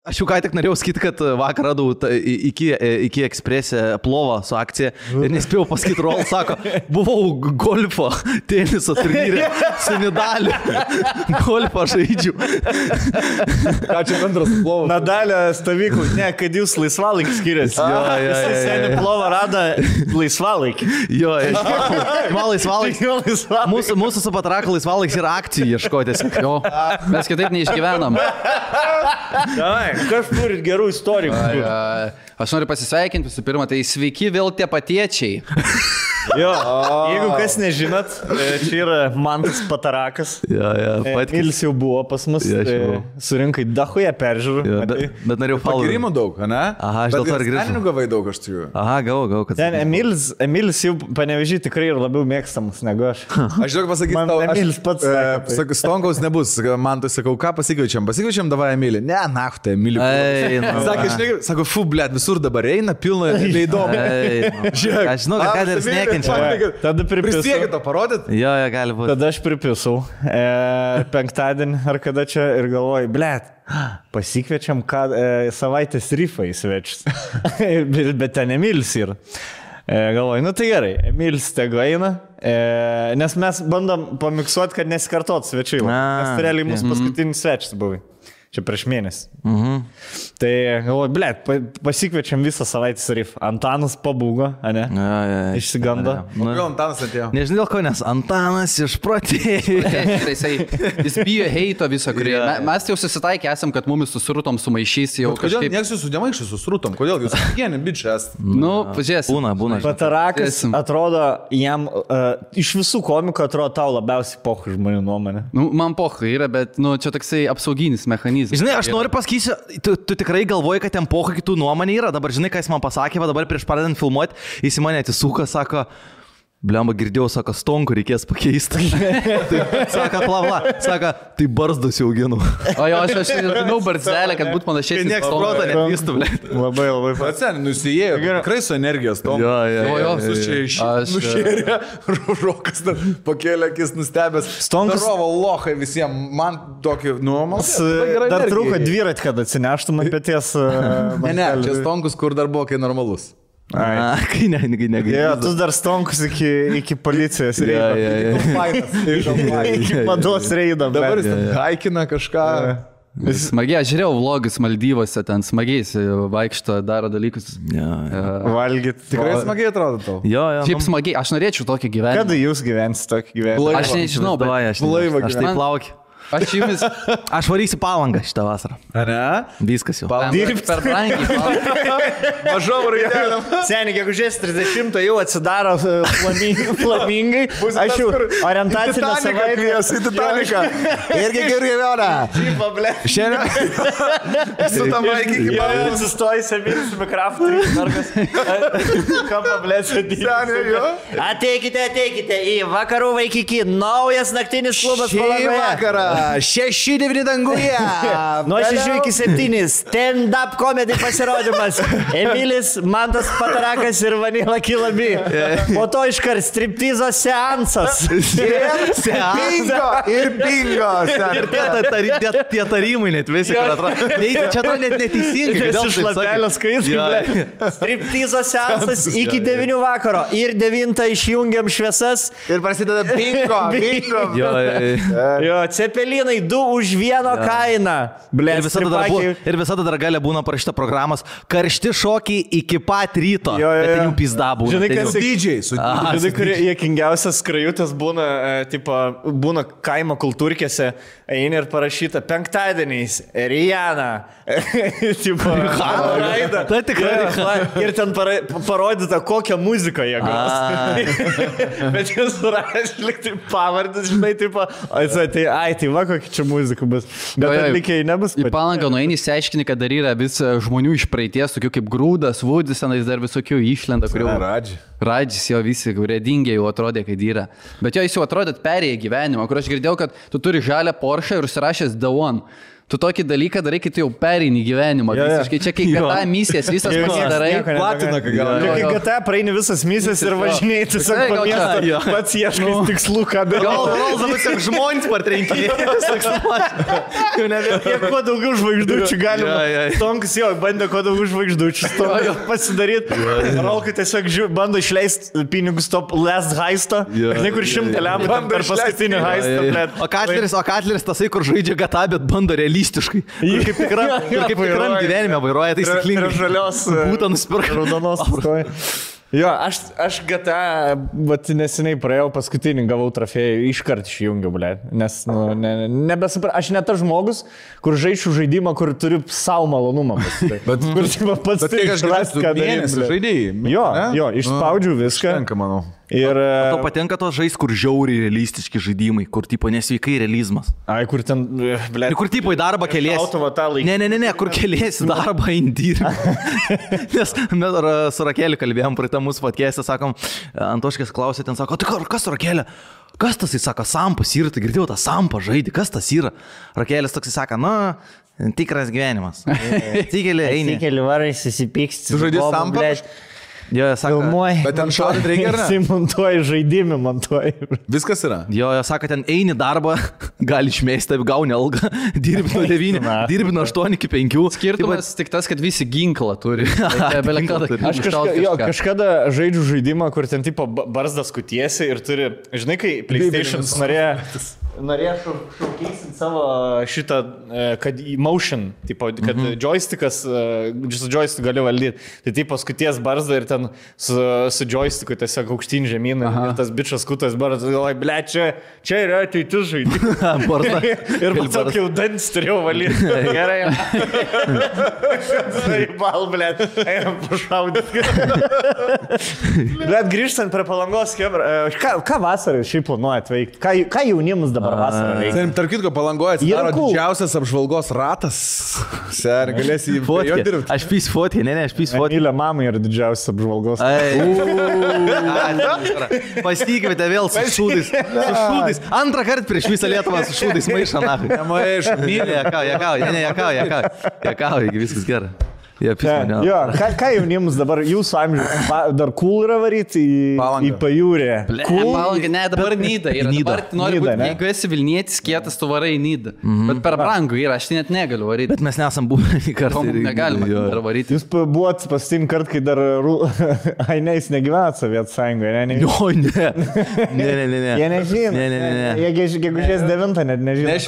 Aš jau ką tik norėjau sakyti, kad vakar radau iki ekspresę plovą su akcija ir nespėjau pasakyti, Rol sako, buvau golfo teniso turnyre su Nadaliu. Golfą žaidžiu. Ką čia bendras plovas? Nadalio stovyklų, ne, kad jūs laisvalaikį skiriasi. Jis seniai plovą rada laisvalaikį. Jo, man laisvalaikis. Mūsų su Patraku laisvalaikis yra akcijų ieškotis. Jo, mes kitaip neišgyvenam. Kas turit gerų istorijų? Aš noriu pasisveikinti visų pirma, tai sveiki vėl tie patiečiai. Jo, jeigu kas nežinot, čia yra Mantas Patarakas. Emilis jau buvo pas mus, surinkai dachuje peržiūrų. Bet norėjau Pagirimų daug, ne? Aha, aš dėl to ir grįžau. Asmeninių gavai daug, aš turiu. Aha, gavau. Ten Emilis jau Panevėžy tikrai ir labiau mėgstamas negu aš. Aš žinau, pasakyti tau, Emilis pats sakau, Stonkaus nebus, man tai sakau, ką pasikviečiam, davai Emilį. Ne, nachtą, Emilį. Sako, fu, blėt, visur dabar eina, pilna, neįdomu. Aš žinau, kad ir sniekia. Tada pripisau. Prisiekit to parodyt? Jo, gali būti. Tada aš pripisau penktadienį ar kada čia ir galvoju, blėt, pasikviečiam savaitės rifą į svečius. Bet ten Emilis yra. Galvoju, nu tai gerai, Emilis tegu eina, nes mes bandom pamiksuoti, kad nesikartot svečiai. Nes tai realiai mūsų paskutinis svečias buvai. Čia prieš mėnesį. Tai galvoju, blėt, pasikviečiam visą savaitės rifą. Antanas pabūgo, ne? Išsigando. Gal Antanas atėjo? Nežinau dėl ko, nes Antanas išprotėjo. Jis bijo heito visą, kurį. Mes jau susitaikė esam, kad mumis susrutom sumaišys jau kažkaip. Kodėl nieks jūsų nemaišys susrutom? Kodėl jūs kiekvieni bičias? Nu, pažiūrės. Būna. Patarakas atrodo, jam iš visų komikų atrodo tau labiausiai pochų žmonių nuomonė. Nu, man pochų yra, bet čia toksai apsauginis mechanizmas. Žinai, aš noriu pasakysiu, tu tikrai galvoji, kad ten pochų kitų nuomonė yra. Dabar žinai, ką jis man pasakė, va dabar prieš pradedant filmuoti, jis į mane atsisuka, sako, blemba, girdėjau, sako, Stonkų reikės pakeisti. Sako, plavla, sako, tai barzdus jau auginu. O jo, aš žinau barzdelę, kad būtų panašiai. Niekas proto netvystų, ble. Labai. Pats nusijėjo, tikrai su energijos tom. Jo. Visus čia nušėrė, Rokas pakėlė akis nustebęs. Stonkus. Darovo lohai visiems, man tokį nuomas. Dar trūko dviratį, kad atsineštum ant pėties. Ne, čia Stonkus, kur dar buvo, kai normalus. Kai negali. Jo, tu dar Stonkus iki policijos reido. Iki mados reido. Dabar jis haikina kažką. Smagiai, aš žiūrėjau vlogus Maldyvose, ten smagiai vaikšto, daro dalykus. Valgyt. Tikrai smagiai atrodo tau. Jo. Šiaip smagiai, aš norėčiau tokį gyvenimą. Kada jūs gyvensit tokį gyvenimą? Aš nežinau, bet aš taip laukiu. Aš varysiu Palangą šitą vasarą. Ar ne? Viskas jau. dirbti per brangiai. Mažom raideliam. Seniai, gegužės 30 jau atsidaro flamingai. Aš jau orientacinę savaitę. Kvies į Titaniką. Irgi gerai vėlą. Šiaip, ble. Šiandien su tam vaikį iki palų. Atsistoji Emilis Mikraftas. Ką pablės Seniai, jo. Ateikite į vakarų vaikikį. Naujas naktinis klubas Palangoje. Vakarą. 6-9 danguje. Nuo 6 iki 7. Stand-up comedy pasirodymas. Emilis, Mantas Patarakas ir Vanila Kilabi. Po to iškart striptizo seansas. Bingo. Ir bingo. Ir tie tarimai net visi, kad atrodo. Čia atrodo net neteisingai. Iš lapelio skaitai. Striptizo seansas iki 9 vakaro. Ir 9 išjungiam šviesas. Ir prasideda bingo. Jo, cepelinai 2 už 1 kainą. Ir visada dar galia būna parašyta programos karšti šokiai iki pat ryto. Bet ten jų pizda būna. Žinai, kas dydžiai. Žinai, kurie jėkingiausias skrajutės būna, būna kaimo kultūrkėse, eini ir parašyta penktadieniais, Rihanna. Tai tikrai. Ir ten parodyta, kokią muziką jie gros. Bet jis rašė, liktai pavardės, žinai, tai va, kokia čia muzika bus. Bet atlikėjai nebus. Į Palangą nueini, išsiaiškini, kad dar yra vis žmonių iš praeities, tokių kaip Grūdas, Vudis, tenais dar visokių išlenda, kurių... Radžis jo visi, kurie dingė jau atrodė, kad yra. Bet jo jis jau atrodė perėję gyvenimą, kur aš girdėjau, kad tu turi žalią Porsche ir užsirašęs The One. Tu tokį dalyką darai, kai tu jau pereini gyvenimą. Visiškai čia, kai GTA misijas visas pasidarai. Platina, kai gal. Kai GTA praeini visas misijas ir važinėjai tiesiog po miestą, pats ieškai tikslų, ką daryti. Gal tiesiog žmonės partrenkinė. Kuo daugiau žvaigždučių galima. Tonkas jo, bandė kuo daugiau žvaigždučių pasidaryti. Rolkai tiesiog bando išleisti pinigus top last heisto. Žinai, kur 100 lempų per paskutinį heistą. O Katleris tasai, kur žaidžia GTA, bet bando realistiškai. Kaip tikram gyvenime vairuoja taisyklingai. Ir žalios būtų nusipirka. Raudonos. Jo, aš GTA, bet neseniai praėjau paskutinį, gavau trofėjų, iškart išjungiau, ble. Nes, nebesupratau, aš ne tas žmogus, kur žaidžiu žaidimą, kur turiu savo malonumą. Bet kur pats tai išrasti, ką daryti. Žaidėjai. Jo, išspaudžiu viską. Tenka, manau. Ir... Tau patinka tos žais, kur žiauriai realistiški žaidimai, kur tipo nesveikai realizmas. Ai, kur ten, ble. Kur tipo į darbą keliesi. Ne, kur keliesi darbą indirį. Nes mes su Rakelį kalbėjom praeitą mūsų podcast'e, sakom, Antoškės klausė, ten sako, tai kas Rakelė? Kas tas, jis sako, Sampas yra, tai girdėjau tą Sampą žaidį, kas tas yra? Rakelis toks sako, tikras gyvenimas. Tikeli, eini. Tikeli varai susipyksti. Tu žaidži Sampą? Jo, sako, bet ten šaudyti reikia, ar ne? Simontuoji žaidimį, montuoji. Viskas yra. Jo, sako, ten eini darbą, gali išmesti, gauni algą, dirbi nuo 9, dirbi nuo 8 iki 5. Skirtumas tik tas, kad visi ginklą turi. Aš kažkada žaidžiu žaidimą, kur ten tipo barzdas kutiesi ir turi, žinai, kai PlayStation's norėjo šaukeisinti savo šitą, kad motion, tipo, kad joystickas, su joystick gali valdyti. Tai tipo skuties barzdą ir ten su joysticku tiesiog aukštyn žemyn ir tas bičas kutas barzdas, galvoju, ble, čia yra ateitis žaidimai. Ir tiesiog jau dantis turėjau valyti. Gerai. Bal, ble, einam pašaudyti. Bet grįžtant prie Palangos, ką vasarą šiaip planuojat veikti? Ką jaunimas dabar vasarą veikia? Tarp kitko, Palangoje atsidaro didžiausias apžvalgos ratas. Ser, galėsi jį jo dirbti. Aš pys fotį, aš pys fotį. Mylė mamai yra didžiausias apžvalgos. Pastikite vėl su šūdais. Antrą kartą prieš visą Lietuvą su šūdais maišą. Nemaišą. Mylė, jakauja, viskas gerai. Jo, ką jaunimus dabar jūsų amžius, dar cool yra varyti į pajūrę? Palangą, ne, dabar Nida yra. Dabar nori būti, jeigu esi Vilnietis, kietas, tu varai į Nidą. Bet per brangu yra, aš tai net negaliu varyti. Bet mes nesam buvę į kartą. Negalima dar varyti. Jūs buvot pastin kart, kai dar... Ai, ne, jis negyvenat Sovietų Sąjungoje, ne? Ne. Jie nežino. Ne. Jie gegužės 9 net nežino.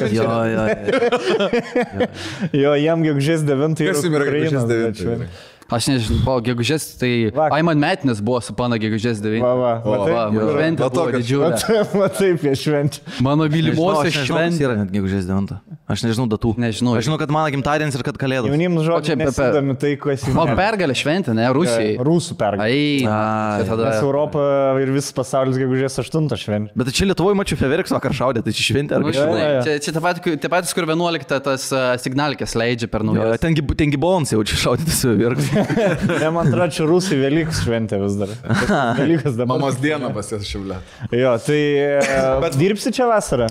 Jo, jam gegužės 9 yra Ukrainos. Aš nežinau, gegužės, tai Aiman Metinės buvo su pana gegužės 9. Šventė buvo didžiulė. Taip, jie švenčia. Mano mylimosios šventė yra net gegužės 9. Aš nežinau datų. Nežinau. Aš žinau, kad mano gimtadienis ir kad kalėdos. Jaunims žodžiai nesidami tai, ko esi. O pergalė šventė, ne, Rusijai. Rusų pergalė. Nes Europa ir visas pasaulis gegužės 8 šventė. Bet čia Lietuvoje mačiau Feverks vakar šaudė, tai čia šventė ar kažkaip. Čia tie patys, kur 11 tas signalkės leidžia per naujas. Ten gibons jau čia šaudė tas Feverks. Ne, man atrodo, čia Rusai Velykus šventė vis dar. Velykas dabar. Mamos diena pas jas šiaulė. Jo, tai dirbsi čia vasarą?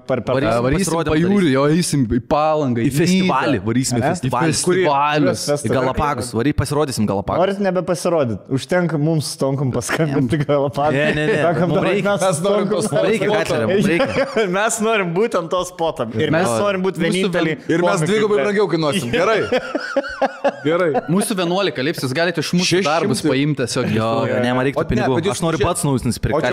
Varysim pajūrį, jo, eisim į Palangą, į festivalį. Varysim į festivalius. Į Galapagus. Pasirodysim Galapagos. Norit nebepasirodyti. Užtenka mums stonkum paskambinti Galapagos. Ne. Mes norim būtent to spotą. Ir mes norim būti vieninteliai. Ir mes dvigubai brangiau kainuosim. Gerai. Mūsų 11 lips, jūs galite iš mūsų darbus paimti tiesiog. Jo, ne, man reikia pinigų. Aš noriu pats naujus nusipirkti.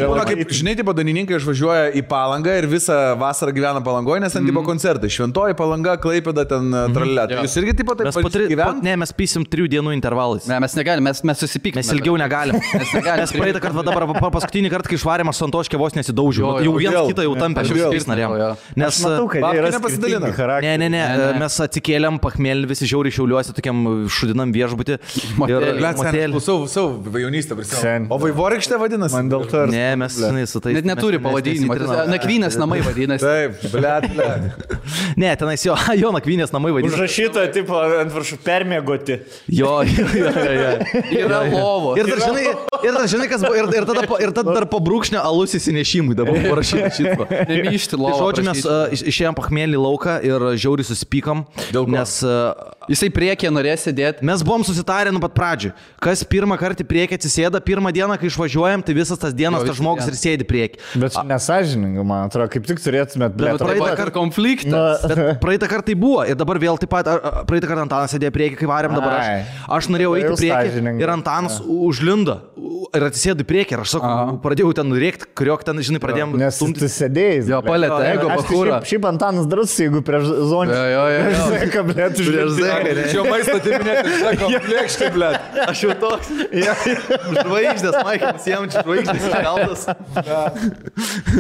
Žinai, tipo dainininkai išvažiuoja į Palangą ir visą vasarą gyvena Palangoje, nes ten tipo koncertai. Šventoji Palanga, Klaipėda, ten tralelė. Jūs irgi tipo taip gyvenate? Ne, mes pysim 3 dienų intervalais. Ne, mes negalim, mes susipykime. Mes ilgiau negalim. Mes praeitą kartą, dabar paskutinį kartą, kai išvarėm, aš Antoškė vos nesidaužiau. Jau vienas kitą jau tampė, aš vis norėjau. Nes matau, kad jie yra nepasidalina. Ne, mes atsikėlėm, pachmėlį visi žiauriai Šiauliuose, tokiam šudinam viešbutį truputį. Blet, seniai, klausau jaunystę prisimenu. O Vaivorykštė vadinasi? Man dėl to. Ne, mes su tais... Net neturi pavadinimo. Nakvynės namai vadinasi. Taip, blet. Ne, tenais jo Nakvynės namai vadinasi. Užrašyta, tipo, ant viršų permėgoti. Jo. Yra lovo. Ir dar žinai, kas buvo, ir tada dar po brūkšnio alus įsinešimui dabar parašyta šitą. Nemyšti lovo. Žodžiu, mes išėjom pachmėlį lauką ir žiauriai susipykom, nes... Jisai priekė norės sėdėti. Mes buvom susitarę nuo pat pradžių. Kas pirmą kartą priekį atsisėda, pirmą dieną, kai išvažiuojam, tai visas tas dienas tas žmogus ir sėdi priekį. Bet čia nesąžininga, man atrodo, kaip tik turėtumėt... Praeitą kartą konfliktas. Praeitą kartą tai buvo ir dabar vėl taip pat, praeitą kartą Antanas sėdėjo priekį, kai varėm dabar aš norėjau eiti priekį ir Antanas užlindo ir atsisėdo priekį ir aš sakau, pradėjau ten rėkti, kuriok ten, žinai, pradėjom... Nes tu sėdėjai. Jo, palėtą, ego, bakūrą. Šiaip Antanas drus, jeigu prieš zonį. Čia maistą atiminėti, sako, plėkšti, blet. Aš jau toks. Žvaigždės, Maikas, jam čia žvaigždės iškeltas.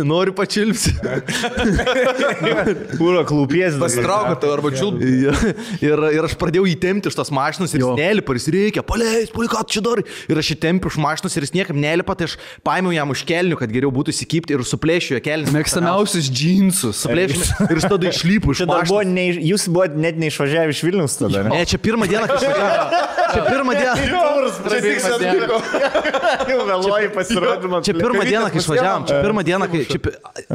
Noriu pačilpsi. Kūro klūpies. Pasitraukate arba čiulpti. Ir aš pradėjau įtempti iš tos mašinos ir jis nelipa, jis reikia, paleis, ką tu čia darai. Ir aš įtempiu iš mašinos ir jis niekam nelipa, tai aš paėmiau jam už kelnių, kad geriau būtų įsikipti ir suplėšiu jo kelnius. Mėgstamiausius džinsus. Suplėšiu ir tada išlypu iš mašinos. Jūs buvote net neišvažiavę iš Vilniaus tada, ne? Ne, čia pirmą dieną, kai išvažiavome. Čia pirmą dieną. Jau vėluoji pasirodymą. Čia pirmą dieną, kai išvažiavom. Čia pirmą dieną, kai...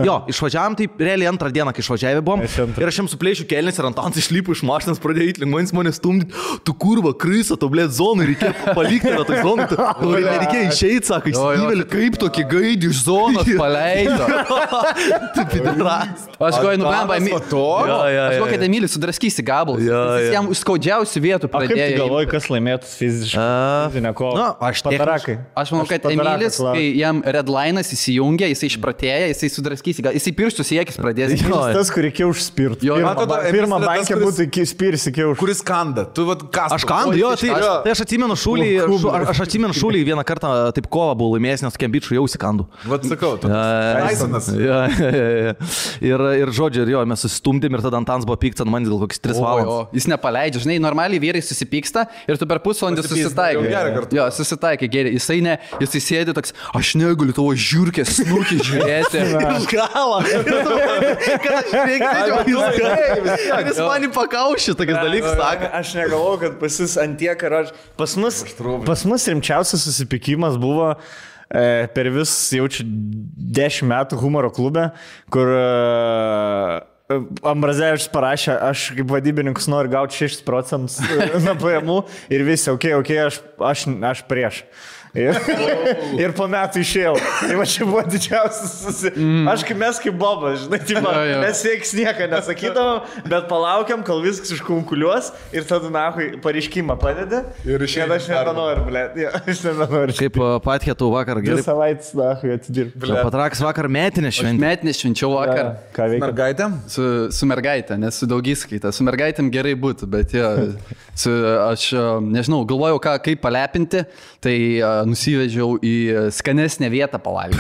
Jo, išvažiavom, tai realiai antrą dieną, kai išvažiavę buvom. Ir aš jam suplėšiu kelnis ir Antanas išlypo iš mašinos, pradėjo įtlingmanis mane stumdyti. Tu kurva, krysa, to blėt zonų, reikėjo palikti tą zoną. Nereikėjo išeiti, sako, įsivėlė. Kaip tokį gaidį iš zonos paleido. Tu pidaras. Aš galvoju, nublemba, aš galvoju, kad Emilis sudraskysi gabalus. Jis jam skaudžiausių vietų pradėjo. Kaip tu galvoji, kas laimėtų fizinę kovą? Patarakai. Aš manau, kad Emilis, kai jam redline'as įsijungia, jisai išpratėja, jisai sudraskysi, jisai pirštus į akis pradės. Tas, kur reikėjo užspirti. Pirmą bankę būtų spirsi kiauš. Kuris kanda? Tu vat kas? Aš kandu, jo, tai aš atsimenu šūlį vieną kartą taip kovą buvau laimėjęs, nes tokiam bičiui jau įsikandu. Vat sakau, tu Tysonas. Ir žodžiu, ir jo, mes susistumdėm ir tada Antanas buvo pyktas ant manęs gal kokius 3 valandas. Jis nepaleidžia, žinai, normaliai vyrai susipyksta ir tu per pusvalandį susitaikai. Jo, susitaikai geriai. Jisai sėdi toks, aš negaliu tavo žiūrkės snukį žiūrėti. Iš galo. Jis mani pakaušė tokius dalykus, sako. Aš negalvoju, kad pas jūs antiek ar aš... Pas mus rimčiausias susipykimas buvo per vis jaučiu 10 metų humoro klube, kur Ambrazevičius parašė, aš kaip vadybininkas noriu gauti 6% nuo pajamų ir visi, okei, aš prieš. Ir po metų išėjau. Tai va čia buvo didžiausias Aš kaip mes kaip Bobas, žinai, mes veiks nieką nesakydavom, bet palaukiam, kol viskas iškunkuliuos ir tada nahui pareiškimą padeda. Ir išėjau. Aš nebenoriu, blėt. Aš nebenoriu. Kaip Patkėtų vakar gerai. 2 savaitės nahui atsidirbti. Patrakas vakar metinės šventė. Metinės švenčiau vakar. Ką veikia? Mergaitėm? Su mergaitė, nes su daugiskaita. Su mergaitėm gerai būtų, bet aš nežinau, galvojau, kaip palepinti, tai nusivežiau į skanesnę vietą pavalgyti.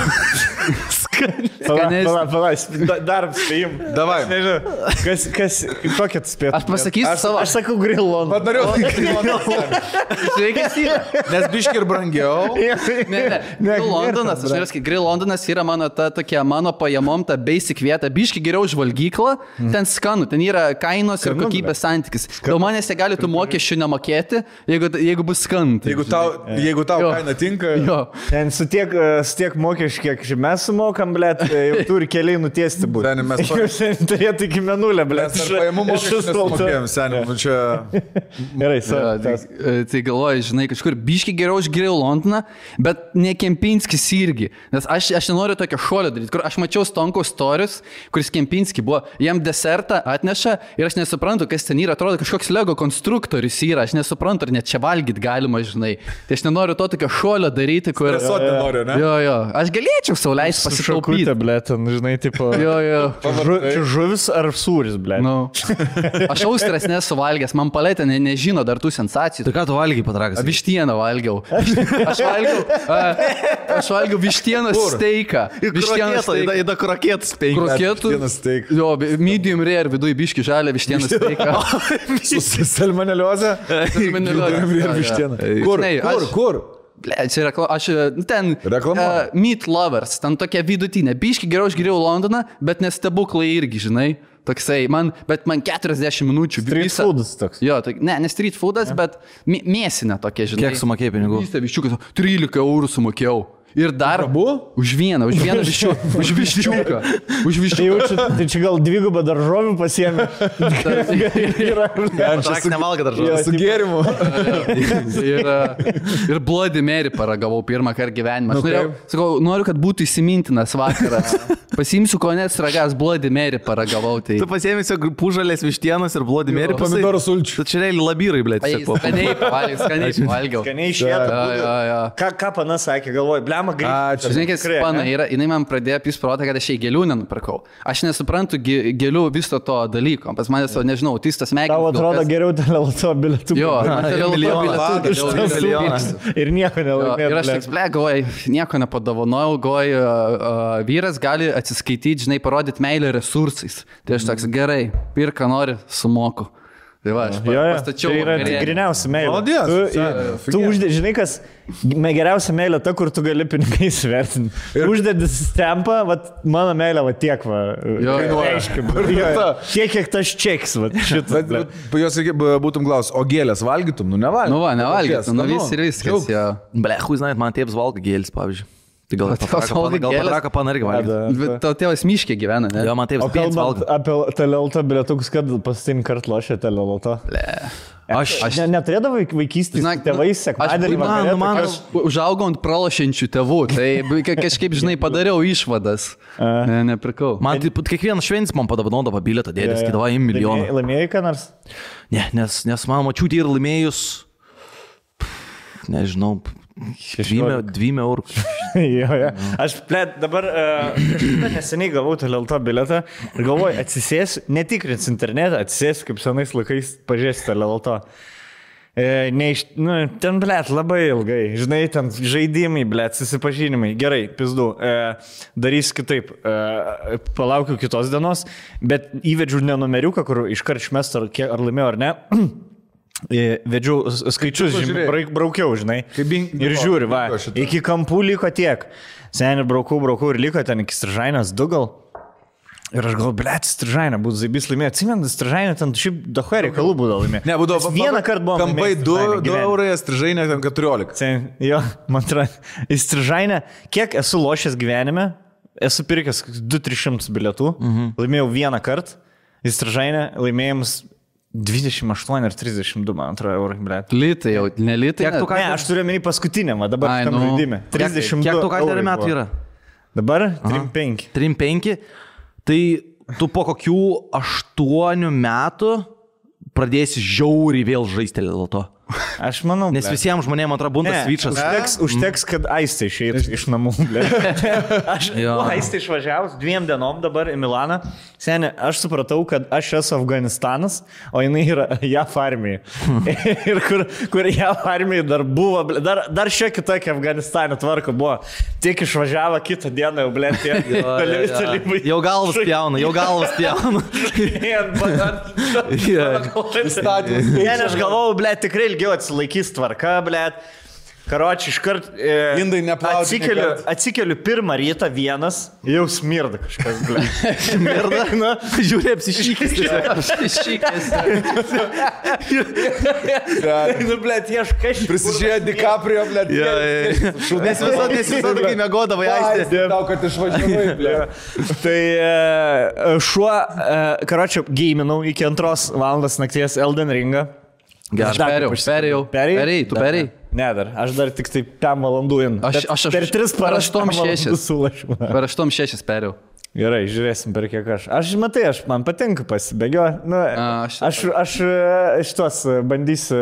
Dar spėjim. Davai. Kokia tu spėjai? Aš pasakysiu savo. Aš sakau Grill London. Pat norėjau Grill London. Sveikas yra. Nes biški ir brangiau. Ne. Grill Londonas yra mano mano pajamom, ta basic vieta. Biški geriau už valgyklą. Ten skanu. Ten yra kainos ir kokybės santykis. Dėl manęs jie gali tų mokesčių nemokėti, jeigu bus skant. Jeigu tau kaina tinka. Ten su tiek mokesčių, kiek mes sumokam, blėt, jau turi keliai nutiesti būti. Seniai, mes turėtų iki menulę, blėt. Mes pajamų mokesčius nesumokėjom, seniai, čia... Gerai, tai galvoju, žinai, kažkur biški geriau už Grill Londoną, bet ne Kempinskis irgi. Nes aš nenoriu tokio šuolio daryti, kur aš mačiau Stonkaus storius, kuris Kempinski buvo, jam desertą atneša ir aš nesuprantu, kas ten yra, atrodo kažkoks Lego konstruktorius yra, aš nesuprantu, ar net čia valgyti galima, žinai. Tai aš nenoriu to tokio šuolio daryti, kur... Stresuoti nenoriu, ne? Jo, aš galėčiau sau leisti pasitaupyti. ble, ten, žinai, tipo... Jo. Čia žuvis ar sūris, ble? Nu. Aš austras nesu valgęs, man palėtė nežino dar tų sensacijų. Tai ką tu valgiai patrakas? Vištieną valgiau. Aš valgiau vištienos steiką. Įda krokėtas penki. Kroketų. Jo, medium rare viduje biški žalia vištienos steiką. Su salmoneliozė? Salmoneliozė. Kur? Ble, čia aš ten Reklama? Meat Lovers, ten tokia vidutinė. Biški geriau aš geriau Londoną, bet nestebuklai irgi, žinai. Toksai, bet man 40 minučių. Street foodas toks. Jo, ne street foodas, bet mėsinė tokia, žinai. Kiek sumokėjai pinigų? Viščiukas, 13 eurų sumokėjau. Ir dar už vieną viščiuką. Už viščiuką. Tai čia gal dvigubą daržovių pasiėmė. Patrak nevalga daržovių. Su gėrimu. Ir Bloody Mary paragavau pirmą kartą gyvenimą. Aš noriu, kad būtų įsimintinas vakaras. Pasiimsiu konės ragas, Bloody Mary paragavau. Tai... Tu pasiėmėsi pužalės vištienos ir Bloody Mary. Pomidorų sulčių. Tai čia realiai labyrai, blėt. Skaniai valgiau. Skaniai išėtų. Ką pana sakė, galvoju, blema grįžti. Žinai, kas pana yra, jinai man pradėjo pys protą, kad aš jai gėlių nenupirkau. Aš nesuprantu gėlių viso to dalyko. Pas manęs, nežinau, autistas smegenis. Tau atrodo geriau teleloto bilietų. Jo, teleloto bilietų. Ir nieko nelaimėjau. Ir aš tik galvoju, nieko nepadovanojau, galvoju, vyras gali atsiskaityti, žinai, parodyti meilę resursais. Tai aš toks, gerai, pirką nori, sumoku. Tai va, aš pastačiau. Tai yra tikriniausia meilė. Malodės. Tu žinai, kas geriausia meilė ta, kur tu gali pinigais vertinti. Uždedi stempą, mano meilė, tiek, kiek tas čeks, šitas. Jos būtum klaus, o gėlės valgytum? Nu, nevalgytum. Nu, nevalgytum, ir viskas. Ble, žinai, man tėvas valgo gėlis, pavyzdžiui. Tai gal patraka panargi valgo. Tau tėvas miškė gyvena, ne? Jo, man tėvas pėts valgo. Apie telelto bilietukus, kad pastin kart lošė telelto. Aš neturėdavau vaikystės tėvais sekmadienį. Man užaugau ant pralošiančių tėvų, tai kažkaip, žinai, padariau išvadas. Nepirkau. Man kiekvienas šventis man padovanodavo bilietą, dėdės, skidavo į milijoną. Laimėjai ką nors? Ne, nes man mačiutė ir laimėjus, nežinau, 2 eurų. Aš dabar neseniai gavau telelto biletą ir galvoju, atsisėsiu, netikrins internetą, atsisėsiu kaip senais laikais pažiūrėsiu telelto. Ten, labai ilgai, žinai, ten žaidimai, susipažinimai. Gerai, pizdu, darysiu kitaip, palaukiu kitos dienos, bet įvedžiu nenumeriuką, kur iškart išmestu, ar laimėjau ar ne. Vedžiau skaičius, braukiau, žinai, ir žiūri, iki kampų liko tiek. Seniai braukau ir liko ten iki Stržainės 2 gal. Ir aš galvoju, blėt, Stržainė, būtų zaibys laimėjo. Atsimenu, Stržainė ten šiaip dahuė reikalų būdavo laimėjo. Ne, būdavo vieną kartą buvo. Kampai 2 eurai, Stržainė ten 14. Jo, man atrodo, į Stržainę, kiek esu lošęs gyvenime, esu pirkęs 200-300 bilietų, laimėjau vieną kartą, į Stržainę laimėjimus 28 ar 32, man atrodo, eurų, blėt. Litai jau, ne litai. Ne, aš turiu menį paskutinę, dabar šitam žaidime. 32 kiek tu ką metų yra? Dabar 3-5. 3-5. Tai tu po kokių 8 metų pradėsi žiauriai vėl žaisti dėl to. Aš manau, nes visiems žmonėms atrodo bundas svyčas. Užteks, kad Aistė išeitų iš namų. Aš Aistė išvažiavus 2 dienom dabar į Milaną. Seniai, aš supratau, kad aš esu Afganistanas, o jinai yra JAF armija. Ir kur JAF armija dar buvo, dar šiek tiek kitokia Afganistane tvarka buvo. Tik išvažiavo kitą dieną, jau blėt, jau galvas pjauna. Aš galvojau, blėt, tikrai ilgiau atsilaikys tvarka, blėt. Karoči, iškart atsikeliu pirmą rytą vienas, jau smirda kažkas, blėt. Smirda? Žiūrė, apsišykęs. Blėt, ieškai. Prisižiūrėjo DiCaprio, blėt. Nes visada, kai mėgodavai, Aistė. Tau, kad išvažiavai, blėt. Tai šuo, karoči, geiminau iki 2 valandos nakties Elden Ringą. Perėjau. Tu perėjai? Ne, aš dar tik tai 5 valandų in. Aš per 3 paraštom 6. Per 8 6 perėjau. Gerai, žiūrėsim per kiek aš. Man patinka pasibėgioti. Nu, aš šitos bandysiu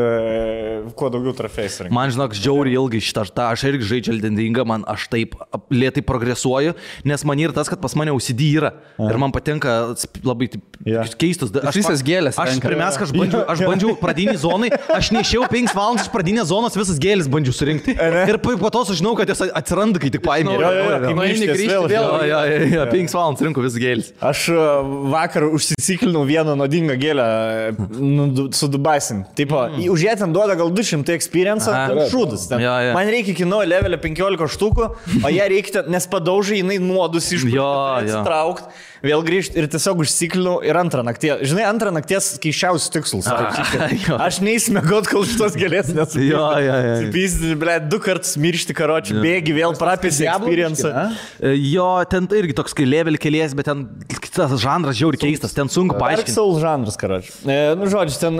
kuo daugiau trofėjus rinkti. Man, žinok, žiauriai ilgai šitą, aš irgi žaidžiu Elden Ringą, man aš taip lėtai progresuoju, nes man yra tas, kad pas mane OCD yra. Ir man patinka labai keistus. Aš visas gėlės. Aš pirmiausia, aš bandžiau pradinį zonai, aš neišėjau 5 valandas iš pradinės zonos, visas gėlės bandžiau surinkti. Ir po to sužinau, kad jos atsiranda, kai tik paėmė. 5 valandas rinko vis gėlis. Aš vakar užsisiklinau vieną nuodingą gėlę su Dubaisim. Tipo, už ją ten duoda gal 200 experience, šūdus. Man reikia iki nuo levelio 15 štukų, o ją reikia, nes padaužai, jinai nuodus ištraukti, vėl grįžti ir tiesiog užsiklinau ir antrą nakties. Žinai, antrą nakties keiščiausius tikslus. Aš neįsmėgot, kol šitos gėlės nesupysti. Supysti, ble, 2 kartus miršti karočių, bėgi, vėl prapėsi experience. Jo, ten irgi toks kai level kelies, bet ten tas žanras žiauri keistas, ten sunku paaiškinti. Dark Souls žanras, karočių. Nu, žodžiu, ten,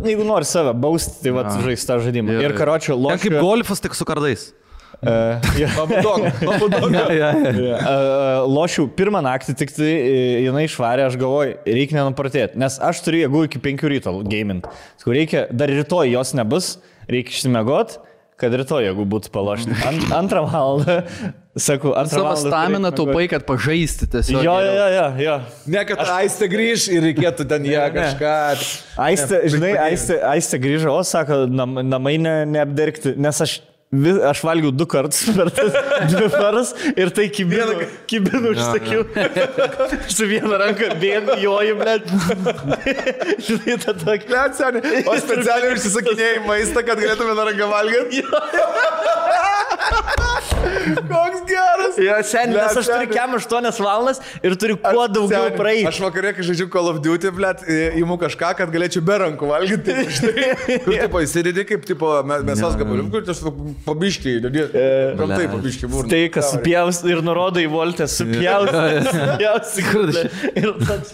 jeigu nori save bausti, tai vat žais tą žaidimą. Ir karočių lošiu. Ten kaip golfas, tik su kardais. Lošiu pirmą naktį, tik tai jinai išvarė, aš galvoju, reikia nenupartėti, nes aš turiu jėgų iki 5 ryto gamint. Reikia, dar rytoj jos nebus, reikia išsimiegot, kad rytoj jėgų būtų palošti. Antrą valandą, sakau, antrą valandą. Savo staminą taupai, kad pažaisti tiesiog. Jo. Ne, kad Aistė grįž ir reikėtų ten ją kažką. Aistė grįžo, o sako, namai neapdergti, nes aš valgiau 2 kartus per tas 2 paras ir tai kibinu užsakiau. Su viena ranka bėgu, joju, blėt. Žinai, tą tokį. Blėt, seniai. O specialiai užsisakinėjai maistą, kad galėtume na ranką valgyti. Koks geras. Jo, seniai, nes aš turiu 8 valandas ir turiu kuo daugiau praeiti. Aš vakarė, kai žaidžiu Call of Duty, blėt, įimu kažką, kad galėčiau be rankų valgyti. Kur tipo įsidėdi kaip tipo mėsos gabalių, kur tiesiog pabiškiai, gamtai pabiškiai būrna. Tai, kas supjaus ir nurodo į voltę, supjaus. Ir toks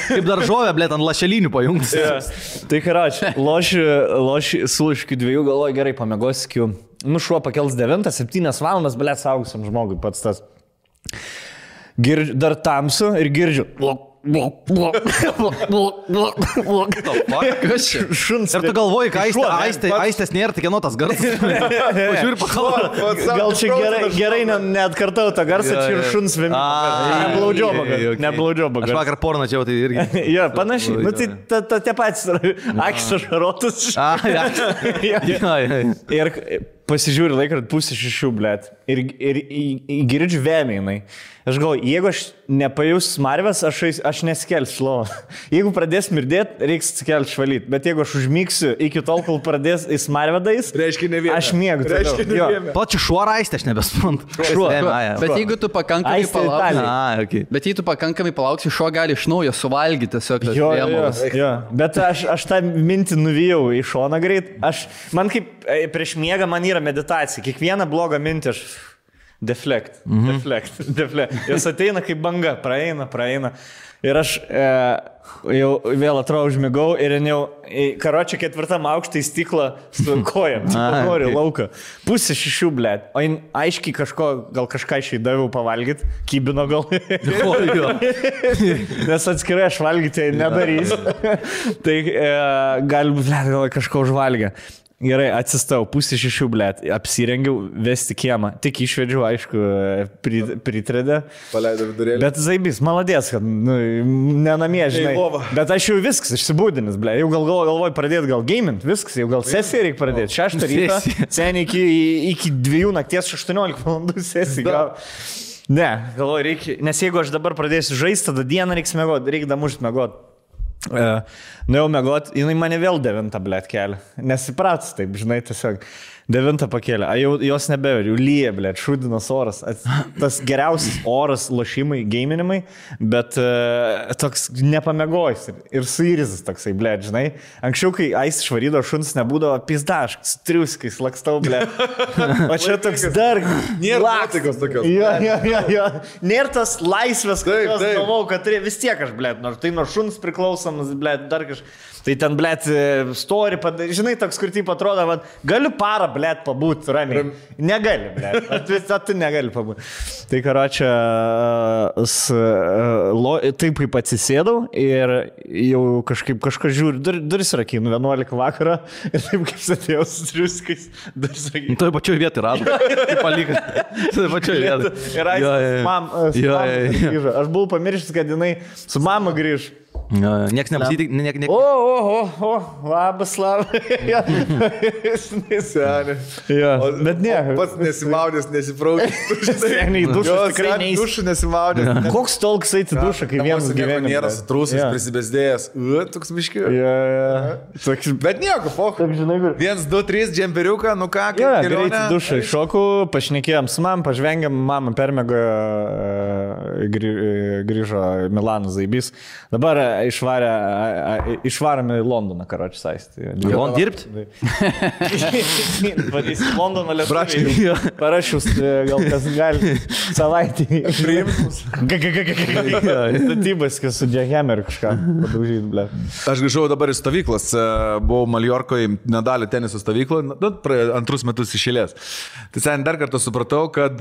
kaip daržovė, blėt, ant lašelinių pajungtis. Tai karoči, loši sulaiškių 2, galvoju, gerai, pamėgosiu. Nu, šuo pakels 9, 7 valandas, blėt, saugusiam žmogui pats tas. Dar tamsu ir girdžiu. Šuns. Ir tu galvoji, kad Aistės nėra, tik kieno tas garsas. Pažiūrė, pakalba. Gal čia gerai neatkartau tą garsą, čia ir šuns neblaudžioba. Aš vakar porną čia, tai irgi. Jo, panašiai. Nu, tai tie patys akis ašarotus. Ir pasižiūri laiką, 5:30, blėt. Ir girdžiu vėmėjimai. Aš galvoju, jeigu aš nepajus smarvės, aš nesikelsiu lovą. Jeigu pradės mirdėti, reiks atsikelti švalyti. Bet jeigu aš užmygsiu iki tol, kol pradės į smarvę dais, aš miegu. Plačiu šuo Aistė, aš nebesprantu. Bet jeigu tu pakankamai palauksi. Bet jei tu pakankamai palauksi, šuo gali iš naujo suvalgyti tiesiog. Jo. Bet aš tą mintį nuvijau į šoną greit. Man kaip prieš miegą man yra meditacija. Kiekvieną blogą mintį aš deflect. Jos ateina kaip banga, praeina. Ir aš jau vėl atrodo užmigau ir jau karočią 4 aukštą į stiklą su kojam. Noriu lauką. 5:30, blėt. O jin aiškiai gal kažką išeidaviau pavalgyti. Kybino gal. Nes atskirai aš valgyti nedarys. Tai gal, blėt, gal kažko užvalgė. Gerai, atsistau, 5:30, blėt, apsirengiau vesti kiemą. Tik išvedžiau, aišku, pritredę. Paleidau vidurėlį. Bet zaibys, maladės, kad nenamie, žinai. Bet aš jau viskas, išsibūdinis, blėt. Jau galvoju pradėti gal gamint, viskas, jau gal sesiją reikia pradėti. 6 ryto, seniai iki 2 nakties 18 valandų sesiją. Ne, galvoju, reikia, nes jeigu aš dabar pradėsiu žaisti, tada dieną reikia mėgoti, reikia damušti mėgoti. Nuėjau mėgot, jinai mane vėl 9, blėt, kelia. Nesipratus taip, žinai, tiesiog 9 pakėlė. Jos nebeveri, jau lyja, blėt, šūdinas oras. Tas geriausias oras lošimai, geiminimai, bet toks nepamėgojus ir suirizas toksai, blėt, žinai. Anksčiau, kai Ais išvarydo šuns, nebūdavo pizdaškas, triuskais, lakstau, blėt. O čia toks dar... Nėra nuotaikos tokios. Jo. Nėra tas laisvės, kad galvau, kad vis tiek aš, blėt, nors tai nuo šuns priklauso. šypsosamas, blėt, dar kažkas. Tai ten, blėt, story, žinai, toks, kur taip atrodo, va, galiu parą, blėt, pabūti ramiai. Negali, blėt, tu negali pabūti. Tai, karočią, taip kaip atsisėdau ir jau kažką žiūriu, duris rakinu, 11 vakarą ir taip kaip sėdėjau su triuskais, duris rakinu. Toj pačioj vietoj rado. Kaip palikas. Toj pačioj vietoj. Ir grįžo. Aš buvau pamiršęs, kad jinai su mama grįž. Niekas nepasitikė. Labas, bet ne. Pats nesimaudęs, nesipraukęs. Seniai dušas tikrai neįs. Dušų nesimaudęs. Koks tolks eiti dušą, kai vienas gyvenimas. Nėra sutrūsęs, prisibesdėjęs. Toks miški. Bet nieko, poch. 1, 2, 3, džemperiuką, nu ką, kaip greitai dušą iššokų, pašnekėjom su mam, pažvengiam, mama permėgo, grįžo Milano Zaibys. Dabar išvarėme į Londoną, karočią saistį. London dirbti? Vadys Londoną lietuviai. Parašius, gal kas gali savaitį. priimtus. Statybas, kas su Jackhammer kažką padaužyti, ble. Aš grįžau dabar iš stovyklos, buvau Maljorkoje, nedalį teniso stovykloje, 2 metus išėlės. Tai sen dar kartą supratau, kad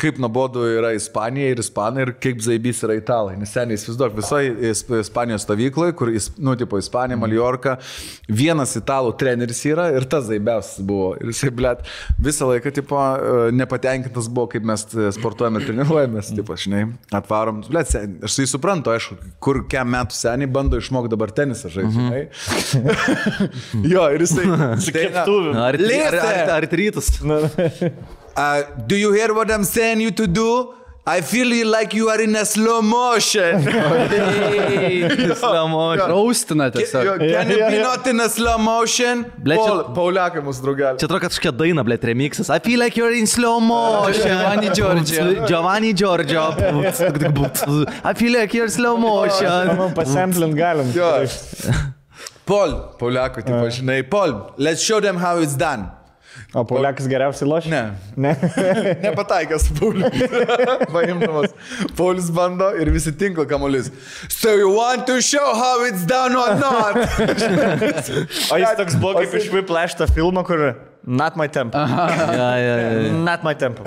kaip nuobodu yra Ispanija ir Ispanai ir kaip Zaibys yra Italai. Nes seniai įsivaizduok, visoje Ispanijos stovykloje, kur, nu, tipo, Ispanija, Maljorka, vienas italų treneris yra ir tas Zaibiausias buvo. Ir jisai, blėt, visą laiką, tipo, nepatenkintas buvo, kaip mes sportuojame ir treniruojamės, tipo, žinai, atvarom. Blėt, aš tai suprantu, aišku, kur kiam metų seniai bando išmokti dabar tenisą žaisti, žinai. Jo, ir jisai... Ar rytus? Do you hear what I'm saying you to do? I feel like you are in a slow motion. Slow motion. Raustina tiesiog. Can you be not in a slow motion? Pauliakai mūsų draugelį. Čia atrodo, kad kažkokia daina, blėt, remixas. I feel like you're in slow motion. Giovanni Giorgio. I feel like you're slow motion. Pasamplint galim. Pauliakai, tipo, žinai, let's show them how it's done. O Pauliakas geriausiai lošia? Ne. Nepataikęs Paulius. Paimdamas. Paulius bando ir visi tinklo kamuolys. So you want to show how it's done or not? O jis toks buvo kaip iš Whiplash tą filmą, kur Not my tempo. Not my tempo.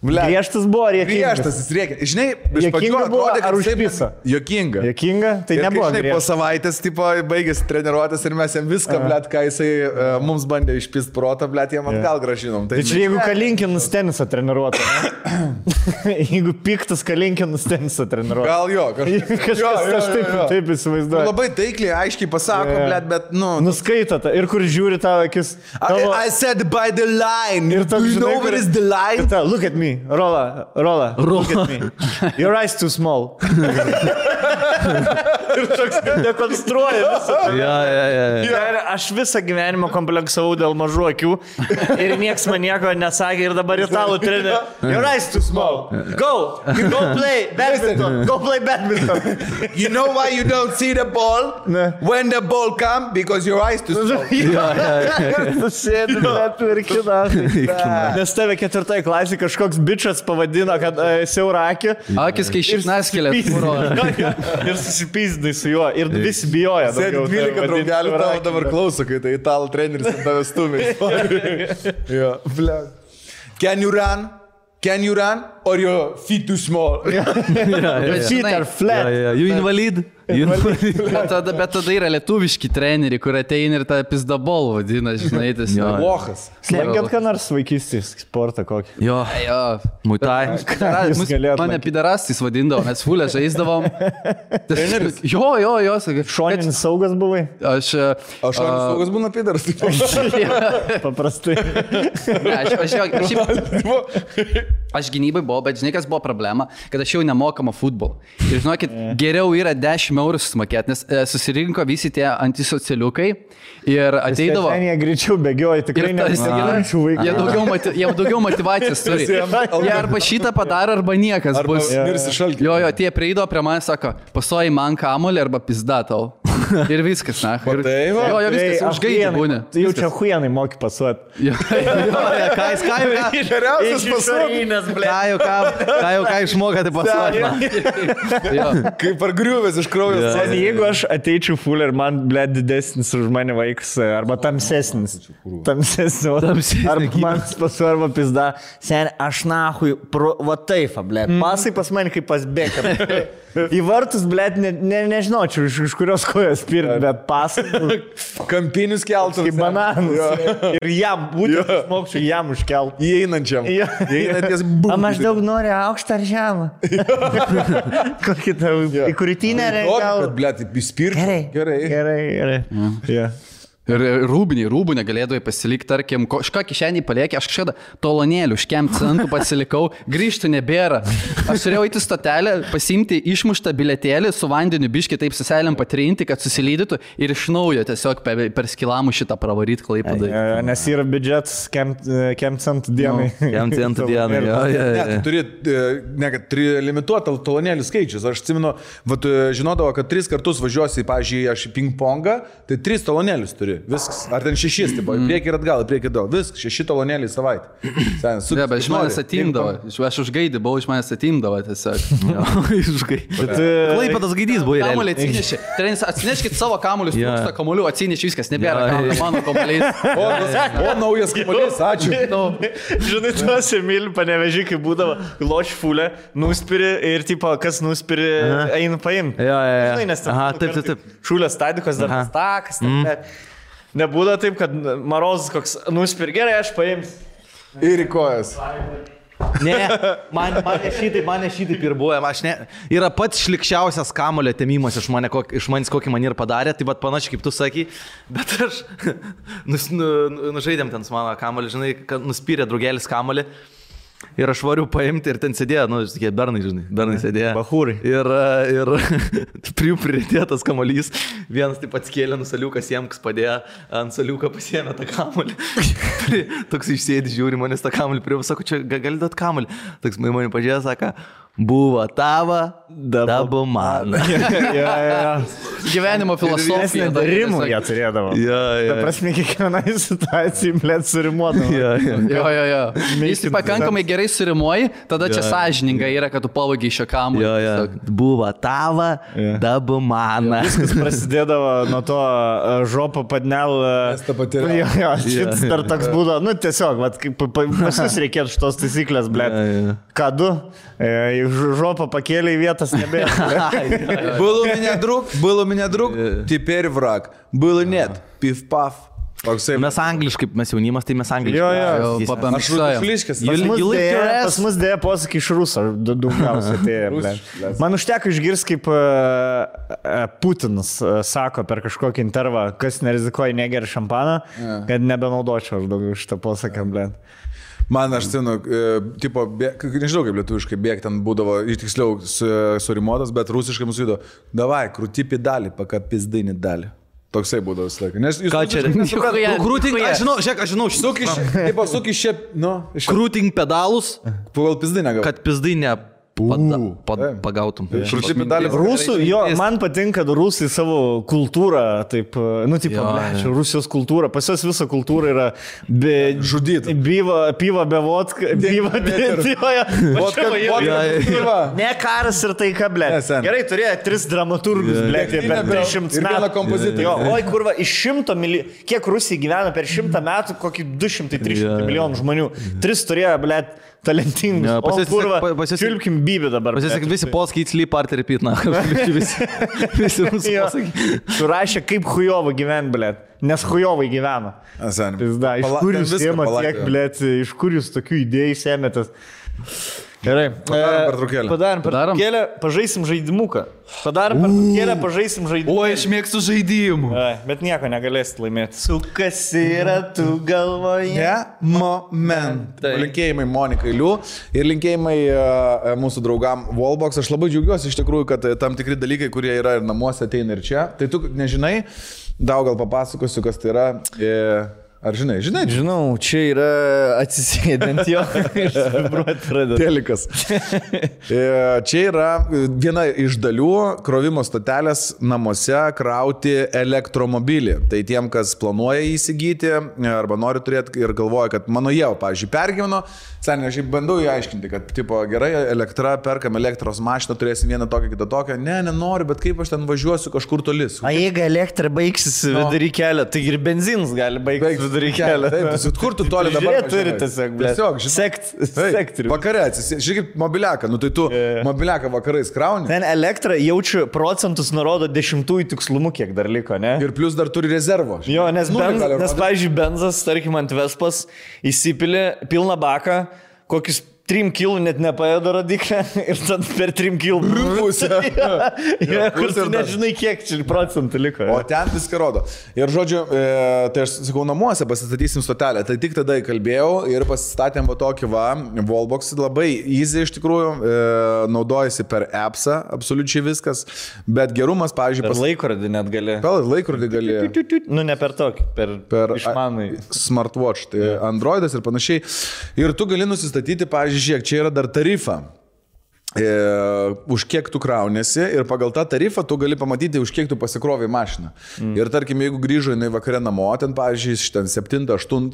Griežtas buvo ar jokingas? Griežtas, jis rėkė. Žinai, iš pradžių atrodė, ar užpisa? Jokinga. Jokinga? Tai nebuvo griežtas. Po savaitės, tipo, baigėsi treniruotis ir mes jam viską, blėt, ką jisai mums bandė išpist protą, blėt, jam atgal gražinom. Tai čia jeigu Kalinkinas tenisą treniruotų. Jeigu piktas Kalinkinas tenisą treniruotų. Gal jo, kažkas aš taip įsivaizduoju. Labai taikliai, aiškiai pasako, blėt, bet, nu... Nuskaito tą ir kur žiūri tavo akis. I said by the line. Do you know where is the line? Look at me. Rola. Look at me. Your eyes too small. Ir toks dekonstruoja visą. Aš visą gyvenimą kompleksavau dėl mažų akių ir nieks man nieko nesakė ir dabar italų trenerį. Your eyes too small. Go play badminton. Go play badminton. You know why you don't see the ball? When the ball come? Because your eyes too small. Sėdi, bet virkina. Nes tave 4 klasė kažkoks bičas pavadino, kad siaura akį. Akis, kai šiknas kelias. Ir susipyzdai su juo. Ir visi bijoja. Sėdi 12 draugelių tavo dabar klauso, kai tai italų treneris ant tavęs stumė. Can you run? Or your feet too small? Feet are flat. You invalid? Bet tada yra lietuviški treneriai, kur ateina ir tą pizdabol vadina, žinai, tas Vochas. Slengėt ką nors vaikystės sportą kokį? Jo. Muitai. Mane pidarastais vadindavo, mes fulę žaisdavom. Jo, sakai. Šoninis saugas buvai? Šoninis saugas būna pidaras. Paprastai. Aš gynybai buvau, bet žinai, kas buvo problema, kad aš jau nemokama futbolą. Ir žinokit, geriau yra 10 eurų susimokėti, nes susirinko visi tie antisocialiukai ir ateidavo... Jie greičiau bėgioja, tikrai nepasakyčiau vaikų. Jie daugiau motivacijos turi. Jie arba šitą padaro, arba niekas bus. Mirsi šalkį. Jo, tie prieidavo prie manęs, sako, pasoji man kamuolį arba pizda tau. Ir viskas, na. Ir, tai va. jo, viskas, užgaidė būna. Jau čia huijanai moki pasuot. Ką Geriausias pasuot. Ką išmoka, tai pasuot. Kaip ar griuvės iš kraujo. Jeigu aš ateičiau full ir man, ble, didesnis už mane vaikas, arba tamsesnis. Arba man pasuot, arba pizda. Sen, aš nahui, va taip, ble. Pasai pas mane kaip pas Beckham. Į vartus, ble, nežinočiau, iš kurios kojos pirti, bet pasai. Kampinius keltus. Kaip bananus. Ir jam, būtent išmokčiau jam užkelt. Įeinančiam. Įeinanties būtent. O maždaug nori aukštą ar žemą? Kokį tau į krūtinę reikia? Kad, ble, taip įspirti. Gerai. Ir rūbų negalėdavai pasilikti, tarkim, kažką kišenį paliekė, aš kažkada talonėlių, škem centų pasilikau, grįžtų nebėra. Aš turėjau įti stotelę, pasimti išmuštą biletėlį su vandeniu biškį taip suselėm patrinti, kad susilydytų ir iš naujo tiesiog per skilamų šitą pravaryti Klaipėdai. Nes yra biudžetas kem centų dienai. Kem centų dienai, jo. Turi limituotą talonėlių skaičius. Aš atsimenu, žinodavo, kad 3 kartus važiuosi, pavyzdžiui, aš į ping-pongą, tai 3 talonėlius turi. Viskas. Ar ten 6, tipo, priekį ir atgal, priekį ir atgal. Viskas, 6 talonėliai savaitę. Ne, bet iš manęs atimdavo. Aš užgaidį buvau, iš manęs atimdavo tiesiog. Klaipėdas gaidys buvo. Kamuolį atsinešė. Trenis, atsineškit savo kamuolius, trūksta kamuolių, atsinešė viskas, nebėra kamuolių, mano kamuoliais. O, naujas kamuolys, ačiū. Žinai, tuos Emilį Panevežį, kai būdavo loš fulė, nuspiri ir, tipo, kas nuspiri, eina paimti. Žinai, nes taip. Šūlės stadikos dar takas, nebūda taip, kad Marozas koks nuspir, gerai, aš paimsiu. Ir į kojas. Ne, mane šitaip ir buvo. Yra pats šlikščiausias kamulio temimas iš manęs, kokį man ir padarė, tai bet panašiai kaip tu sakai, bet aš nužaidėm ten su mano kamulį, žinai, kad nuspyrė draugelis kamulį. Ir aš variu paimti ir ten sėdėjo, tokie bernai sėdėjo. Bahūrai. Ir prie jų pridėtas kamuolys. Vienas taip atskėlė nusaliukas jiem, kas padėjo, ant saliuką pasiėmė tą kamuolį. Toks išsėdi, žiūri manęs tą kamuolį, prie sako, čia gali duot kamuolį. Toks mane pažiūrėjo, sako, buvo tava, dabu man. Gyvenimo filosofija. Rimų jie turėdavo. Ta prasme, kiekvienai situacijai, blėt, surimuodavo. Jo. Jis pakankamai gerai surimuoji, tada čia sąžininga yra, kad tu pavogiai šio kamuolį. Buvo tava, dabu man. Viskas prasidėdavo nuo to žopo padnel. Šitas dar toks būdavo, tiesiog, pas jūs reikėtų šitos taisyklės, blėt. Ką du? Жопа покели, вітас не бе. Был у меня друг, теперь враг. Был и нет, пив-пав. Mes angliškai, mes jaunimas, tai mes angliškai. Jo. Aš rutušliškas. Pas mus dėja posakį iš rusų, daugiausiai. Man užteko išgirsti, kaip Putinas sako per kažkokį intervą, kas nerizikuoja negeria šampaną, kad nebenaudočiau aš daugiau šitą posaką, blėt. Man aš senu, tipo, nežinau kaip lietuviškai bėg, ten būdavo, tiksliau, surimuotas, bet rusiškai mūsų įdo, davai, krūti pedalį, paka pizdinį dalį. Toksai būdavo visą laiką. Ką čia? Krūting, aš žinau, suki šiep, krūting pedalus, pagal pizdinę gal. Kad pizdinę pagautum. Rusų, man patinka, kad rusai savo kultūrą, taip, Rusijos kultūra, pas jos visa kultūra yra žudyta. Piva be vodka, ne karas ir taika, blė. Gerai, turėjo 3 dramaturgus, blė, per 300 metų. Oi, kurva, iš 100 milijonų, kiek Rusija gyvena per 100 metų, kokį 200-300 milijonų žmonių. 3 turėjo, blė, talentingus. O kurva, čiulpkim bybį dabar. Pasisak, visi polskiai sleep art repeat, na. Visi mūsų pasakai. Surašė, kaip hujovą gyvent, blėt. Nes hujovai gyvena. Pizda, iš kur jūs ėmėt tiek, blėt, iš kur jūs tokių idėjų ėmėtės. Gerai. Padarom pertraukėlę, pažaisim žaidimuką. O, aš mėgstu žaidimų. Bet nieko negalėsit laimėti. Sukas yra tu galvoje. Moment. Linkėjimai Monikai Liu ir linkėjimai mūsų draugam Wallbox. Aš labai džiaugiuosi iš tikrųjų, kad tam tikri dalykai, kurie yra ir namuose, ateina ir čia. Tai tu nežinai, daug gal papasakosiu, kas tai yra. Ar žinai? Žinau, čia yra atsisėdant jo, išvibruoti pradeda. Telikas. Čia yra viena iš dalių krovimo stotelės namuose krauti elektromobilį. Tai tiem, kas planuoja įsigyti arba nori turėti ir galvoja, kad mano jau, pavyzdžiui, pergyveno, seniai, aš bandau įaiškinti, kad, tipo, gerai, elektra, perkam elektros mašiną, turėsim vieną tokią, kitą tokią. Ne, nenoriu, bet kaip aš ten važiuosiu kažkur tolis. O jeigu elektra baigsis vidury kelio, tai ir benzinas gali baigtis vidury kelio. Taip, kur tu toli dabar Žiūrėt, turi tiesiog, blė. Sektorių. Vakare, žiūrėk, mobiliaką, nu tai tu mobiliaką vakarais krauni. Ten elektra jaučiu procentus nurodo 10 tikslumu, kiek dar liko, ne? Ir plus dar turi rezervo. Jo, nes pavyzdžiui, benzas, tarkim, ant Vespas įsipilė pilną baką, kokius 3 kilų net nepaėdo radiklę ir tada per 3 kilų pusę. Kur tu nežinai, kiek čia procentų liko. O ten viską rodo. Ir žodžiu, tai aš sakau, namuose pasistatysim stotelę. Tai tik tada įkalbėjau ir pasistatėm va tokį wallbox. Labai easy iš tikrųjų. Naudojasi per appsą, absoliučiai viskas. Bet gerumas, pavyzdžiui, per laikrodį net gali. Per laikrodį gali. Nu, ne per tokį, per išmanai. Smartwatch, tai Androidas ir panašiai. Ir tu gali nusistatyti, pavyzdžiui, žiūrėk, čia yra dar tarifa, už kiek tu kraunėsi ir pagal tą tarifą tu gali pamatyti, už kiek tu pasikrovai mašiną. Ir tarkim, jeigu grįžo jinai vakare namo, ten, pavyzdžiui, ten 7-8,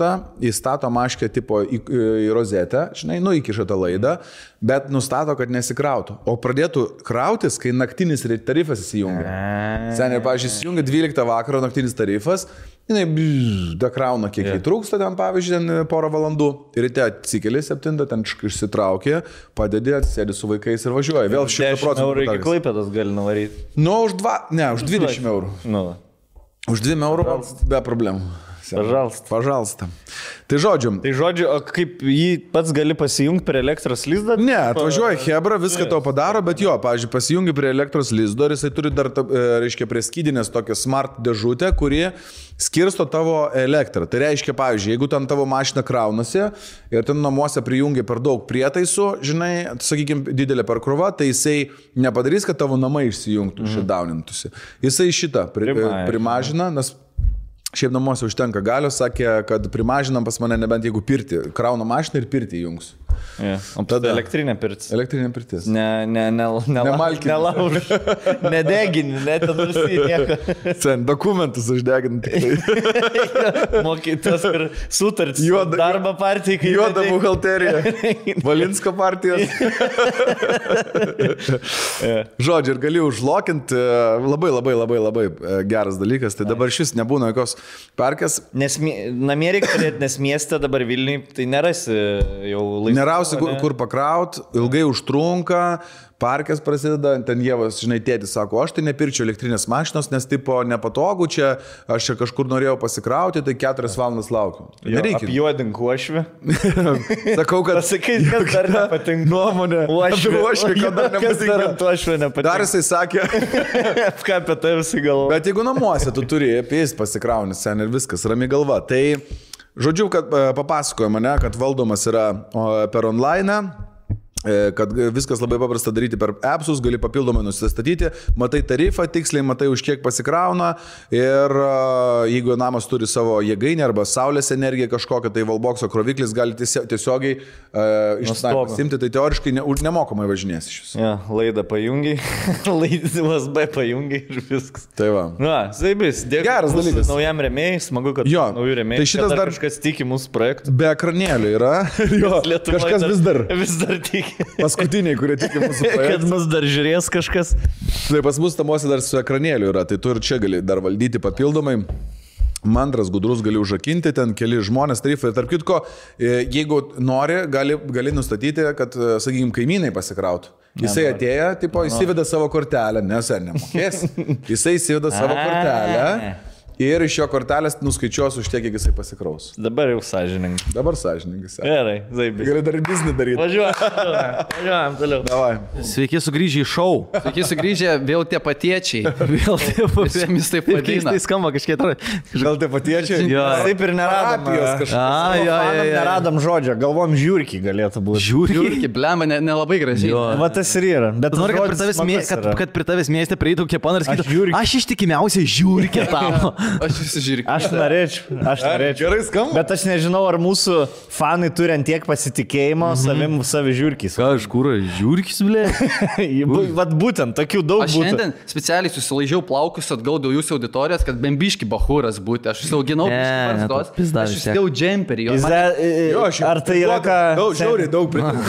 įstato maškę tipo į rozetę, žinai, įkiša tą laidą, bet nustato, kad nesikrautų. O pradėtų krautis, kai naktinis tarifas įsijungia. Seniai, pavyzdžiui, įsijungia 12 vakaro naktinis tarifas, jinai dakrauna, kiek jį trūksta ten, pavyzdžiui, ten porą valandų. Ir ryte atsikeli 7, ten išsitraukė, padedi, atsėdi su vaikais ir važiuoja. Vėl 100% eurų iki Klaipėdos gali nuvaryti. Nu, už 20 eurų. Nu. Už 2 eurų be problemų. Pažalsta. Tai žodžiu, o kaip jį pats gali pasijungti prie elektros lizdo? Ne, atvažiuoja Hebra, viską tau padaro, bet jo, pavyzdžiui, pasijungi prie elektros lizdo ir jisai turi dar, reiškia, prie skydinės tokią smart dėžutę, kuri skirsto tavo elektrą. Tai reiškia, pavyzdžiui, jeigu ten tavo mašina kraunasi ir ten namuose prijungia per daug prietaisų, žinai, sakykime, didelė perkrova, tai jisai nepadarys, kad tavo namai išsijungtų, šitdaunintųsi. Jisai šitą primažina, nes šiaip namuose užtenka galios, sakė, kad primažinam pas mane nebent jeigu pirti, krauna mašiną ir pirti jungs. O tada elektrinė pirtis. Elektrinė pirtis. Nemalkini. Nelauž. Nedegini, net nursį nieko. Sen, dokumentus uždegini tik tai. Mokytas ir sutartis. Darbo partija. Juoda buhalterija. Valinsko partijos. Žodžiu, ir gali užlokinti. Labai geras dalykas. Tai dabar šis nebūna jokios parkės. Namie reikia turėti, nes mieste dabar Vilniui tai nerasi jau laisvų. Nerausi, kur pakraut, ilgai užtrunka, parkės prasideda, ten Jėvas, žinai, tėtis sako, aš tai nepirčiau elektrinės mašinos, nes tipo nepatogu čia, aš čia kažkur norėjau pasikrauti, tai 4 valandas laukiu. Nereikia. Apjuodink uošvį. Sakau, kad... Pasakai, kas dar nepatinka. Nuomonė. Uošvį, kad dar nepatinka. Dar jisai sakė. Ką apie tai visi galvo. Bet jeigu namuose tu turi apie jis pasikrauni sen ir viskas, rami galva. Tai, žodžiu, kad papasakojo mane, kad valdomas yra per online, kad viskas labai paprasta daryti per appsus, gali papildomai nusistatyti, matai tarifą tiksliai, matai už kiek pasikrauna ir jeigu namas turi savo jėgainę arba saulės energiją kažkokią, tai Wallboxo kroviklis gali tiesiogiai iš simti, tai teoriškai nemokamai važinės iš jūsų. Ja, laidą pajungiai, laidą USB pajungiai ir viskas. Tai va. Na, zaibis, dėkui. Geras dalykas. Naujam rėmėjai, smagu, kad naujų rėmėjai. Tai šitas dar kažkas tiki mūsų projektų. Be ekranėlių yra. Jo, kažkas vis dar tiki. Paskutiniai, kurie tiki mūsų projektą. Kad mus dar žiūrės kažkas. Tai pas mus namuose dar su ekranėliu yra, tai tu ir čia gali dar valdyti papildomai. Mandras, gudrus gali užrakinti, ten keli žmonės, tarifai. Tarp kitko, jeigu nori, gali nustatyti, kad, sakykime, kaimynai pasikrautų. Jisai atėjo, tipo, įsiveda savo kortelę, nes ar nemokės. Jisai įsiveda savo kortelę. Ir iš jo kortelės nuskaičiuos už tiek, kiek jisai pasikraus. Dabar jau sąžininkai. Gerai, zaibis. Gali dar biznį daryti. Važiuojam toliau. Davai. Sveiki sugrįžę į šou. Sveiki sugrįžę, vėl tie patiečiai. Vėl tie patiečiai. Vis taip vadina. Tai skamba kažkiek. Gal tie patiečiai? Jo. Taip ir neradom. Neradom žodžio. Galvom žiūrkį galėtų būti. Žiūrkį, blemba, nelabai gražiai. Va tas ir yra. Bet nori, kad prie tavęs mieste prieitų Keponas ir sakytų, aš ištikimiausiai žiūrkį tavo. Aš visi žiūrėk. Aš norėčiau. Gerai skamba. Bet aš nežinau, ar mūsų fanai turi ant tiek pasitikėjimo savim savi žiūrkis. Ką, iš kur, žiūrkis, blė? Vat būtent, tokių daug Aš būtų. šiandien specialiai susilaižiau plaukus atgal dėl jūsų auditorijos, kad bembiški bahūras būti. Aš užsiauginau barzdos. Aš užsidėjau džemperį. Ar tai yra ką... Žiauriai daug pritariu.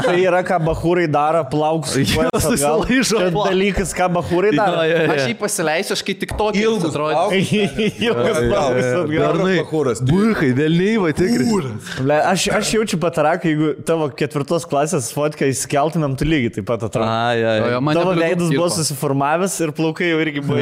Tai yra ką bahūrai daro, plaukus. susilaižo plaukus. Dalykas, ką bahūrai daro. Aš jį pasileisiu, aš kai tik tokį Ilgus atrodė. Ilgas plaukus atgal. Būkai, vėlniai, va tikrai. Aš jaučiu pataraką, jeigu tavo 4 klasės fotką įskeltumėm, tu lygiai taip pat atrodo. Tavo veidas buvo susiformavęs ir plaukai jau irgi buvo.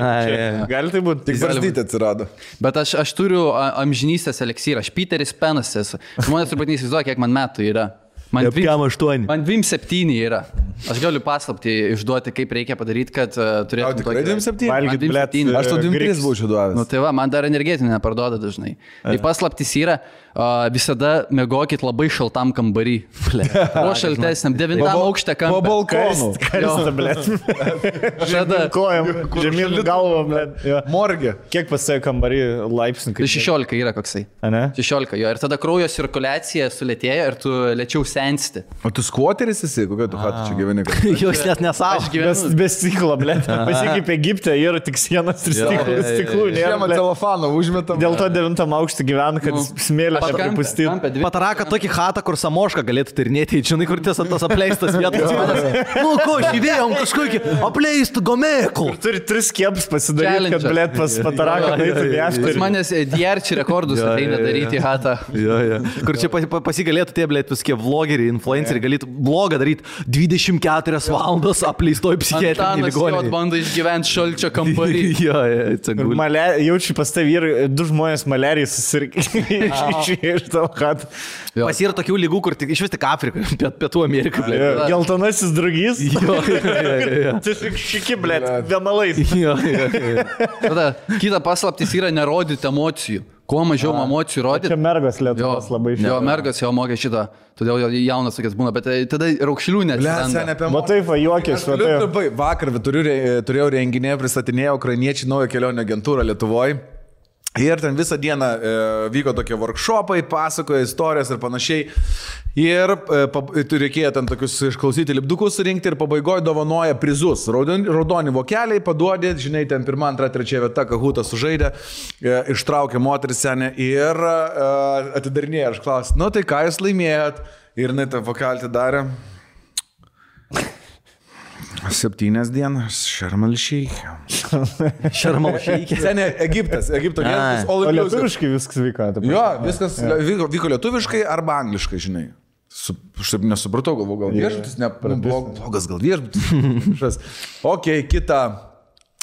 Gali tai būti. Tik barzdytė atsirado. Bet aš turiu amžinystės eliksyrą. Aš Peteris Penas esu. Žmonės turbūt neįsivaizduoja, kiek man metų yra. Man 8. Man 27 yra. Aš galiu paslapti išduoti, kaip reikia padaryti, kad turėtum Tikrai 27? Valgyt, blet, Aš to 23 būčiau duovęs. Nu tai va, man dar energetinį neparduoda dažnai. Tai paslaptis yra, visada mėgokit labai šaltam kambarį. O šaltesniam, 9 aukšte Po kambarį. balkonų. Karsta, blet. Žada. Kojam, žemyn galvom, blet. Morgė. Kiek pasėjo kambarį laipsnių? Tai 16 yra koksai. Ne? 16 jo. Ir tada kraujo cirkuliacija sulėtėja ir tu lėčiau sensti. O tu skvoteris esi? Kokia tu hatu čia gyveni? Jūs net nesavo. Aš gyvenu. Be stiklo, blet. Pasikeip Egipte, yra tik sienas ir stiklų. Žiemą telefoną užmetam. Dėl to 9 aukštą gyvena, kad smėlė nepripustyti. Pataraka tokį hatą, kur Samošką galėtų tyrinėti, žinai, kur tas apleistas vietas. Nu, ko, šįvėjom kažkokį apleistų gomėkų. Turi 3 kieps pasidaryti, kad, blet, pas Pataraką eitų Pas viešti. manęs DRC rekordus ateina daryti hatą. Kur čia pasigalėtų tie, blėt, visokie vlogeriai, influenceriai, galėtų blogą daryti 24 valandos apleistoj psichiatrinėje Antanas jau ligoninėje. bando išgyventi šalčio kambarį. Jaučiu pas tai vyrai, 2 žmonės malerijai susirgė iš tavo hatą. Pas yra tokių lygų, kur tik iš vis tik Afrika, Pietų Amerika, blėt. Geltonasis drugys. Tiesiog šiki, blet, vienalais. Tada kita paslaptis yra nerodyti emocijų. Kuo mažiau emocijų rodyti. Čia mergos Lietuvos labai Jo, mergas jau mokė šitą, todėl jaunas tokias būna, bet tada raukšlių net. Matai, va, juokės, va. Vakar turėjau renginį, pristatinėjau ukrainiečių naują kelionę agentūrą Lietuvoje. Ir ten visą dieną vyko tokie workshopai, pasakoja istorijas ir panašiai. Ir reikėjo ten tokius išklausyti lipdukus surinkti ir pabaigoje dovanoja prizus. Raudoni vokeliai paduodė, žinai, ten 1, 2, 3 vieta, Kahutas sužaidė, ištraukė moteris senę ir atidarinėjo. Aš klausiu, nu tai ką jūs laimėjot? Ir jinai tą vokelį atidarė. 7 dienas, Šarmalšyk. Šarmalšyk. Seniai, Egipto gyventas. O lietuviškai viskas vyko. Jo, viskas vyko lietuviškai arba angliškai, žinai. Aš taip nesupratau, galvoju, gal viešbutis, blogas gal viešbutis. Ok, kita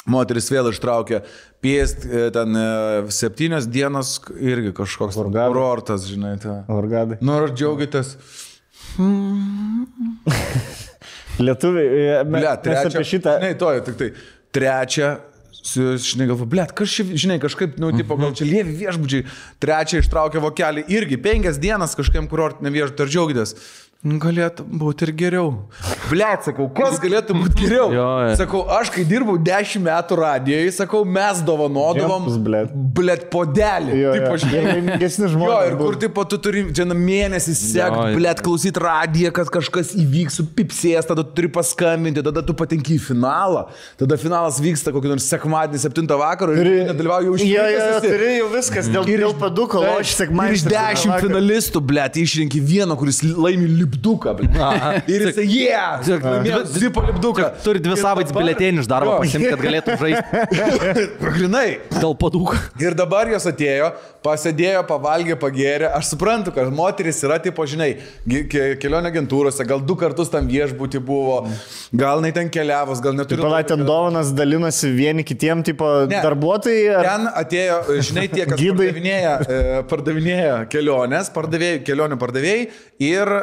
moteris vėl ištraukė. Piest ten 7 dienas irgi kažkoks kurortas, žinai. Orgadai. Nu, ar džiaugiatės? Lietuviai, mes apie šitą... Ne, tik tai. Trečia, žinai, galvo, blėt, kažkaip, nu, tipo, gal čia lievi viešbučiai. Trečia ištraukė vokelį irgi 5 dienas kažkam kurortiniam viešbutį, ar džiaugitės? Galėtų būti ir geriau. Blet, sakau, kas galėtų būti geriau? Sakau, aš kai dirbau 10 metų radijoje, sakau, mes dovanodavom, blet, podelį. Laimingesni žmonės. Jo, ir kur, tipo, tu turi čia mėnesį sekti, blet, klausyti radiją, kad kažkas įvyks, supipsės, tada tu turi paskambinti, tada tu patenki į finalą. Tada finalas vyksta kokį nors sekmadienį 7 vakaro ir nedalyvauju už turi jau viskas, dėl paduko, o aš sekmadienį. Iš 10 finalistų, blet, išrinki vieną, kuris laimi lipduką, ir jisai, zipo lipduką. Turi 2 savaitės biletėnį iš darbo pasimti, kad galėtų žaisti. Grinai. Dėl padūko. Ir dabar jos atėjo, pasėdėjo, pavalgė, pagėrė. Aš suprantu, kad moteris yra, tipo, žinai, kelionė agentūrose, gal 2 kartus tam viešbutį buvo, gal jinai ten keliavos, gal neturi. Palai, ten dovanas dalinosi vieni kitiem, tipo, darbuotojai. Ten atėjo, žinai, tie, kas pardavinėja kelionės, kelionių pardavėjai ir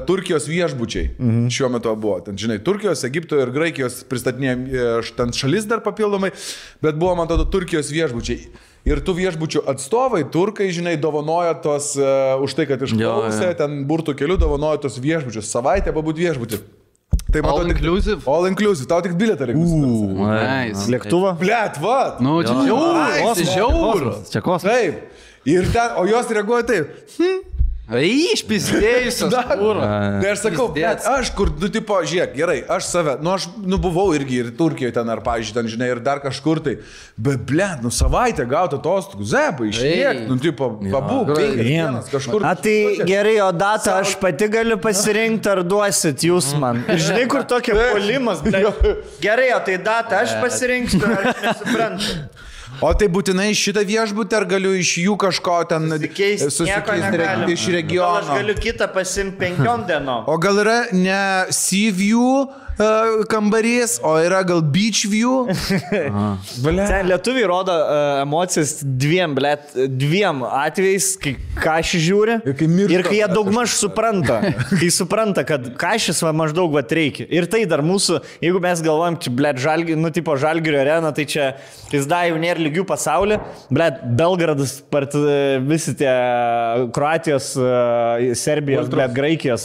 Turkijos viešbučiai šiuo metu buvo. Ten, žinai, Turkijos, Egipto ir Graikijos pristatinėjo ten šalis dar papildomai, bet buvo, man tada, Turkijos viešbučiai. Ir tų viešbučių atstovai, turkai, žinai, dovanoja tos, už tai, kad išklausė, ten burtų kelių dovanoja tos viešbučius. Savaitę pabūt viešbutį. Tai All matau, inclusive? All inclusive, tau tik bilietą reikia. Nice. Lėktuvą? Blet, va. Nu, čia žiauru. Čia kosmosas. Taip. Ir ten, o jos reaguoja taip. Išpizdėjusios. Tai aš sakau, bet aš kur, tipo, žiūrėk, gerai, aš save, aš buvau irgi ir Turkijoje ten, ar, pavyzdžiui, ten, žinai, ir dar kažkur tai, bet, blet, savaitę gauti atostogų, zepai, išliek, tipo, pabūk, 5 dienas kažkur. A, tai gerai, o datą aš pati galiu pasirinkti, ar duosit jūs man. Ir žinai, kur tokia polimas, gerai, o tai datą aš pasirinksiu, aš nesuprantu. O tai būtinai šitą viešbutį, ar galiu iš jų kažko ten susikeisti iš regiono? Aš galiu kitą pasimti 5 dienom. O gal yra ne Sea View kambarys, o yra gal Beach View? Ten lietuviai rodo emocijas dviem atvejais, kai Kašį žiūri ir kai jie daugmaž supranta. Kai supranta, kad Kašis va maždaug va reikia. Ir tai dar mūsų, jeigu mes galvojam, čia, Žalgirio, nu, tipo Žalgirio arena, tai čia pizda jau nėra lygių pasaulį. Belgradas, visi tie Kroatijos, Serbijos, Graikijos,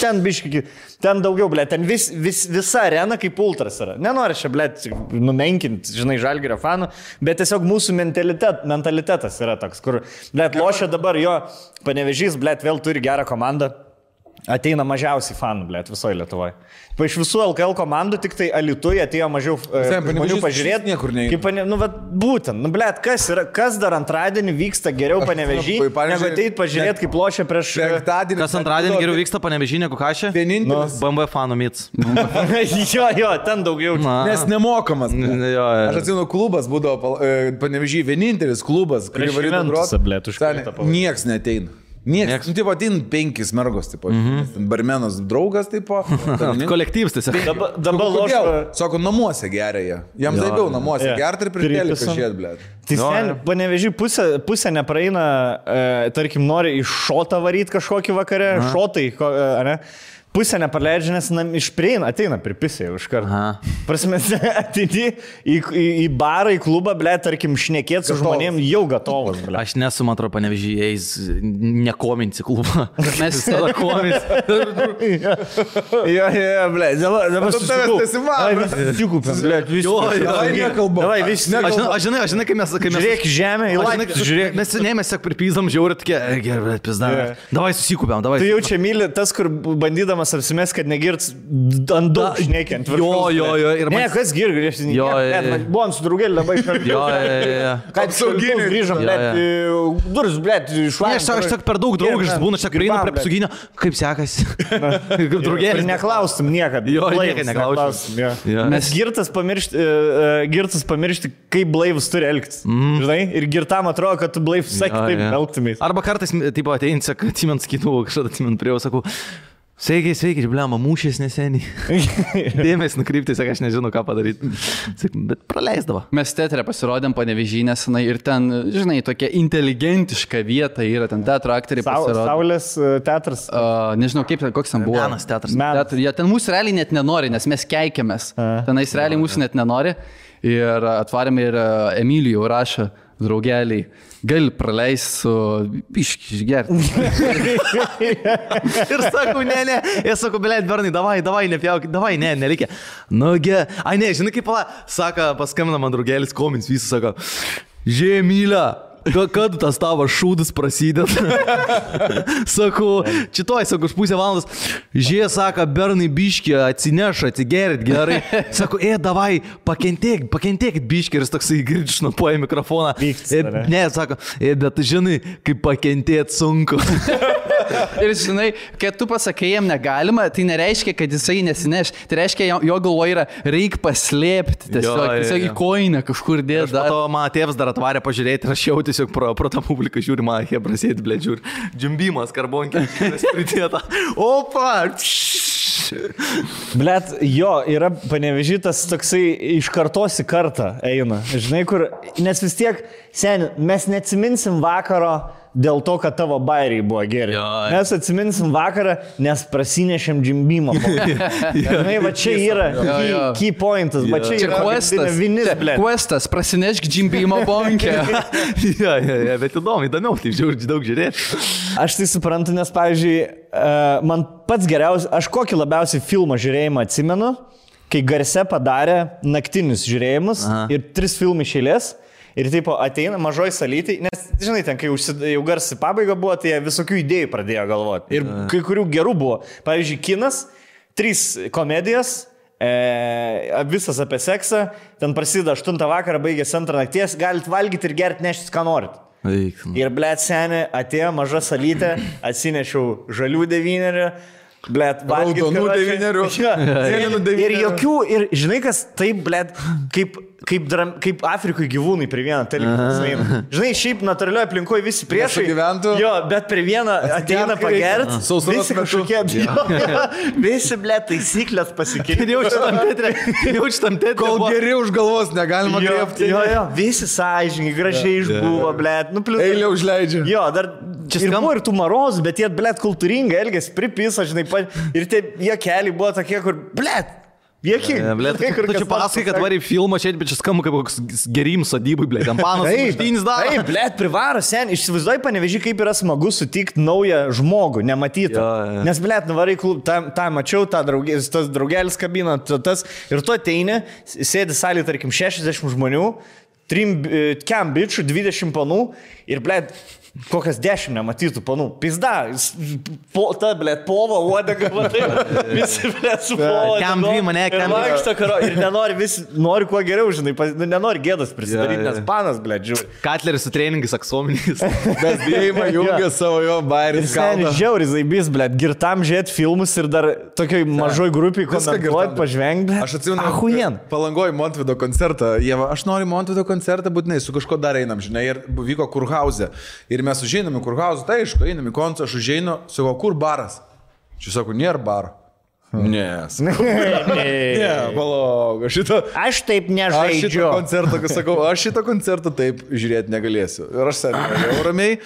ten biški, ten daugiau, ten visa arena kaip ultras yra. Nenori čia, numenkinti, žinai, Žalgirio fanų, bet tiesiog mūsų mentalitetas yra toks, kur, lošia dabar jo Panevėžys, vėl turi gerą komandą. Ateina mažiausiai fanų, visoje Lietuvoje. Iš visų LKL komandų tik tai Alytuje atėjo mažiau žmonių pažiūrėti. Niekur neįvyko. Būtent, kas dar antradienį vyksta geriau Panevėžy, negu ateit pažiūrėti, kaip lošia prieš... Kas antradienį geriau vyksta Panevėžy negu Kašė? Vienintelis. BMW fanų mits. Jo, ten daugiau. Nes nemokamas. Aš atsimenu, klubas būdavo Panevėžy, vienintelis klubas, kurį varytų groti. Nieks neteina. Niekas. Nu, tipo, atin 5 mergos, tipo. Barmenas draugas, tipo. Kolektyvas tiesiog. Dabar lošia. Sako, namuose geria jie. Jam zaibiau namuose gerti ir pridėlį pažiūrėt, blėt. Tai ten Panevėžy pusė nepraeina, tarkim, nori iš šotą varyti kažkokį vakarę, šotai, ne? Pusę nepraleidžia, nes ateina pripisė už kartą. Prasme, ateini į barą, į klubą, tarkim, šnekėti su žmonėm jau gatovas. Aš nesu, man atrodo, Panevėžys nekominsi klubą. Mes tada kominsi. Jo, dabar susikūpėm. Davai, visi. Aš žinai, kai mes... Žiūrėk žemę, į laiką. Mes tiesiog pripyzam žiaurį tokie, gerai, pizda. Davai susikūpėm, davai. Tu jau čia myli tas, kur bandydamas apsimės, kad negirts ant daug šneikiant. Jo. Ne, kas girdi, buvom su draugėlį labai šartai. Jo. Kad apsauginiai grįžom, duris, išvažiuojam. Aš tik per daug draugiškas būna, čia prieinu prie apsauginio, kaip sekasi. Kaip draugėlis. Ir neklaustum niekad. Jo, niekad neklaustum. Mes girtas pamiršti, kaip blaivus turi elgtis. Žinai, ir girtam atrodo, kad tu blaivus sakai, taip elgtumės. Arba kartais, tipo, ateini, atsimint skaitų, kažkada atsimint prie jo, sakau, Sveikiai, blema, mūšės neseniai. Dėmesį nukrypti, aš nežinau, ką padaryti. Bet praleisdavo. Mes teatre pasirodėm Panevėžy nesenai ir ten, žinai, tokia inteligentiška vieta yra, ten teatro aktoriai pasirodė. Saulės teatras. Nežinau, koks ten buvo. Menas teatras. Ten mūsų realiai net nenori, nes mes keikiamės. Tenais realiai mūsų net nenori. Ir atvarėme ir Emilijų rašą. Draugeliai, gali praleisti su išgerti. Ir sakau, ne. Jie sako, blėt, Bernai, davai, nepjauk, davai, nereikia. Nugi, ne, žinai kaip, sako, paskambina man draugelis, komins, visi sako, Žemylė. Kad tas tavo šūdas prasideda? Sakau, čitoj, už pusę valandos. Sako, Bernai biškį atsineša, atsigerit gerai. Sako, davai, pakentėkit biškį. Ir jis toksai girčnopuoja mikrofoną. Ne, sako, bet žinai, kaip pakentėt sunku. Ir žinai, kad tu pasakai jam negalima, tai nereiškia, kad jisai nesineš. Tai reiškia, jo galvoje yra, reik paslėpti. Tiesiog į koinę kažkur dėti. Po to mano tėvas dar atvarė pažiūrėti ir aš jau tiesiog pro tą publiką žiūri, man hebrasėti, blėt, žiūri. Džimbimas, karbonkė, pridėta. Opa! Blet, jo, yra Panevėžy tas toksai iš kartos į kartą eina. Žinai, kur, nes vis tiek Seni, mes neatsiminsim vakaro dėl to, kad tavo bairiai buvo geri. Mes atsiminsim vakarą, nes prasinešėm džimbimą. Žinai, va čia yra key pointas, va čia yra vinis, ble. Questas, prasinešk džimbimą bonkę. Bet įdomiau, taip daug žiūrėti. Aš tai suprantu, nes, pavyzdžiui, man pats geriausias, aš kokį labiausiai filmą žiūrėjimą atsimenu, kai Garse padarė naktinius žiūrėjimus ir 3 filmai iš eilės. Ir taip ateina mažoj salytai, nes, žinai, ten, kai jau Garsi pabaiga buvo, tai jie visokių idėjų pradėjo galvoti. Ir kai kurių gerų buvo. Pavyzdžiui, kinas, 3 komedijos, visas apie seksą, ten prasideda 8 vakarą, baigėsi 2 nakties, galit valgyti ir gerti neštis, ką norit. Ir, blėt, seni, atėjo maža salytė, atsinešiau žalių 9, blėt, valgyti. Raudonų 9. Ir jokių, ir žinai, kas taip, blėt, kaip Afrikoje gyvūnai prie vieną televiziją. Žinai, šiaip natūralioje aplinkoje visi priešai gyventų. Jo, bet prie vieną ateina pagert. Visi kažkokie, visi, ble, taisyklės pasikeitė. Jaučiam tėtrį. Kol geri už galvos negalima griebti. Jo, visi sąžininkai, gražiai išbuvo, ble. Eilė užleidžia. Jo, dar čia buvo ir tų marozų, bet jie, ble, kultūringai elgėsi, pripisa, žinai, ir tie keliai buvo tokie, kur, ble. Jėki, blėt, tu čia pasakai, kad varį filmą čia, bet čia skamba kaip koks gerim sodybui, blėt, ten panas muštynis daro. Taip, blėt, privaro, sen, įsivaizduoji, Panevėžy, kaip yra smagu sutikti naują žmogų, nematytą. Nes, blėt, nuvarai klub, tą mačiau, tas draugelis kabina, tas, ir tu ateini, sėdi salį, tarkim, 60 žmonių, 3 bičių, 20 panų, ir, blėt, kokias 10 nematytų panų. Pizda, ta, blėt, pova, uodega, matai, visi, blėt, su pova. Kem dvi mane, kem dvi. Ir nenori, visi nori kuo geriau, žinai, nenori gėdas prisidaryti, nes panas, blėt, žiūri. Katleris su treningais aksominis. Bet dėjimą jungia savo jo bairis. Seni, žiauri zaibys, blėt, girtam žiūrėti filmus ir dar tokioj mažoj grupiai komentuoti, pažvengti, blėt. Aš atsimenu, Palangoj Montvido koncertą. Jeva, aš noriu Montvido koncertą, būtinai su kažko dar einam, žinai, ir vyko Kurhauze. Ir mes užeinam į Kurhauzą, tai aišku, einam į koncertą, aš užeinu, sakau, kur baras? Čia sako, nėra baro. Ne, palauk, aš taip nežaidžiu. Aš šitą koncertą taip žiūrėti negalėsiu. Ir aš sėdėjau ramiai,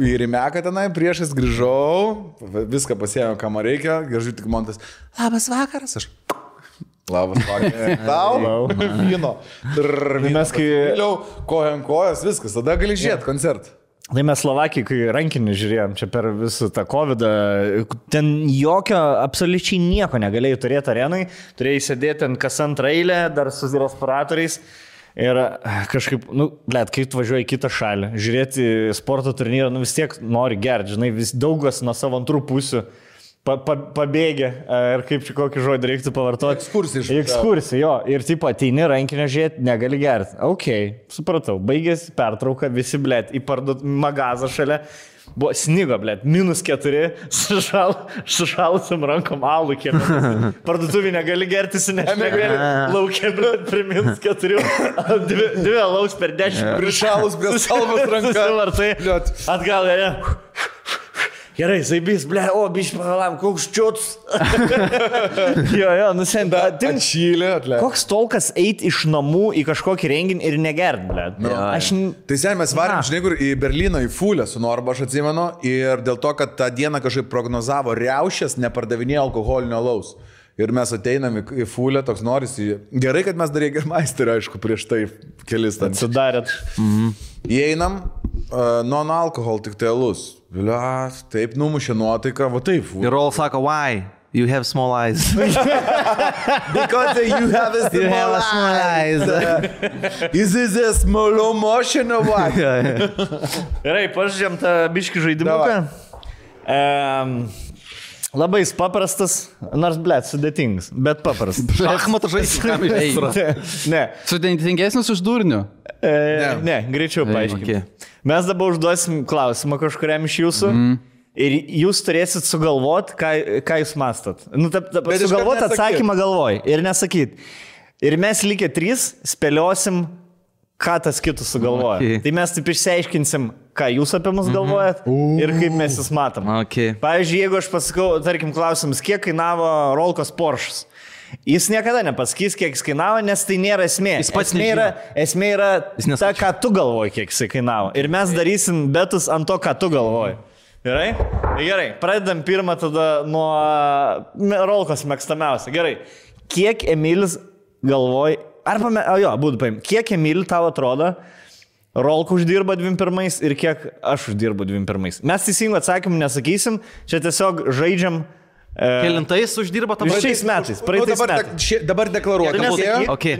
ir į Meką tenai priešais grįžau, viską pasiėmiau, ką man reikia, grįžau tik Montas, labas vakaras, aš. Labas vakaras. Tau, vyno. Mes kai vėliau kojan kojas, viskas, tada gali žiūrėti koncertą. Tai mes Slovakijai, kai rankinį žiūrėjom čia per visą tą COVID-ą, ten jokio, absoliučiai nieko negalėjai turėti arenai, turėjai sėdėti ant kas antrą eilę, dar su respiratoriais. Ir kažkaip, blėt, kai tu važiuoji į kitą šalį, žiūrėti sporto turnyrą, vis tiek nori gerti, žinai, vis daugas nuo savo antrų pusių. Pabėgė, ir kaip čia kokį žodį reiktų pavartoti. Ekskursija, jo. Ir taip ateini rankinio žiūrėti, negali gerti. Ok, supratau. Baigėsi pertrauka, visi, blėt, į magazą šalia. Buvo snigo, blėt, -4, sušalusiam rankom alų kiemė. Parduotuvį negali gerti, negali laukia, blėt, prie -4. 2 alaus per 10. Prišalus prie salvos ranką. Atgal, ne. Gerai, zaibys, ble, biškai pagalam, koks čiūts. Jo, nusent. Atšylė, atleid. Koks tolkas eit iš namų į kažkokį renginį ir negert, ble. Tai sen mes varėm, žinai, kur į Berlyną, į Fulę su Norba, aš atsimenu, ir dėl to, kad tą dieną kažkaip prognozavo riaušės, nepardavinėjo alkoholinio alaus. Ir mes ateinam į Fulę, toks norisi. Gerai, kad mes dar Jägermeisterį, aišku, prieš tai kelis ten. Sudarėt. Įeinam, non-alkohol, tik tai alus. Vėlia, taip numušė nuotaiką, va taip. Ir all sako, why? You have small eyes. Because you have a small eyes. Is this a small motion or what? Gerai, pažiūrėjom tą biškį žaidimuką. Labai paprastas, nors, blėt, sudėtingas, bet paprastas. Šachmatų žaidimas. Ne. Sudėtingesnis už durnių? Ne, greičiau paaiškinti. Mes dabar užduosim klausimą kažkuriam iš jūsų ir jūs turėsit sugalvoti, ką jūs mastot. Sugalvoti atsakymą galvoj ir nesakyti. Ir mes likę 3 spėliosim, ką tas kitus sugalvoja. Tai mes taip išsiaiškinsim, ką jūs apie mus galvojat ir kaip mes jūs matom. Pavyzdžiui, jeigu aš pasakau, tarkim, klausimus, kiek kainavo Rolkos Porsches. Jis niekada nepasakys, kiek jis kainavo, nes tai nėra esmė. Jis pats esmė yra Jis ta, ką tu galvoji, kiek jis kainavo. Ir mes darysim betus ant to, ką tu galvoji. Gerai? Gerai, pradedam pirmą tada nuo Rolkos mėgstamiausia. Gerai, kiek Emilis galvoji, būtų paim, kiek Emilį tau atrodo, Rolko uždirba 21 ir kiek aš uždirbu 21. Mes teisingų atsakymų nesakysim, čia tiesiog žaidžiam. Kelintais uždirba tam šiais metais, praeitais metais. Dabar deklaruoju.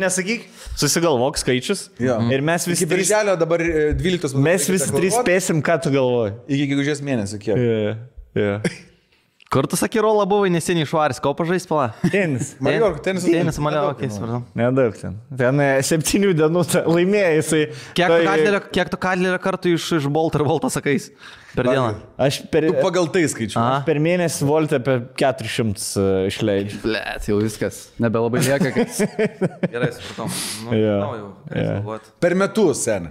Nesakyk, susigalvok skaičius. Ir mes visi iki birželio dabar 12 metų. Mes visi trys spėsim, ką tu galvoji. Iki gegužės mėnesio kiek. Kur tu sakė, Rola buvo neseniai švaris, ko pažais pala? Tenis. Tenis, Maliorka, supratau. Nedaug ten. Ten 7 dienų laimėjo jisai. Kiek tu Kadlerio kartų iš Bolt ir Volto sakais per dieną? Tu pagal tai skaičiu. Aš per mėnesį Voltą apie 400 išleidžiu. Blet, jau viskas. Nebelabai lieka, kad... Gerai, supratau. Per metus, sen.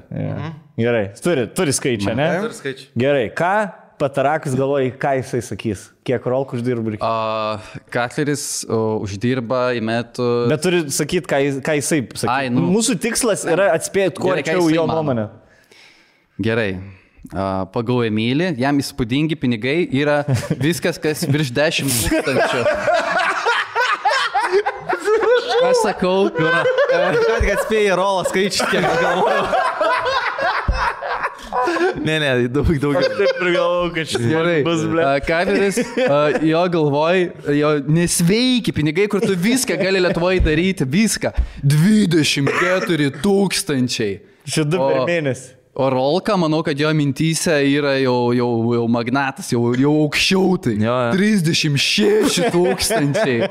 Gerai, turi skaičią, ne? Turi skaičių. Gerai, ką Patarakas galvoja, ką jisai sakys? Kiek Rolko uždirba? Katleris uždirba į metų... Bet turi sakyti, ką jisai sakys. Mūsų tikslas yra atspėti, kuo arčiau jo nuomonę. Gerai. Pagal Emilį, jam įspūdingi pinigai yra viskas, kas virš 10 000. Aš sakau, Ką tik atspėjai Rolą skaičių, kiek galvoju. Ne, daugiau. Aš taip ir galvoju, kad šis bus, ble. Katleris, jo galvoj, jo nesveiki pinigai, kur tu viską gali Lietuvoje daryti, viską. 24 000. Čia 2 per mėnesį. O Rolka, manau, kad jo mintyse yra jau magnatas, jau aukščiau tai. 36 000.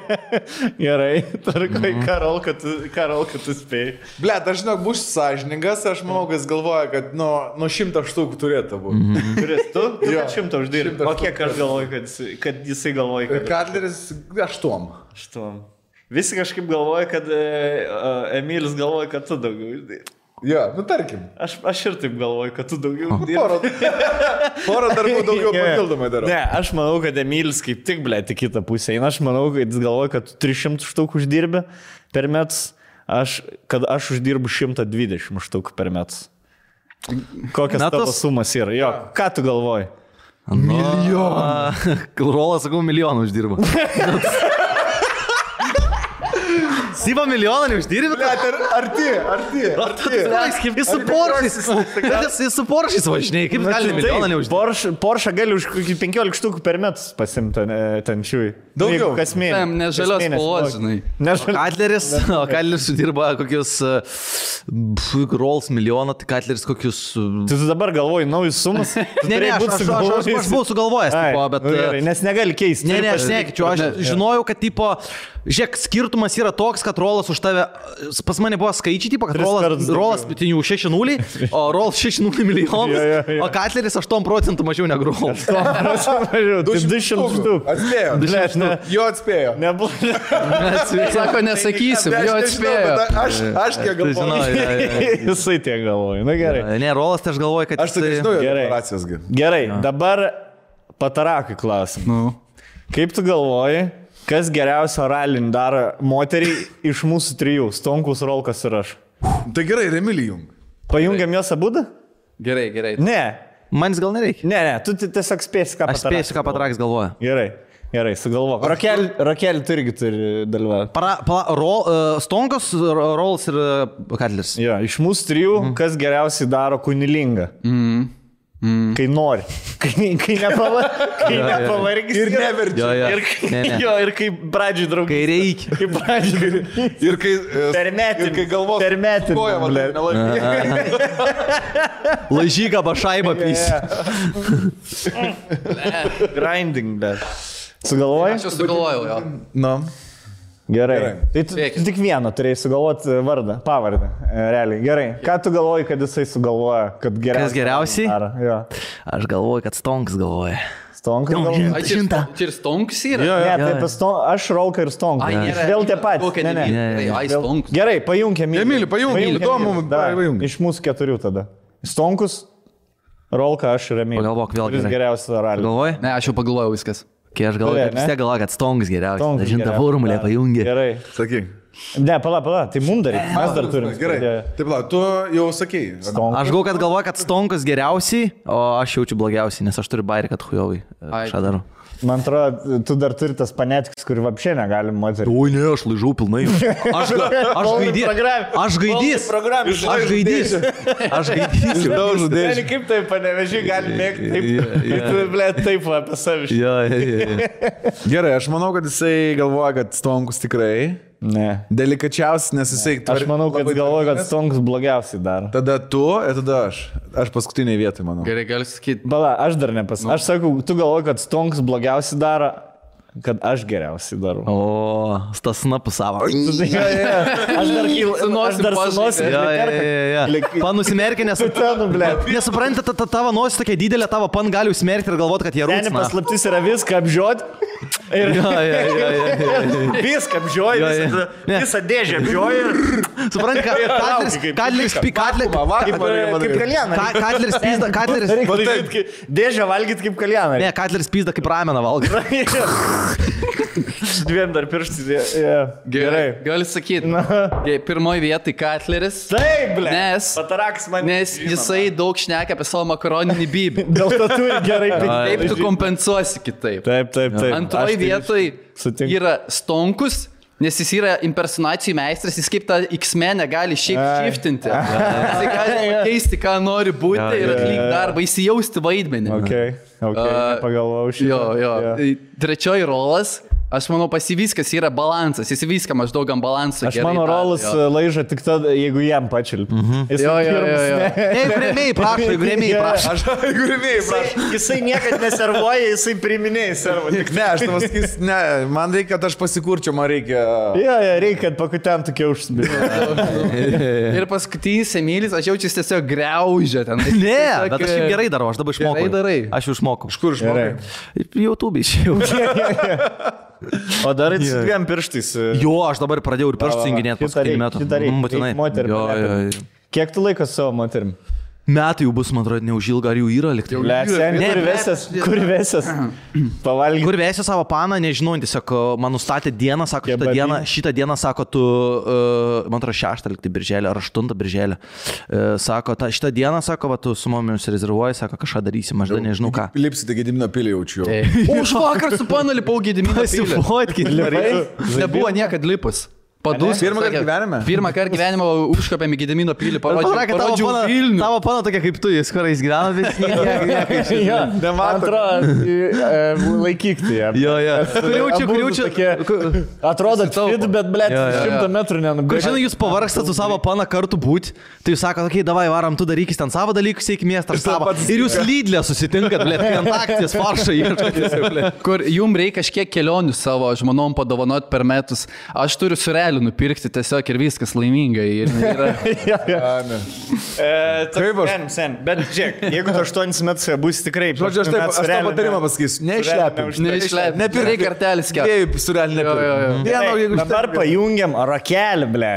Gerai, tarkai, ką Rolka tu spėjai. Blet, aš žinok, būsiu sąžiningas, aš manau, kad jis galvoja, kad nuo 100 štukų turėtų būti. Turės tu? Jo, 100 uždirbi. O kiek aš galvoju, kad jisai galvoja, kad... Kadleris 8. 8. Visi kažkaip galvoja, kad Emilis galvoja, kad tu daugiau uždirbi. Jo, tarkim. Aš ir taip galvoju, kad tu daugiau dirbi. Porą darbų daugiau papildomai darau. Ne, aš manau, kad Emilis kaip tik, ble, tik kitą pusę eina. Aš manau, kad jis galvoja, kad 300 štukų uždirbi per metus, kad aš uždirbu 120 štukų per metus. Kokias tavo sumas yra? Jo, ką tu galvoji? Milijoną. Rolas, sakau, milijoną uždirba. Syva milijoną neuždirbi? Arti. Jis su Poršais. Jis su Poršais važinėjai. Kaip gali milijoną neuždirbi? Porsche gali už 15 štukų per metus pasimti ten šiui. Daugiau. Kas mėnesį. Nežalios spalvos, žinai. O Kadleris uždirba kokius Rolls milijoną, tai Kadleris kokius... Tu dabar galvoji naujus sumas? Ne, aš buvau sugalvojęs, bet... Nes negali keisti. Ne, aš nekeičiu. Aš žinojau, kad tipo... Žiūrėk, skirtumas yra toks, kad Rolas už tave, pas mane buvo skaičiai, tipo, kad Rolas 6-0, o Rolls 6-0 milijonus, o Kadleris 8% mažiau negu Rolls. 200 štukų. Atspėjo. Jo atspėjo. Sako, nesakysim, jo atspėjo. Aš kiek galvoju. Jisai tiek galvoju. Na gerai. Ne, Rolas, tai aš galvoju, kad... Aš tai žinau, deklaracijos. Gerai, dabar Patarakai klausim. Kaip tu galvoji, kas geriausio ralinį daro moteriai iš mūsų 3, Stonkus, Rolkas ir aš? Tai gerai, Emilijum. Pajungiam jos abudu? Gerai. Ne. Manis gal nereikia. Ne, tu tiesiog spėsi, ką Patarakas. Aš spėsiu, ką Patarakas galvoja. Gerai, sugalvok. Rokelį tu irgi turi dalyvauti. Stonkus, Rolls ir Kadleris. Jo, iš mūsų 3, kas geriausiai daro kunilingą? Kai nori. Kai nepavargis. Ir neverčia. Ir kai pradžiai draugai. Kai reikia. Kai pradžiai. Ir kai... Per metin. Ir kai galvos. Per metin. Koja, man nelaimė. Laižyga bašaibą pys. Grinding, bet. Sugalvojai? Aš jau sugalvojau, jo. Nu. Gerai. Tai tu tik vieną turėjai sugalvoti vardą, pavardę. Realiai. Gerai. Ką tu galvoji, kad jisai sugalvoja, kad geriausiai? Kas geriausiai? Jo. Aš galvoju, kad Stonks galvoja. Stonkas galvoja? Čia ir Stonks yra? Ne, taip, aš Rolka ir Stonkas. Vėl tie patys. Gerai, pajungiam. Emilį, pajungiam. Įdomu, iš mūsų 4 tada. Stonkus, Rolka, aš ir Emilį. Pagalvok vėl. Kuris geriausias ralį? Galvoji? Ne, aš jau pagalvojau viskas. Kai aš galvoju, vis tiek galvoju, kad Stonks geriausias. Žinta, formulė pajungi. Gerai. Sakyk. Ne, pala, tai mums dar reikia. Mes dar turim. Gerai. Taip, tu jau sakei. Aš galvoju, kad Stonkas geriausiai, o aš jaučiu blogiausiai, nes aš turiu bairį, kad hujovai. Ką darau? Man atrodo, tu dar turi tas panetiks, kurį vapšė negalim moterį. Oi, ne, aš laižau pilnai. Aš gaidys. Kaip tai panevežiai gali mėgti, taip apie savišį. Gerai, aš manau, kad jisai galvoja, kad Stonkus tikrai. Ne. Delikačiausias, nes jisai... Aš manau, kad galvoja, kad Stonkus blogiausiai daro. Tada tu ir tada aš. Aš paskutiniai vietoj, manau. Gerai, gali sakyti. Bala, aš dar nepasakau. Aš sakau, tu galvoji, kad Stonkus blogiausiai daro, kad aš geriausiai darau. O, stasna pusavo. Aš dar sunosim. Panusimerkė, nesupranti, tavo nosis tokia didelė, tavo pan gali užsimerkti ir galvoti, kad jie rūpina. Ten paslaptis yra viską apžiot. Viską apžioji, visą dėžę apžioji. Supranti, Katleris dėžę valgyt kaip kaljaną. Ne, Katleris pizda kaip rameną valgyt. Dviem dar pirštis. Gerai. Gali sakyti. Pirmoji vietoj Katleris. Taip, ble. Nes jisai daug šneka apie savo makaroninį bybį. Dėl to turi gerai pinigų. Taip tu kompensuosi kitaip. Taip. Antroji vietoj yra Stonkus, nes jis yra impersonacijų meistras, jis kaip tą X-menę gali šiaip šiftinti. Jis gali keisti, ką nori būti ir atlikti darbą, įsijausti vaidmenį. Pagalvojau šitą. Jo. Trečioji rolas. Aš manau, pas jį viskas yra balansas, jis viską maždaug ant balanso. Aš mano rolas laiža tik tada, jeigu jam pačilp. Jo. Jeigu rėmėjai prašo. Jisai niekad neservuoja, jisai priminėjai servo. Ne, aš tavas sakys, ne, man reikia, kad aš pasikurčiau, man reikia. Jo, reikia, kad pakutent tokia užsibėtų. Ir paskutinis Emilis, aš jaučiu tiesiog greužę ten. Ne, bet aš šiaip gerai darau, aš dabar išmokau. Gerai darai. Aš jau išmokau. Iš kur išmokai? YouTube išėjau. O dar su dviem pirštais. Jo, aš dabar pradėjau ir pirštus junginėti paskutinį metų. Kiek tu laikas savo moterim? Metai jau bus, man atrodo, neužilga, ar jau yra likti. Kur vesės? Pavalgyti. Kur vesės savo paną, nežinau, tiesiog man nustatė dieną, sako, šitą dieną, sako, tu, man atrodo, 6 likti birželį, ar 8 birželį. Sako, šitą dieną, sako, va, tu su mumis rezervuoji, sako, kažką darysi, mažda nežinau ką. Lipsite Gedimino pilį jaučiu. Už vakar su panu lipau Gedimino pilį. Nebuvo niekad lipus. Pirmą kartą gyvenime? Pirmą kartą gyvenime užkopėm į Gedimino pilį, parodžiau Vilnių. Tavo pana tokia kaip tu, jis kurais gyvena, bet nieko. Antra, laikyk tai. Kriaučiu. Atrodo, bet blėt, 100 metrų nenubėgti. Žinai, jūs pavargstat su savo pana kartu būti, tai jūs sakot, okei, davai, varam, tu darykis ten savo dalykus, eik miestą savo. Ir jūs Lidlė susitinkat, blėt, ant akties faršą ieškotės. Kur jums reikia kažkiek kelionių savo žmonom padovanoti per metus. Aš turiu surelį nupirkti tiesiog ir viskas laimingai. Taip, bet žiūrėk, jeigu tu 8 metus būsi tikrai... Žodžiu, aš tą patarimą pasakysiu. Neišlepim. Nepirk kartelis kiek. Dviejų surelį nepirk. Dabar pajungiam rakelį, ble.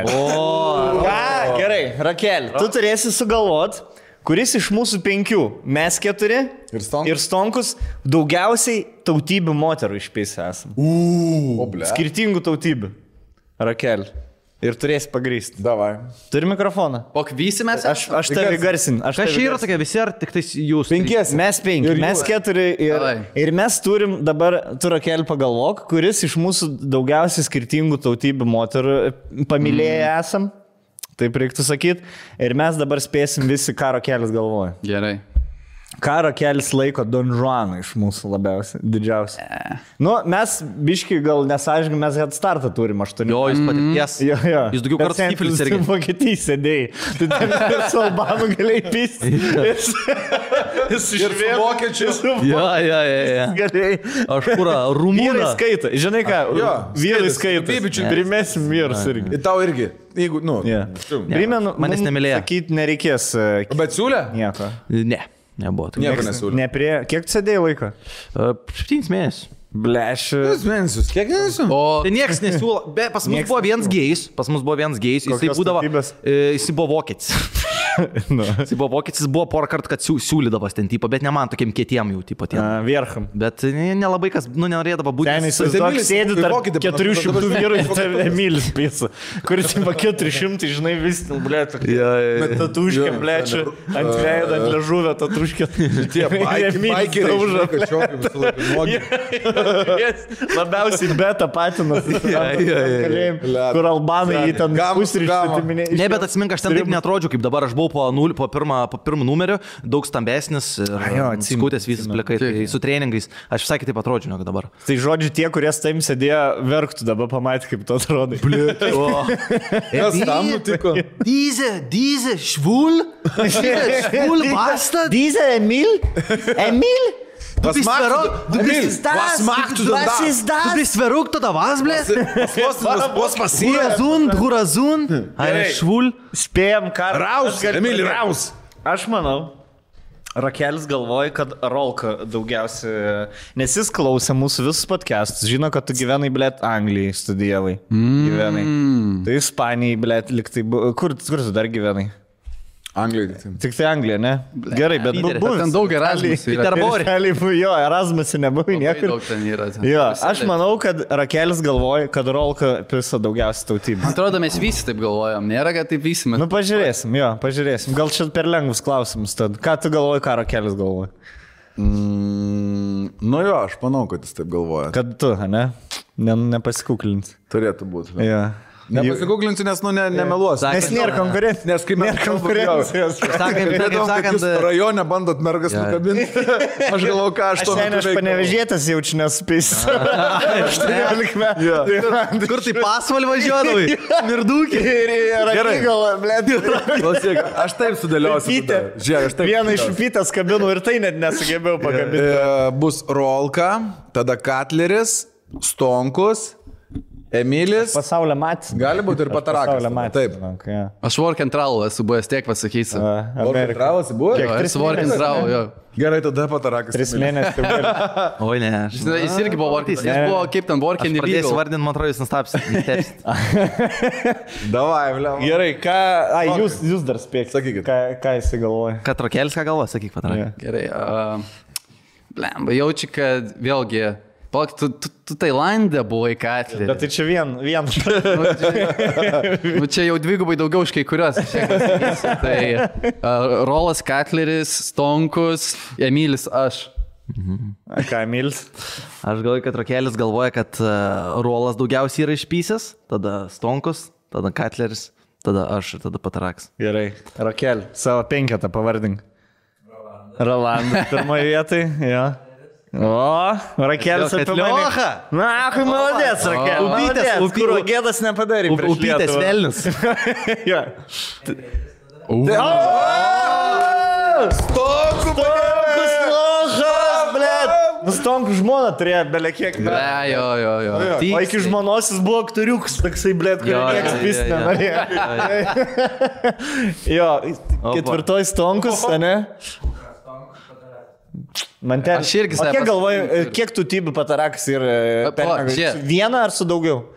Gerai, rakelį. Tu turėsi sugalvot, kuris iš mūsų 5, mes 4 ir Stonkus, daugiausiai tautybių moterų išpėsi esam. Skirtingų tautybių. Rakel. Ir turėsi pagrysti. Davai. Turi mikrofoną. Pokvysi mes? Aš tave garsin. Kas čia yra tokia visi, ar tik tais jūs? 5. Mes 5. Mes 4. Ir mes turim dabar, tu Rakel pagalvok, kuris iš mūsų daugiausiai skirtingų tautybių moterų pamilėję esam. Taip reiktų sakyti. Ir mes dabar spėsim visi, ką Rakelis galvoja. Gerai. Ką Rakelis laiko Don Juaną iš mūsų labiausiai, didžiausiai. Nu, mes, biški, gal nesąžininkai, mes head startą turim 8. Jo, jūs patirties. Jo. Jūs daugiau kartų stiflis irgi. Vokietijai sėdėjai. Tu ten ir su Albanų galėjai pisti. Jis ir su vokiečiu. Jo. Galėjai. Aš kurą, rumūną. Vyrai skaita. Žinai ką? Vyrai skaita. Primesim vyrus irgi. Ir tau irgi. Jeigu, primenu, manęs nemylėjo. Sakyti nereikės. Bet siūlė? Nieko. Ne. Nebuvo. Nieko nesiūlė. Kiek tu sėdėjai laiko? 7 mėnesius. Bleš. 7 mėnesius. Kiek mėnesių? Tai niekas nesiūlo. Pas mus buvo vienas gėjus. Jisai buvo vokietis. Jis buvo vokietis, buvo porą kartų, kad siūlydavas ten, tipo, bet ne man tokiem kietiem jau, tipo, tiem. Viercham. Bet nelabai kas, norėdavo būti. Ten įsivaizduok, sėdi tarp 400 vyrų, tai Emilis pisa, kuris ima 400, žinai, vis, blėt, bet tatuškė, blėt, ant veido, ant ležuvio tatuškė. Tie baikeriai, žinai, kad šiokai visą laiką nuogi. Labiausiai beta patinas, kur albanai jį ten pusryčių. Ne, bet atsimink, aš ten taip netrodžiu, kaip dabar aš buvau po pirmą numeriu, daug stambesnis, skutės visas plekai, tai su treningais. Aš visai kitaip atrodžiu, negu dabar. Tai žodžiu, tie, kurie su tavim sėdėjo, verktų, dabar pamatė, kaip tu atrodai. Kas tam nutiko? Diese, švul, basta. Diese, Emil? Du bist verrückt oder was, blėt? Was passiert? Hurazun, švul. Spėjom, ką. Raus, Emil, raus. Aš manau, Rakelis galvoja, kad Rolka daugiausia, nes jis klausė mūsų visus podcastus, žino, kad tu gyvenai, blėt, Anglijai studijavai. Gyvenai. Tai Ispanijai, blėt, liktai, kur tu dar gyvenai? Anglijai. Tik tai Anglija, ne? Gerai, bet buvo. Ten daug Erasmus. Jo, Erasmus nebuvo niekur. Jo, aš manau, kad Rakelis galvoja, kad Rolka pisa daugiausiai tautybės. Man atrodo, mes visi taip galvojam. Nėra, kad taip visi mes. Nu, pažiūrėsim. Gal čia per lengvus klausimus. Tad. Ką tu galvoji, ką Rakelis galvoja? Nu jo, aš manau, kad jis taip galvoja. Kad tu, ne? Nepasikuklinti. Turėtų būti. Jo. Nepasigūglinsiu, nes nemeluosiu. Nes nėra konkurencijos. Nes kaip nėra konkurencijos. Jūs rajone bandot mergas nukabinti. Aš galvoju, ką aš to metu veikiu. Aš panevežėtas jaučiu nespės. 18 metų. Kur tai pasvalį važiuodavai? Mirdūkį. Gerai. Klausyk, aš taip sudėliosiu. Vieną iš upytės kabinų ir tai net nesugebėjau pakabinti. Bus Rolka, tada Katleris, Stonkus, Emilis. Pasaulio matys. Gali būti ir Patarakas. Taip. Aš Work and Travel esu buvęs, tiek pasakysiu. Work and Travel esi buvęs? Jo, esu Work and Travel, jo. Gerai, tada Patarakas. 3 mėnesius. Oi, ne. Jis irgi buvo Work and Travel. Jis buvo kaip ten Work and Travel. Pradėsiu vardinti, man atrodo, jūs nustapsit. Davai, bliam. Gerai, ką... Jūs dar spėkit. Sakykit. Ką jis galvoja? Kad Rakelis ką galvoja, sakyk, Patarakas. Gerai. Blemba, jaučiu, kad vėlgi... Palauk, tu Tailandė buvai Katlerį. Bet tai čia vien. Nu, čia jau dvigubai daugiau už kai kurios. Tai Rolas Katleris, Stonkus, Emilis, aš. Ką, Emilis? Aš galvoju, kad Rakelis galvoja, kad Rolas daugiausiai yra išpysęs, tada Stonkus, tada Katleris, tada aš ir tada Patarakas. Gerai. Rakel, savo 5 pavardink. Rolandas pirmoje vietoje, jo. O, Rakelis apie mane. Na, kai maladės, Rakel. Upytės, kur gėdas nepadarė. Upytės velnis. Jo. Stonkus lošas, blėt. Stonkus žmona turėjo belekiek. Jo. O iki žmonos jis buvo aktoriuks, toksai, blėt, kurį niekas pis nenorėjo. Jo, 4 Stonkus, ne? Man ten... Aš irgi kiek galvoju, kiek tų tybių Patarakas ir vieną ar su daugiau?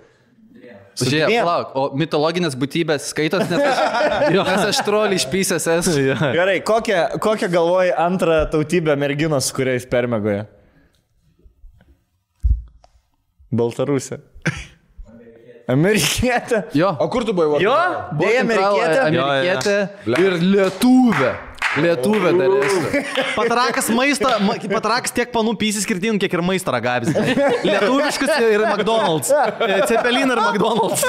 Žiūrėk, palauk, o mitologinės būtybės skaitos, nes aš trolį išpysęs esu. Gerai, kokią galvoji antrą tautybę merginos, kuriais permegoja? Baltarusė. Amerikietė. Jo. O kur tu buvai? Jo, dėja Amerikietė ir lietuvė. Lietuvė dar esu. Patarakas tiek panų pysi skirtingų, kiek ir maistą ragavęs. Lietuviškus ir McDonald's. Cepelin ir McDonald's.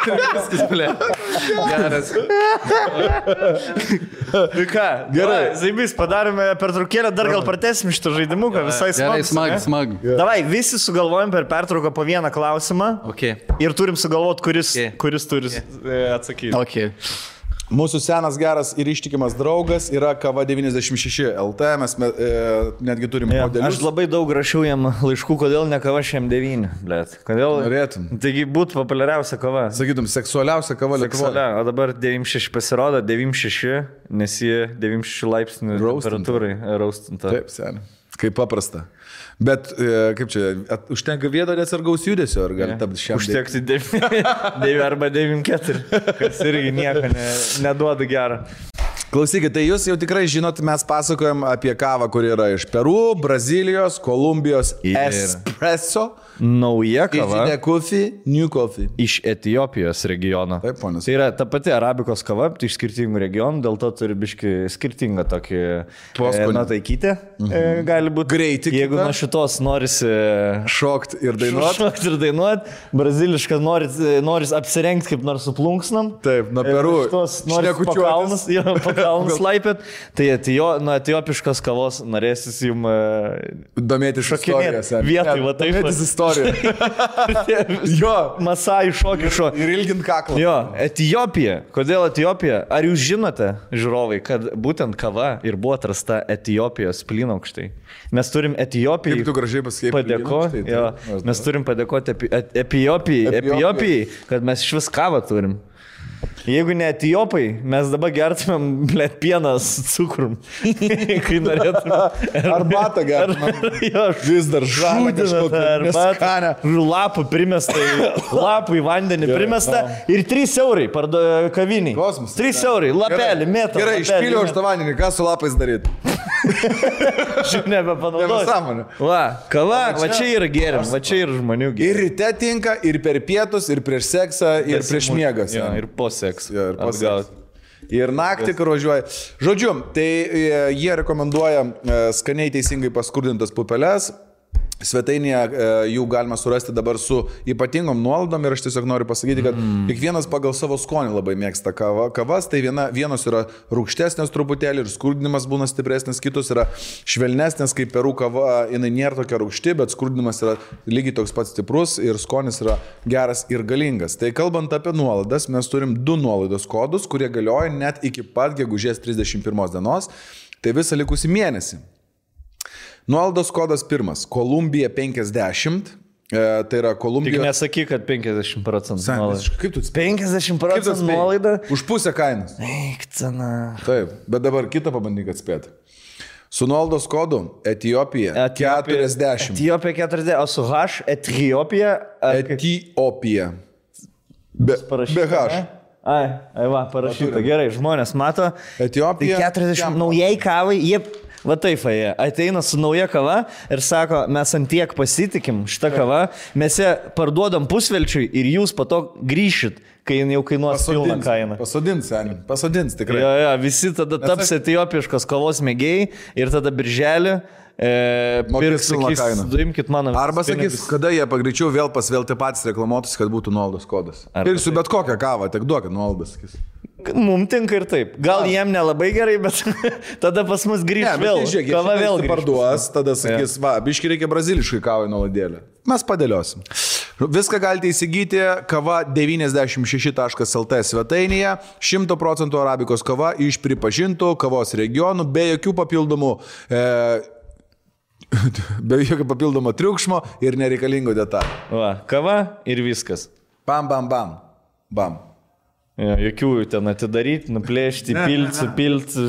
Viskas, blė. Geras. Ką? Gerai. Zaibys, padarėme pertraukėlę, dar gal pratęsim šitą žaidimuką, visai smagu. Gerai, smagu. Davai, visi sugalvojom per pertrauką po vieną klausimą. Ir turim sugalvoti, kuris turi atsakyti. Okay. Mūsų senas geras ir ištikimas draugas yra Kava 96 LT, mes netgi turim modelius. Aš labai daug rašiau jam laiškų, kodėl ne Kava šiam 9, blėt. Kodėl? Norėtum. Taigi būtų populiariausia kava. Sakytum, seksualiausia kava Lietuvoje. O dabar 96 pasirodo, 96, nes jie 96 laipsnių temperatūrai raustinta. Taip, seniai. Kaip paprasta. Bet, kaip čia, užtenka vieto nesargaus judesio, ar gali tapti šiam? Užtekti 9 arba 9,4, kas irgi nieko neduoda gerą. Klausykit, tai jūs jau tikrai žinot, mes pasakojam apie kavą, kuri yra iš Peru, Brazilijos, Kolumbijos, espresso. Nauja kava. New coffee. Iš Etiopijos regiono. Taip, ponas. Tai yra ta pati arabikos kava, tai iš skirtingų regionų, dėl to turi biški skirtingą tokį Poskonį. Taikytę. Gali būti Greitį Jeigu kitą. nuo šitos norisi Šokt ir dainuot. šokti ir dainuot, brazilišką noris apsirengti kaip nors su plunksnam. Taip, nuo Peru. Noris pakalnus laipėt. Tai nuo etiopiškos kavos norėsis jums Domėtis šokinėti istorijose. vietoj, va taip. Domėtis istoriją. Jo. Masai šokį šo. Ir ilgint kaklą. Jo, Etiopija. Kodėl Etiopija? Ar jūs žinote, žiūrovai, kad būtent kava ir buvo atrasta Etiopijos plynaukštai? Mes turim Etijopijai. Kaip tu gražiai pasakei. Padėkoti. Mes turim padėkoti Etiopijai, kad mes iš vis kavą turim. Jeigu ne Etiopai, mes dabar gertumėm, blėt, pieną su cukrum. Kai norėtume. Arbatą gertumėm. Vis dar žalą kažkokią. Lapų primesta, lapų į vandenį primesta ir 3 eurai kaviniai. Kosmosas. 3 eurai, lapelį, metą. Gerai, išpyliau už tą vandenį, ką su lapais daryti? Šiaip nebepanaudoju. Nesąmonė. Va, kava, va čia yra gėrim, va čia yra žmonių Ir gėrim. ryte tinka, ir per pietus, ir prieš seksą, ir prieš miegas. Ir po sekso. Jo, ir po sekso. Ir naktį, kur važiuoja. Žodžiu, tai jie rekomenduoja skaniai teisingai paskurdintas pupeles. Svetainėje jų galima surasti dabar su ypatingom nuolaidom ir aš tiesiog noriu pasakyti, kad kiekvienas pagal savo skonį labai mėgsta kavas, tai vienos yra rūgštesnės truputėlį ir skurdinimas būna stipresnis, kitos yra švelnesnės, kaip Peru kava, jinai nėra tokia rūgšti, bet skurdinimas yra lygiai toks pats stiprus ir skonis yra geras ir galingas. Tai kalbant apie nuolaidas, mes turim 2 nuolaidos kodus, kurie galioja net iki pat gegužės 31 dienos, tai visą likusį mėnesį. Nuolaidos kodas 1. Kolumbija 50. Tai yra Kolumbija. Tik nesakyk, kad 50% nuolaida. Kaip tu 50% nuolaida? Už pusę kainos. Eik, cena. Taip, bet dabar kitą pabandyk atspėti. Su nuolaidos kodu Etiopija 40. Etiopija 40, o su H Etiopija. Etiopija. Be H. Ai, va, parašyta. Gerai, žmonės mato. Etiopija. Tai 40 naujai kavai, jie... Va taip, jie ateina su nauja kava ir sako, mes antiek pasitikim šitą kavą, mes ją parduodam pusvelčiui ir jūs po to grįšit, kai jau kainuos pilną kainą. Pasodins tikrai. Jo, visi tada taps etiopiškos kavos mėgėjai ir tada birželį Duimkit mano. Arba sakys, kada jie pagreičiau vėl pasvelti patys reklamuotus, kad būtų nuolaidos kodas. Pirksiu bet kokią kavą, tik duokit nuolaidas. Mums tinka ir taip. Gal jiem nelabai gerai, bet tada pas mus grįžt vėl. Kava vėl parduos, tada sakys, va, biški reikia braziliškai kavai nuolaidėlę. Mes padėliosim. Viską galite įsigyti kava 96.lt svetainėje. 100% arabikos kava iš pripažintų kavos regionų, be jokių papildomų be jokio papildomo triukšmo ir nereikalingų detalių. Va, kava ir viskas. Bam, bam, bam. Bam. Jokių ten atidaryti, nuplėšti, pilti.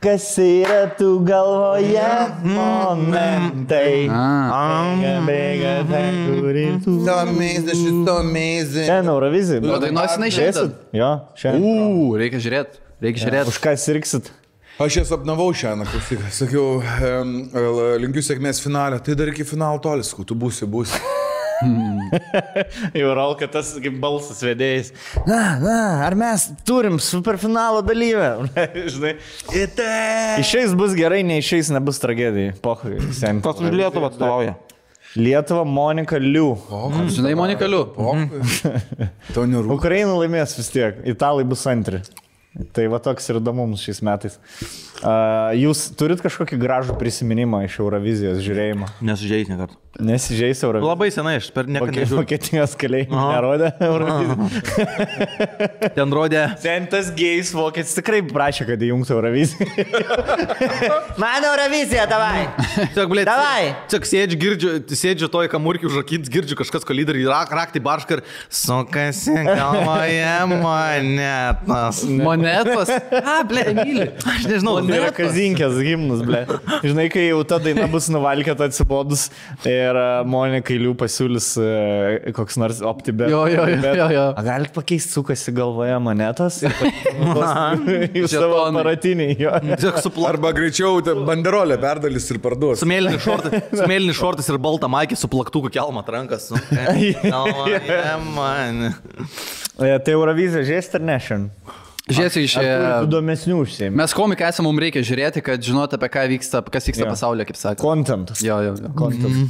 Kas yra tu galvoje momentai? Ten Eurovizija. O dainuosi šiandien? Jo, šiandien. Reikia žiūrėti. Už ką sirksit? Aš jas apnavau šiandien, klausyk, sakiau, linkiu sėkmės finalę, tai dar iki finalo tolis, tu būsi. Jau Ralka tas kaip balsas vedėjais. Na, ar mes turim superfinalo dalyvę? Žinai, išeis bus gerai, neišeis nebus tragedija. Pohai, seniai. Kas už Lietuvą atstovauja? Lietuva Monika Liu. Žinai, Monika Liu. Tau nerūpi. Ukraina laimės vis tiek, italai bus antri. Tai va toks ir įdomus šiais metais. Jūs turit kažkokį gražų prisiminimą iš Eurovizijos žiūrėjimo? Nesižeis nekartą. Nesižeis Eurovizijos? Labai senai, aš per niekada nežiūrėjau. Vokietijos keliai nerodė Eurovizijos. Ten rodė. Ten tas gėjus vokietis tikrai prašė, kad įjungtų Euroviziją. Man Eurovizija, davai! Davai! Tiesiog sėdžiu toj kamurkių užrakins, girdžiu kažkas kolidai ir raktį baršką ir sukasi galvoje monetas. Monetos. Ble, myli. Aš nežinau, Tai yra kazinkės himnus, ble. Žinai, kai jau ta daina bus nuvalkėta atsibodus ir Monikai Liu pasiūlys koks nors optibet. Jo. A galit pakeisti, sukasi galvoje monetas į savo aparatinį. Arba greičiau banderolę perdalys ir parduos. Su mėlynis šortas ir balta maikė su plaktuku kelmat rankas. Tai Eurovizija žiūrėsit ar ne šiandien? Žiūrėsiu iš... Įdomesnių užsiėmė. Mes komikai esame, mums reikia žiūrėti, kad žinot apie ką vyksta, kas vyksta pasaulyje, kaip sakė. Contentas. Jo. Content.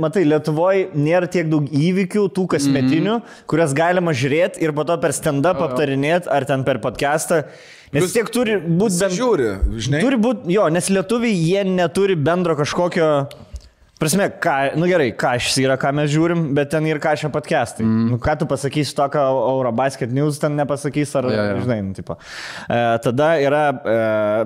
Matai, Lietuvoje nėra tiek daug įvykių, tų kasmetinių, kurias galima žiūrėti ir po to per stand-up aptarinėti ar ten per podcastą. Nes tiek turi būti bent... Žiūri, žinai. Turi būti, jo, nes lietuviai jie neturi bendro kažkokio... Prasme, gerai, Kašis yra, ką mes žiūrim, bet ten ir Kašio podcastai. Ką tu pasakysi to, ką Eurobasket News ten nepasakys, ar, žinai, tipo. Tada yra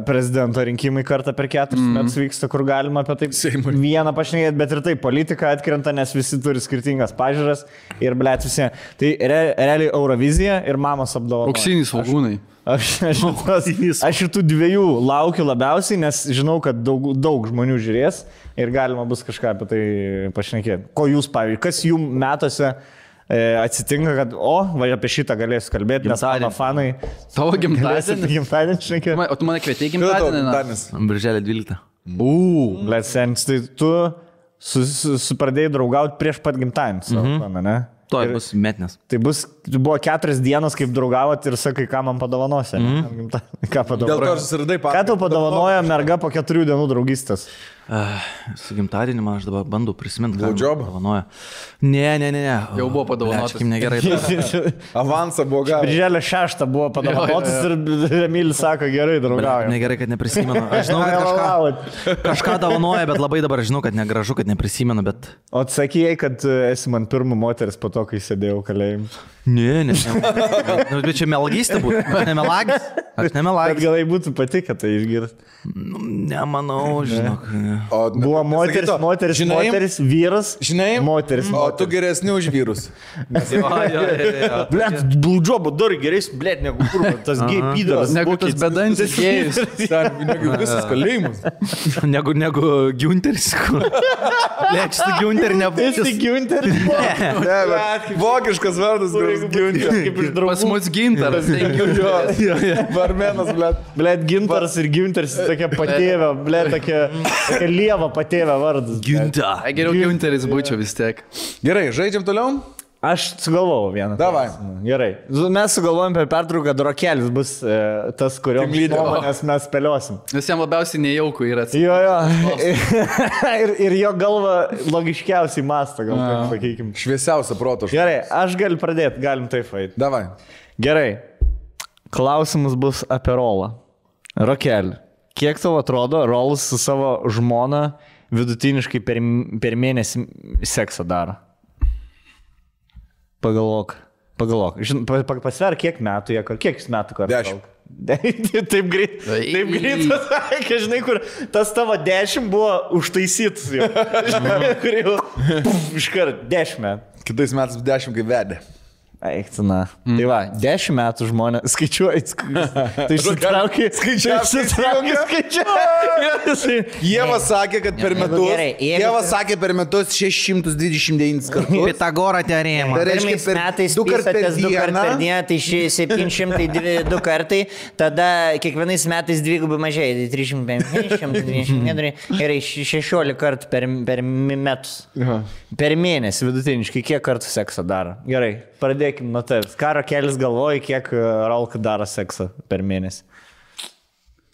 prezidento rinkimai kartą per 4 metus vyksta, kur galima apie tai vieną pašnekėti, bet ir tai politika atkrenta, nes visi turi skirtingas pažiūras ir blėt visi. Tai realiai Eurovizija ir mamos apdovanojimas. Auksiniai svogūnai. Aš šitų dviejų laukiu labiausiai, nes žinau, kad daug žmonių žiūrės ir galima bus kažką apie tai pašnekėti. Ko jūs, pavyzdžiui, kas jums metuose atsitinka, kad, apie šitą galėsiu kalbėti, nes mano fanai... Tavo gimtadienį šnekėti. O tu mane kvietei gimtadienį? Birželio 12. Blėt sens, tai tu pradėjai draugauti prieš pat gimtadienį, ne? To bus metnės. Tai buvo 4 dienos, kaip draugavot ir sakai, ką man padovanosi. Ką padovanosi? Ką tau padovanoja merga po 4 dienų draugystės? Su gimtadienį man aš dabar bandau prisiminti, ką padovanoja. Ne. Jau buvo padovanotas. Kaip negerai. Avansą buvo gavęs. Birželio 6 buvo padovanotas ir Emilis sako, gerai draugauja. Negerai, kad neprisimenu. Aš žinau, kad kažką dovanoja, bet labai dabar žinau, kad negražu, kad neprisimenu, bet... O atsakėjai, kad esi man pirmą moteris po to, kai sėdėjau kalėjim. Ne. Bet čia melagystė būtų. Aš nemelagis. Bet galai būtų patikę tai išgirsti. Nemanau, žinok. Buvo moteris, vyras, žinai, moteris. O tu geresni už vyrus. Blet, bludžiobo dar geresnis, blet, negu kur, tas gay pydaras. Negu tas bedantis gėjus. Negu visas kalėjimas. Negu Giunteris. Blet, šitą Giunterį nebūtų. Esi Giunteris? Ne, vokiškas vardas, kuris Giunteris. Pas mus Gintaras. Varmenas, blet. Blet, Gintaras ir Giunteris tokia patėvė, blet, tokia lieva patėvė vardas. Ginta. Geriau Giunteris būčiau vis tiek. Gerai, žaidžiam toliau? Aš sugalvojau vieną. Davai. Gerai. Mes sugalvojom per pertrauką, kad Rokelis bus tas, kurio nuomonės mes spėliosim. Nes jam labiausiai nejauku yra. Jo. ir jo galva logiškiausiai mąsto, gal taip sakykim. Šviesiausia proto. Gerai, aš galiu pradėti, galim taip eiti. Davai. Gerai. Klausimas bus apie Rolą. Rokeli, kiek tau atrodo, Rolas su savo žmona vidutiniškai per mėnesį seksą daro? Pagalvok. Pasver, kiek metų jie, kiek jis metų kartą? 10. Taip greit pasakė, žinai, kur tas tavo 10 buvo užtaisytas jau. Kur jau iškart 10 metų. Kitais metais 10 kaip vedė. Eiktina. Tai va, 10 metų žmonės skaičiuoja. Tai išsitraukia. Ieva sakė, kad per metus. Ieva sakė per metus 629 kartus. Pitagoro teorema. Tai reiškia, Pirmais metais pisatės 2 kartų per dieną, tai 702 kartai, tada kiekvienais metais dvigubai mažėja, tai 350 ir 16 kartų per metus. Per mėnesį vidutiniškai kiek kartų seksą daro? Gerai, pradėkime nuo tavęs. Ką Rokelis galvoja, kiek Rolka daro seksą per mėnesį?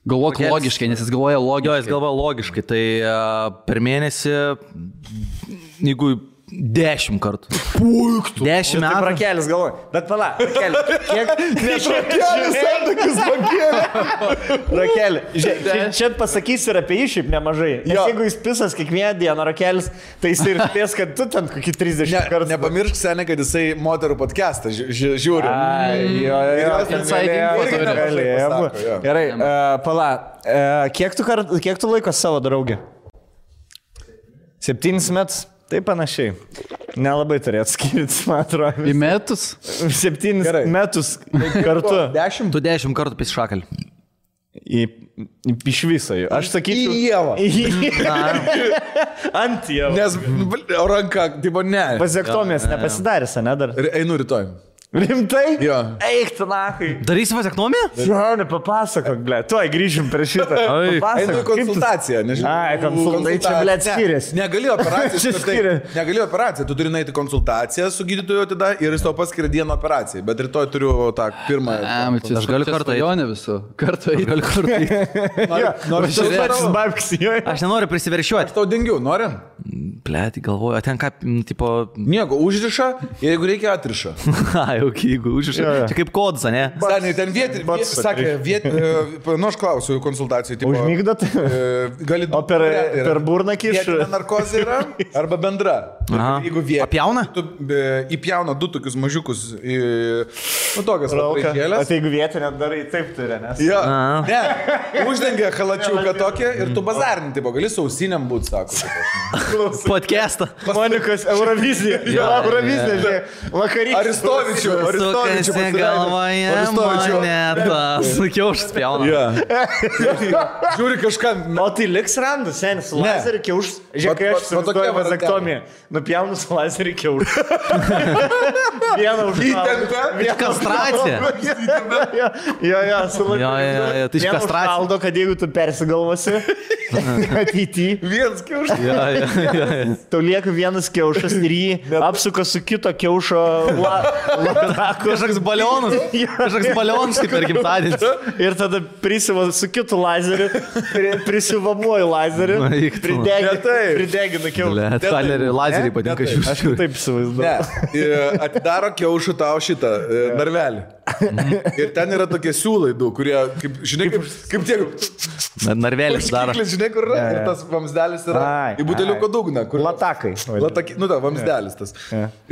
Galvok logiškai, nes jis galvoja logiškai. Jo, jis galvoja logiškai. Tai per mėnesį, jeigu 10 kartų. Puiktų. 10 metų. Rokelis galvoja. Bet pala, Rokelis, kiek... Rokelis santykius pakėlė. Rokeli, čia pasakysi ir apie jį šiaip nemažai. Nes jeigu jis pisas kiekvieną dieną, Rokelis, tai jis ir spės, kad tu ten kokį 30 kartų. Nepamiršk, seniai, kad jisai moterų podcastą žiūri. Gerai, pala, kiek tu laiko savo draugė? 7 metus? Tai panašiai. Nelabai turėt skirtis, man atrodo. Į metus? 7 Gerai. metus kartu. 10. Tu 10 kartų pis šakalį. Iš viso jų. Aš sakyčiau. Į Ievą. Ant Ievą. Nes ranka, tipo, ne. Vazektomijas nepasidarys, ne dar? Einu rytoj. Rimtai? Jo. Eik, tu nakai. Darysi vazektomiją? Žinau, papasakok, ble. Tuoj grįžim prie šitą. Ai. Einu į Papasakok, kaip tu... konsultaciją, nežinau. Ai, konsultacija, čia, ble, skiriasi. Negali operaciją. Čia skiriasi. Negali operaciją. Tu turi nueiti konsultaciją su gydytoju tada ir jis tau paskiria dieną operaciją. Bet rytoj turiu tą pirmą. Aš galiu kartą įjonę visų. Kartą Noriu Babksi, Aš nenoriu prisiveršiuoti. tau dingiu, nori? Blėt, galvoju, ten ką, tipo... Nieko, užriša ir jeigu reikia atriša. Ai, ok, jeigu užriša. Čia kaip kodas, ne? Seniai, ten sakė, nu aš klausiu konsultacijų. Tipo, Užmygdot? Gali O per burną kiš? Vietinė narkozė yra arba bendra. Aha. Jeigu vietinė. Apjauna? Tu įpjauna 2 tokius mažiukus, nu tokias O papraikėlės. tai jeigu vietinė darai taip turi, nes... Jo, Aha. ne, uždengia halačiuką tokią ir tu bazarinį, tipo, gali sausiniam būti, sako. Podcastą. Monikos Eurovizija. Eurovizija, žinai. Vakarykštė. Aristovičių. Sukasi galvoje monetą. Sakiau, aš spjaunu. Ja. Žiūri kažką. O tai liks randas, senis, su Ne. lazeriu kiauš. Žiūrėk, kai aš Va tokia įsivaizduoju va vazektomiją. Nupjaunu su lazeriu kiauš. Vieną užšaldo. Įtempia. Kastracija. Jo, su lazeriu. Jo, tai iš kastracijos. Užšaldo, kad jeigu tu persigalvosi, ateityje. Vienas kiaušas. Tau lieka vienas kiaušas ir jį apsuka su kito kiaušo lataku. Kažkoks balionas. Kažkoks balionas kaip per gimtadienis. Ir tada prisiva su kitu lazeriu, prisivamuoju lazeriu, Na, eik tu. pridegina kiaušą. Blet, talerį lazerį patinka Ne, Aš šių. taip įsivaizduoju. Ne, atidaro kiaušų tau šitą narvelį. Ir ten yra tokie siūlai du, kurie, kaip, žinai, kaip tie... Narvelis daro. Užkiklis, žinai, kur yra. Ir tas vamsdelis yra Ai, į buteliuko dugną. Kur... Latakai. Nu, ta, vamsdelis tas.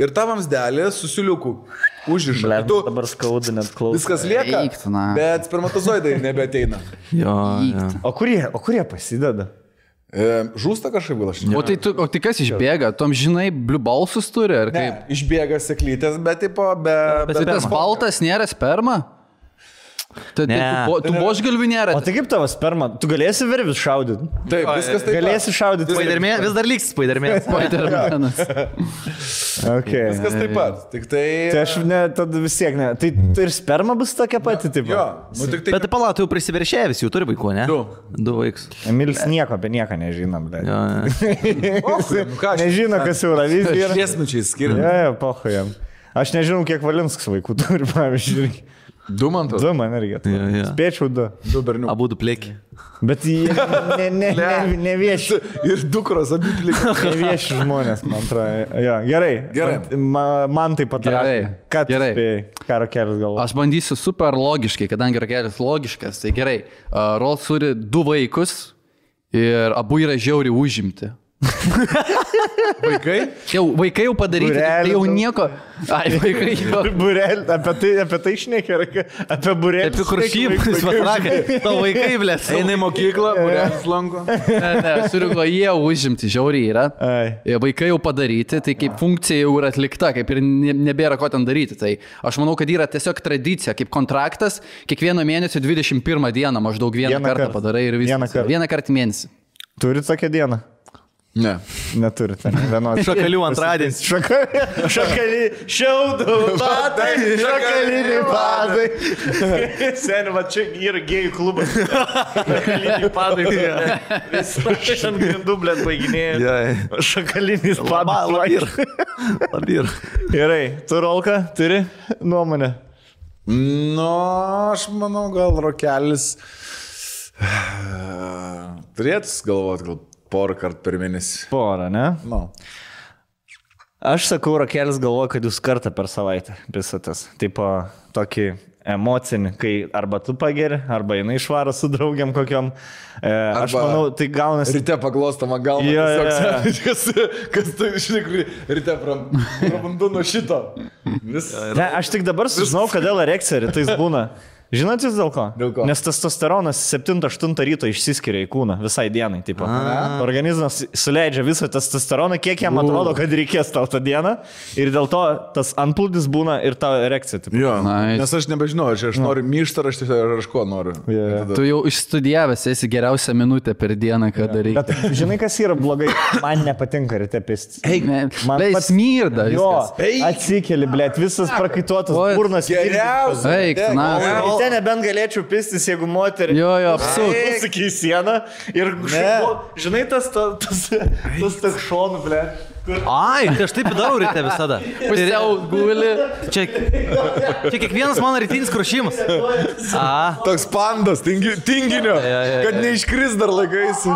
Ir ta vamsdelė su siuliuku užriša. Ble, Ir tu dabar skaudu net klausyti. viskas lieka, Eik tu, na. bet spermatozoidai nebeateina. Jo. O kurie pasideda? Žūsta kažkaip gal aš. O tai kas išbėga? Tom žinai, blue balsus turi, ar Ne, kaip? išbėga seklytės, bet tipo, be... Tai tas baltas nėra sperma? Tai Ne. tu božgalvių nėra. O tai kaip tavo sperma? Tu galėsi vervis šaudyti? Taip, viskas taip. Galėsi šaudyti. Spaidermė, vis dar liks Spaidermė. Spider-Manas. Okay. Viskas taip pat. Tik tai... Tai aš ne, tada vis tiek ne. Tai ir sperma bus tokia pati, taip. Jo, nu tik tai... Bet pala, tu jau prisiveršė visi, jau turi vaikų, ne? 2. 2 vaikus. Emilis nieko apie nieką nežinom, bet. Jo. Nežino, kas Eurovizija yra. Šviesmečiai skiriam. Jo, pochojam. Aš nežinau, kiek Valinskas vaikų turi, pavyzdžiui. 2 man to. 2 man irgi. Jo. Spėčiau 2. 2 berniukai. Abu du plėki. Bet jie nevieši. Ir dukros abi plika. Nevieši žmonės, man atrodo. Jo, gerai. Gerai. Man taip pat. Gerai. Ką tu Gerai. spėjai? Ką Rokelis galvoja? Aš bandysiu super logiškai, kadangi Rokelis logiškas, tai gerai. Rolls turi 2 vaikus ir abu yra žiauriai užimti. Vaikai? Vaikai jau padaryti, tai jau nieko. Ai, vaikai jau. Burelį, apie tai šnekė, apie burelį. Apie kur šypus, patrakai. Tavo vaikai, blės. Eina į mokyklą, būrelis lanko. Ne, surigo, jie užimti, žiauriai yra. Ai. Vaikai jau padaryti, tai kaip funkcija jau yra atlikta, kaip ir nebėra ko ten daryti. Tai aš manau, kad yra tiesiog tradicija, kaip kontraktas, kiekvieno mėnesio 21 dieną maždaug vieną kartą padarai ir viskas. Vieną kartą mėnesį. Turit tokią dieną? Ne. Neturite. Vienos. Šakalių antradienis. Šiaudų padai, šakaliniai padai. Seniai, va čia yra gėjų klubas. Šakaliniai padai. Vis ant grindų, blėt, baiginėja. Šakalinis padai. Labir. Gerai, tu Rolka, turi nuomonę? Nu, aš manau, gal Rokelis turėtų galvoti, gal porą kartų per mėnesį. Porą, ne? Nu. Aš sakau, Rokelis galvoja, kad jūs kartą per savaitę visatas. Tipo, tokį emocinį, kai arba tu pageri, arba jinai išvaro su draugiam kokiam. Aš manau, tai gaunasi... Ryte paglostama galva. Kas tu, žinai, ryte prabandu nuo šito. Ne, aš tik dabar sužinau, kodėl erekcija rytais būna. Žinot jūs dėl ko? Dėl ko? Nes testosteronas 7-8 ryto išsiskiria į kūną visai dienai. Tipo. Organizmas suleidžia visą testosteroną, kiek jam atrodo, kad reikės tau tą dieną. Ir dėl to tas antplūdis būna ir tavo erekcija. Tipo. Jo, Nice. nes aš nebežinau, aš noriu myštą, ar aš ko noriu. Yeah. Tu jau išstudijavęs esi geriausią minutę per dieną, kada reikia. Bet žinai, kas yra blogai? Man nepatinka ryte pistis. Man pats Smirda. Jo, viskas. atsikeli, blėt, visas prakaituotas, Oi, burnas. Geriausia. Eik, na. Ryte nebent galėčiau pistis, jeigu moterį. Jo, apsut. Sakai sieną ir žinai, tas šonų, blėt. Ai, tai aš taip darau ryte visada. Pusiau guli. Čia kiekvienas mano rytinis krušimas. Toks pandas, tinginio, kad neiškris dar laikais.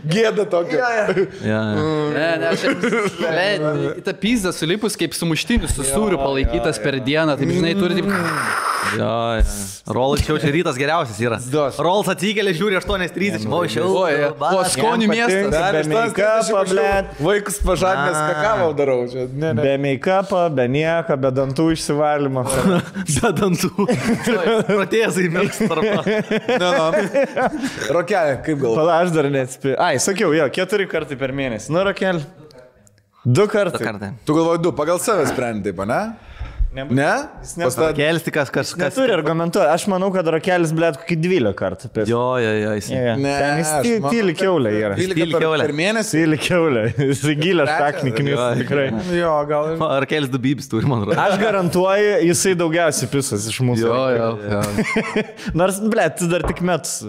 Gėda tokia. Ne, ta pizda sulipus kaip sumuštinis su sūriu palaikytas per dieną, taip žinai, turi taip... Rolas čia rytas geriausias yra. Rolas atsikėlė, žiūri 8:30. O skonių miestas. Be make-up'o, blėt. Vaikus pažadinęs kakavau darau. Be make-up'o, be nieko, be dantų išsivalymo. Be dantų. Protezai mėgs tarpą. Rokelė, kaip galvoju? Pala, aš dar neatspėjau. Ai, sakiau, jo, 4 kartai per mėnesį. Nu, Rokel, 2 kartai. Tu galvoji 2, pagal save sprendi, taip, ne? Ne? Rokelis tik kas. Neturi argumentuoti. Aš manau, kad Rokelis, blėt, kokį 12 kartų. Jo. Ne, Ten jis tyli kiaulė yra. 12 per mėnesį? Tyli kiaulė. Jis gilę šakniknis, tikrai. Jo, gal. Rokelis 2 bibis turi, man rodo. Aš garantuoju, jisai daugiausiai pisas iš mūsų. Jo. Nors, blėt, tu dar tik metus.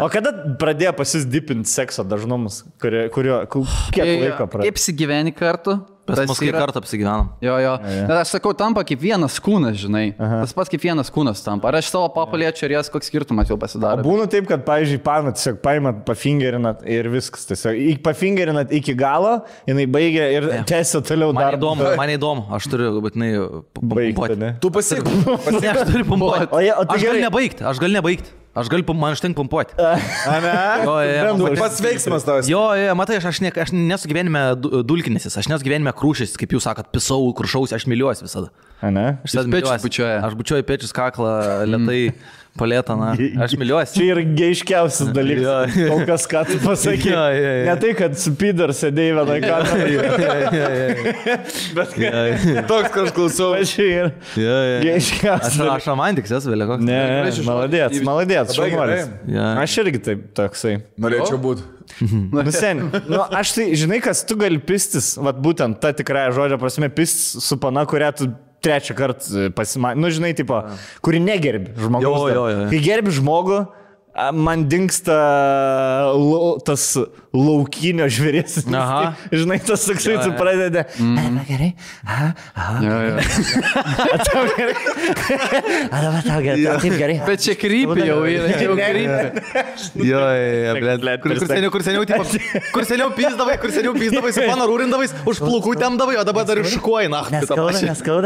O kada pradėjo pasisdipinti sekso dažnumus? Kiek laiko pradėjo? Kaip apsigyveni kartu? Pas mus kai kartą apsigyvenom. Jo. Bet aš sakau, tampa kaip vienas kūnas, žinai. Tas pats kaip vienas kūnas tampa. Ar aš savo papaliečiu ir jas koks skirtumas jau pasidaro? Būna taip, kad, pavyzdžiui, tiesiog paimat, pafingerinat ir viskas. Tiesiog pafingerinat iki galo, jinai baigia ir tęsia toliau dar. Man įdomu, aš turiu būtinai baigti, ne? Tu pasiek. Ne, aš turiu pumpuoti. Aš galiu nebaigti. Man užtenka pumpuoti. Pats veiksmas tavas. Jo, matai, aš nesu gyvenime dulkinesis, aš nesu gyvenime krūšis, kaip jūs sakot, pisau, krušausi, aš myliuosi visada. Aš bučiuoju pečius, kaklą, lėtai. Palėtą, na, aš myliuosi. Čia yra geiškiausias dalykas. Kol kas, ką tu pasakė. Ne tai, kad su Pider sėdėjai vienai kamerai. Bet toks, kad aš klausau. Čia yra geiškiausias. Aš romantikas esu vėliau koks. Ne, maladėts, šaunuolis. Aš irgi taip toksai. Norėčiau būti. Sen, aš tai, žinai, kas tu gali pistis, vat būtent ta tikrąja žodžio prasme, pistis su pana, kurią tu 3 kartą pasimatė. Nu, žinai, tipo, kuri negerbi žmogaus. Kai gerbi žmogų, man dingsta tas laukinio žvėrės. Žinai, tas toksai, tu pradedi. Gerai. Tau gerai. Tau gerai. Taip gerai. Bet čia krypį jau yra. Kur seniau pysdavai, su pana rūrindavai, už plaukų temdavai, o dabar dar ir šukuoji, na. Neskauda.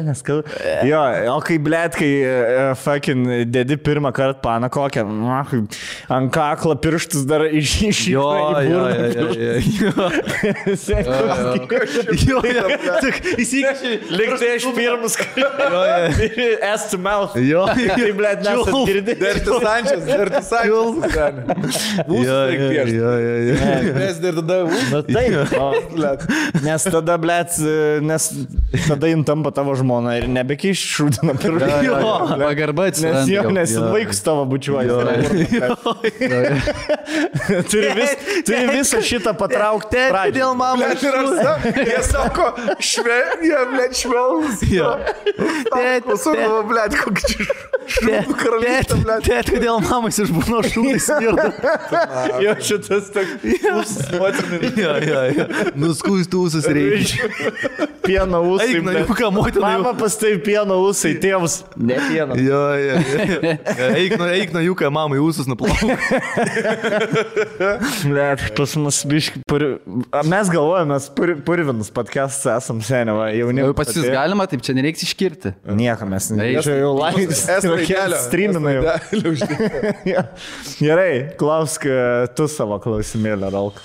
Neskauda. Jo, o kai, blėt, kai fucking dedi pirmą kartą paną kokią, ant kaklo pirštus dar iš Jo. Įsikėši. Liktai aš pirmus ass to mouth. Tai, blėt, nesat girdi. Dertis Sančias. Mes dar tada Na taip. Nes tada, blėt, tada jin tampa tavo žmona ir nebekeiš šūdina pirštus. Pagarba atsiranda. Nes vaikus tavo bučiuoja. Turi visą šitą patraukti. Dėl mamą. Jie sako, jie, blėt, švelnus. Pasukavo, blėt, kokį šūdų karalystę, blėt. Tėt, kodėl mamas išbūno šūdai smirda. Jo, šitas toks motinis. Nuskūstų ūsus reikia. Pieno ūsai. Eik, ką motina. Mama pastai pieno ūsai, tėvus. Ne. kiekvieną. Jo. Eik nuo jų, kai mamai ūsus nuplauk. Net, pas mus biški, mes galvojame, mes purvinus podcastus esam seniai, jauni. Pas jūs galima, taip čia nereiks iškirti. Nieko mes Eik. čia jau laikas. Streamina jau. Gerai, klausk tu savo klausimėlę, Rolk.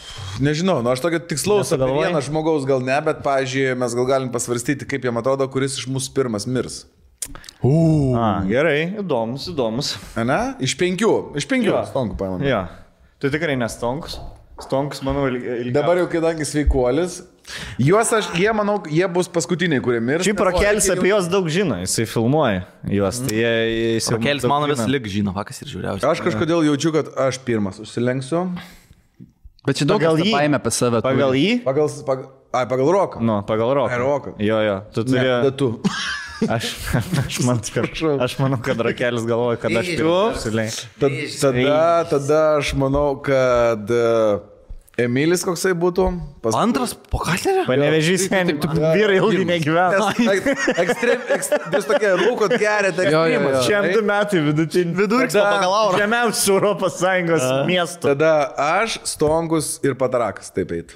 Nežinau, aš tokio tikslaus apie Nesugalvoji? vieną žmogaus gal ne, bet, pavyzdžiui, mes gal galim pasvarstyti, kaip jam atrodo, kuris iš mūsų pirmas mirs. Gerai, įdomus. Ne? Iš 5. Stonkų paimam. Jo, tu tikrai nestonkus. Stonkus, manau, ilgiau. Dabar jau kadangi sveikuolis. Jie, manau, jie bus paskutiniai, kurie mirs. Šiaip Rokelis apie juos daug žino, jisai filmuoja juos. Tai Rokelis mano vis lik žino, vakas ir žiūriausiai. Aš kažkodėl jaučiu, kad aš pirmas užsilenksiu. Bet čia daug kas paėmė apie save. Pagal jį? Pagal roką. Nu, pagal roką. Roką. Jo, tu turi... Ne, tu. Aš manau, kad Rokelis galvoja, kad aš pirmas. Tada aš manau, kad Emilis koksai būtų. Antras po Katlerio? Panevežys, vyrai ilgai negyvena. Jūs tokie rūkot gerėte ekstremas. Šiam 2 metai vidutinį. Vidurkis pagal aurą. Žemiausių Europos Sąjungos miestų. Tada aš, Stonkus ir Patarakas taip eit.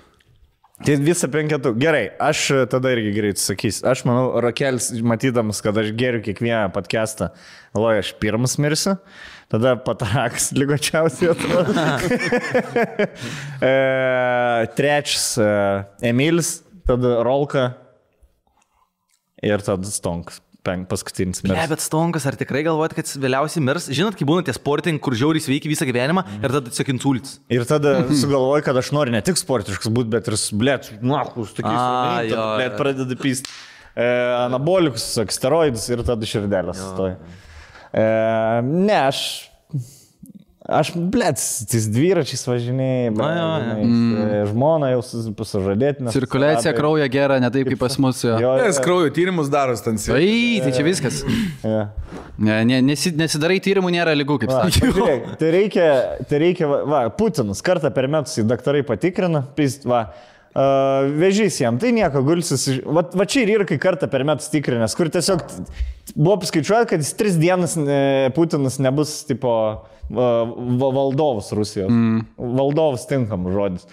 Tai visą 5. Gerai, aš tada irgi greit sakysiu. Aš manau, Rokelis, matydamas, kad aš geriu kiekvieną podcastą, galvoju, aš pirmas mirsiu. Tada Patarakas lygočiausiai atrodo. Trečias Emilis, tada Rolka ir tada Stonkas. Paskutinis mirs. Ne, bet Stonkas, ar tikrai galvojat, kad vėliausiai mirs? Žinot, kai būna tie sportininkai, kur žiauriai sveiki visą gyvenimą ir tada tiesiog insults. Ir tada sugalvoju, kad aš noriu ne tik sportiškas būti, bet ir, blėt, nuokus, tokiais, blėt, pradeda pysti anabolikus, steroidus ir tada širdelės stoja. Ne, aš, blėt, tais dviračiais važinėjai, žmona jau sužadėtina. Cirkuliacija kraujo gera, ne taip kaip pas mus. Nes kraujo tyrimus daros ten. Tai čia viskas. Nesidarai tyrimų, nėra lygų, kaip sakė. Tai reikia, Putinas kartą per metus į daktarai patikrina, vežys jam, tai nieko, gulsis. Va čia ir yra, kai kartą per metus tikrinės, kur tiesiog buvo paskaičiuota, kad jis 3 dienas Putinas nebus, tipo, valdovas Rusijos. Valdovas tinkam žodis.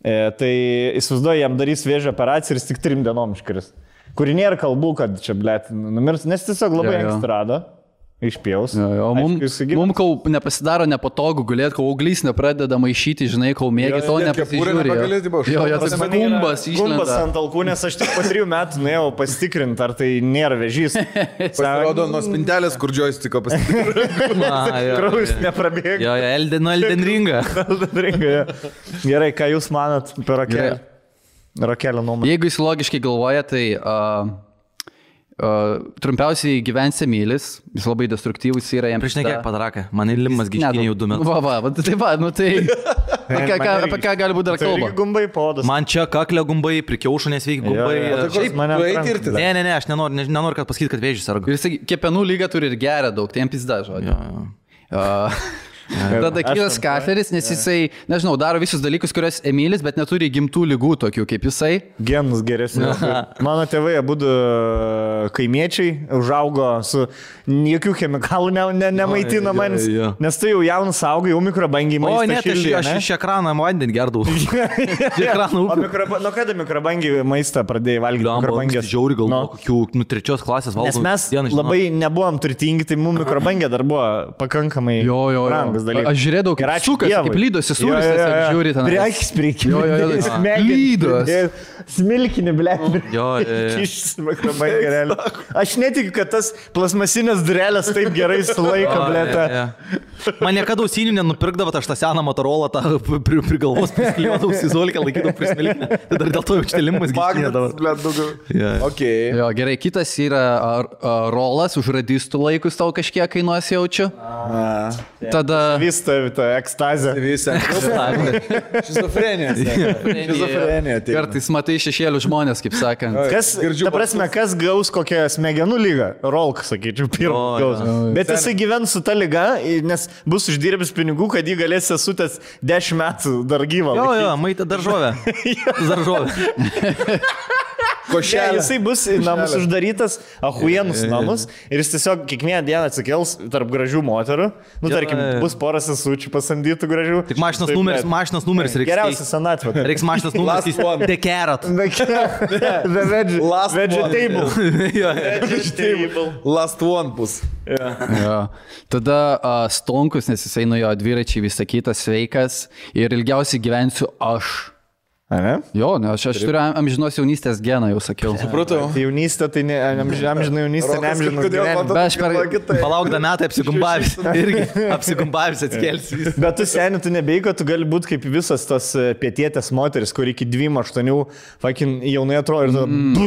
Tai įsivaizduoju, jam darys vėžio operaciją ir jis tik 3 dienom iškris. Kuri nėra kalbų, kad čia, blėt, numirs, nes tiesiog labai anksti rado. Išpjaus. Mums, kol nepasidaro nepatogu gulėti, kol auglys nepradeda maišyti, žinai, kol mėgi to nepasižiūrė. Tas gumbas išlenda. Gumbas ant alkūnės, aš tik po 3 metų nuėjau pasitikrinti, ar tai nėra vėžys. Pasirodo nuo spintelės, kur joystiko pasitikrinti. Kraujus neprabėga. Jo, Elden Ringą. Gerai, ką jūs manat apie Rokelį? Rokelio nuomonę. Jeigu jis logiškai galvoja, tai... trumpiausiai gyvens Emilis, jis labai destruktyvus yra jam. Prieš nekiek Pataraką, man įlimas giškinė jau 2 metus. Apie ką gali būti dar kalba? Gumbai podas. Man čia kaklio gumbai, prikiaušų nesveiki gumbai. Ne, aš nenoriu, kad pasakyt, kad vėžys serga. Ir jis kepenų lygą turi ir geria daug, tai jam pizda žodžiu. Tada kitas Katleris, nes jisai, nežinau, daro visus dalykus, kuriuos Emilis, bet neturi gimtų lygų tokių kaip jisai. Genus geresnė. Mano tėvai abudu kaimiečiai užaugo su jokių chemikalų nemaitina manis, nes tu jau jaunas augai, jau mikrobangiai maistą. O, ne, tai aš iš ekraną vandenį gerdavau. Nuo kada mikrobangiai maistą pradėjai valgyti? Mikrobangės žiauri gal kokių 3 klasės valgau. Nes mes labai nebuvom turtingi, tai mums mikrobangė dar buvo pakankamai brangus dalykas. Aš žiūrėdavau, kaip sukas, kaip lydosi sūris, žiūri ten. Priekis priekį. Lydos. Smilkinį, blėt. Aš netikiu, kad tas plasmasinės durelės taip gerai sulaiko, blėt. Man niekada ausinių nenupirkdavo, aš tą seną Motorolą prie galvos priskliuodavau įzolkę, laikydavau prismilkinę. Tai dar dėl to jau štelimas giškinėdavo. Jo, gerai, kitas yra rolas, už radistų laikus tau kažkiek kainuos jaučiu. Tada... Vista ekstazė. Šizofrenija. Kartais matai šešėlių žmonės, kaip sakant. Kas gaus kokią smegenų lygą? Rolk, sakyčiau, pirmas gaus. Bet jisai gyvens su ta lyga, nes bus uždirbęs pinigų, kad jį galės sesutės 10 metų dar gyvą. Jo, maitė daržovę. Košelė. Jisai bus į namus uždarytas, ahuienus namus ir jis tiesiog kiekvieną dieną atsikels tarp gražių moterų. Nu, tarkim, bus porą sesučių pasamdytų gražių. Tik mašinos numeris reikia. Geriausia senatvė. Reiks mašinos numeris. The Carrot. Vegetable. Last one bus. Jo. Tada Stonkus, nes jisai nuo jo dviračiai visą kitą sveikas ir ilgiausiai gyvensiu aš. Ne? Jo, ne, aš turiu amžinos jaunystės geną, jau sakiau. Supratau. Tai jaunystė, tai ne amžina jaunystė, ne amžinas gyvenimas. Bet aš per... Palaukda metai apsigumbavęs. Irgi apsigumbavęs atskelsi. Bet tu seniai, tu nebeiko, tu gali būti kaip visas tos pietietės moteris, kur iki 2-8 fucking jaunai atrodo ir tu...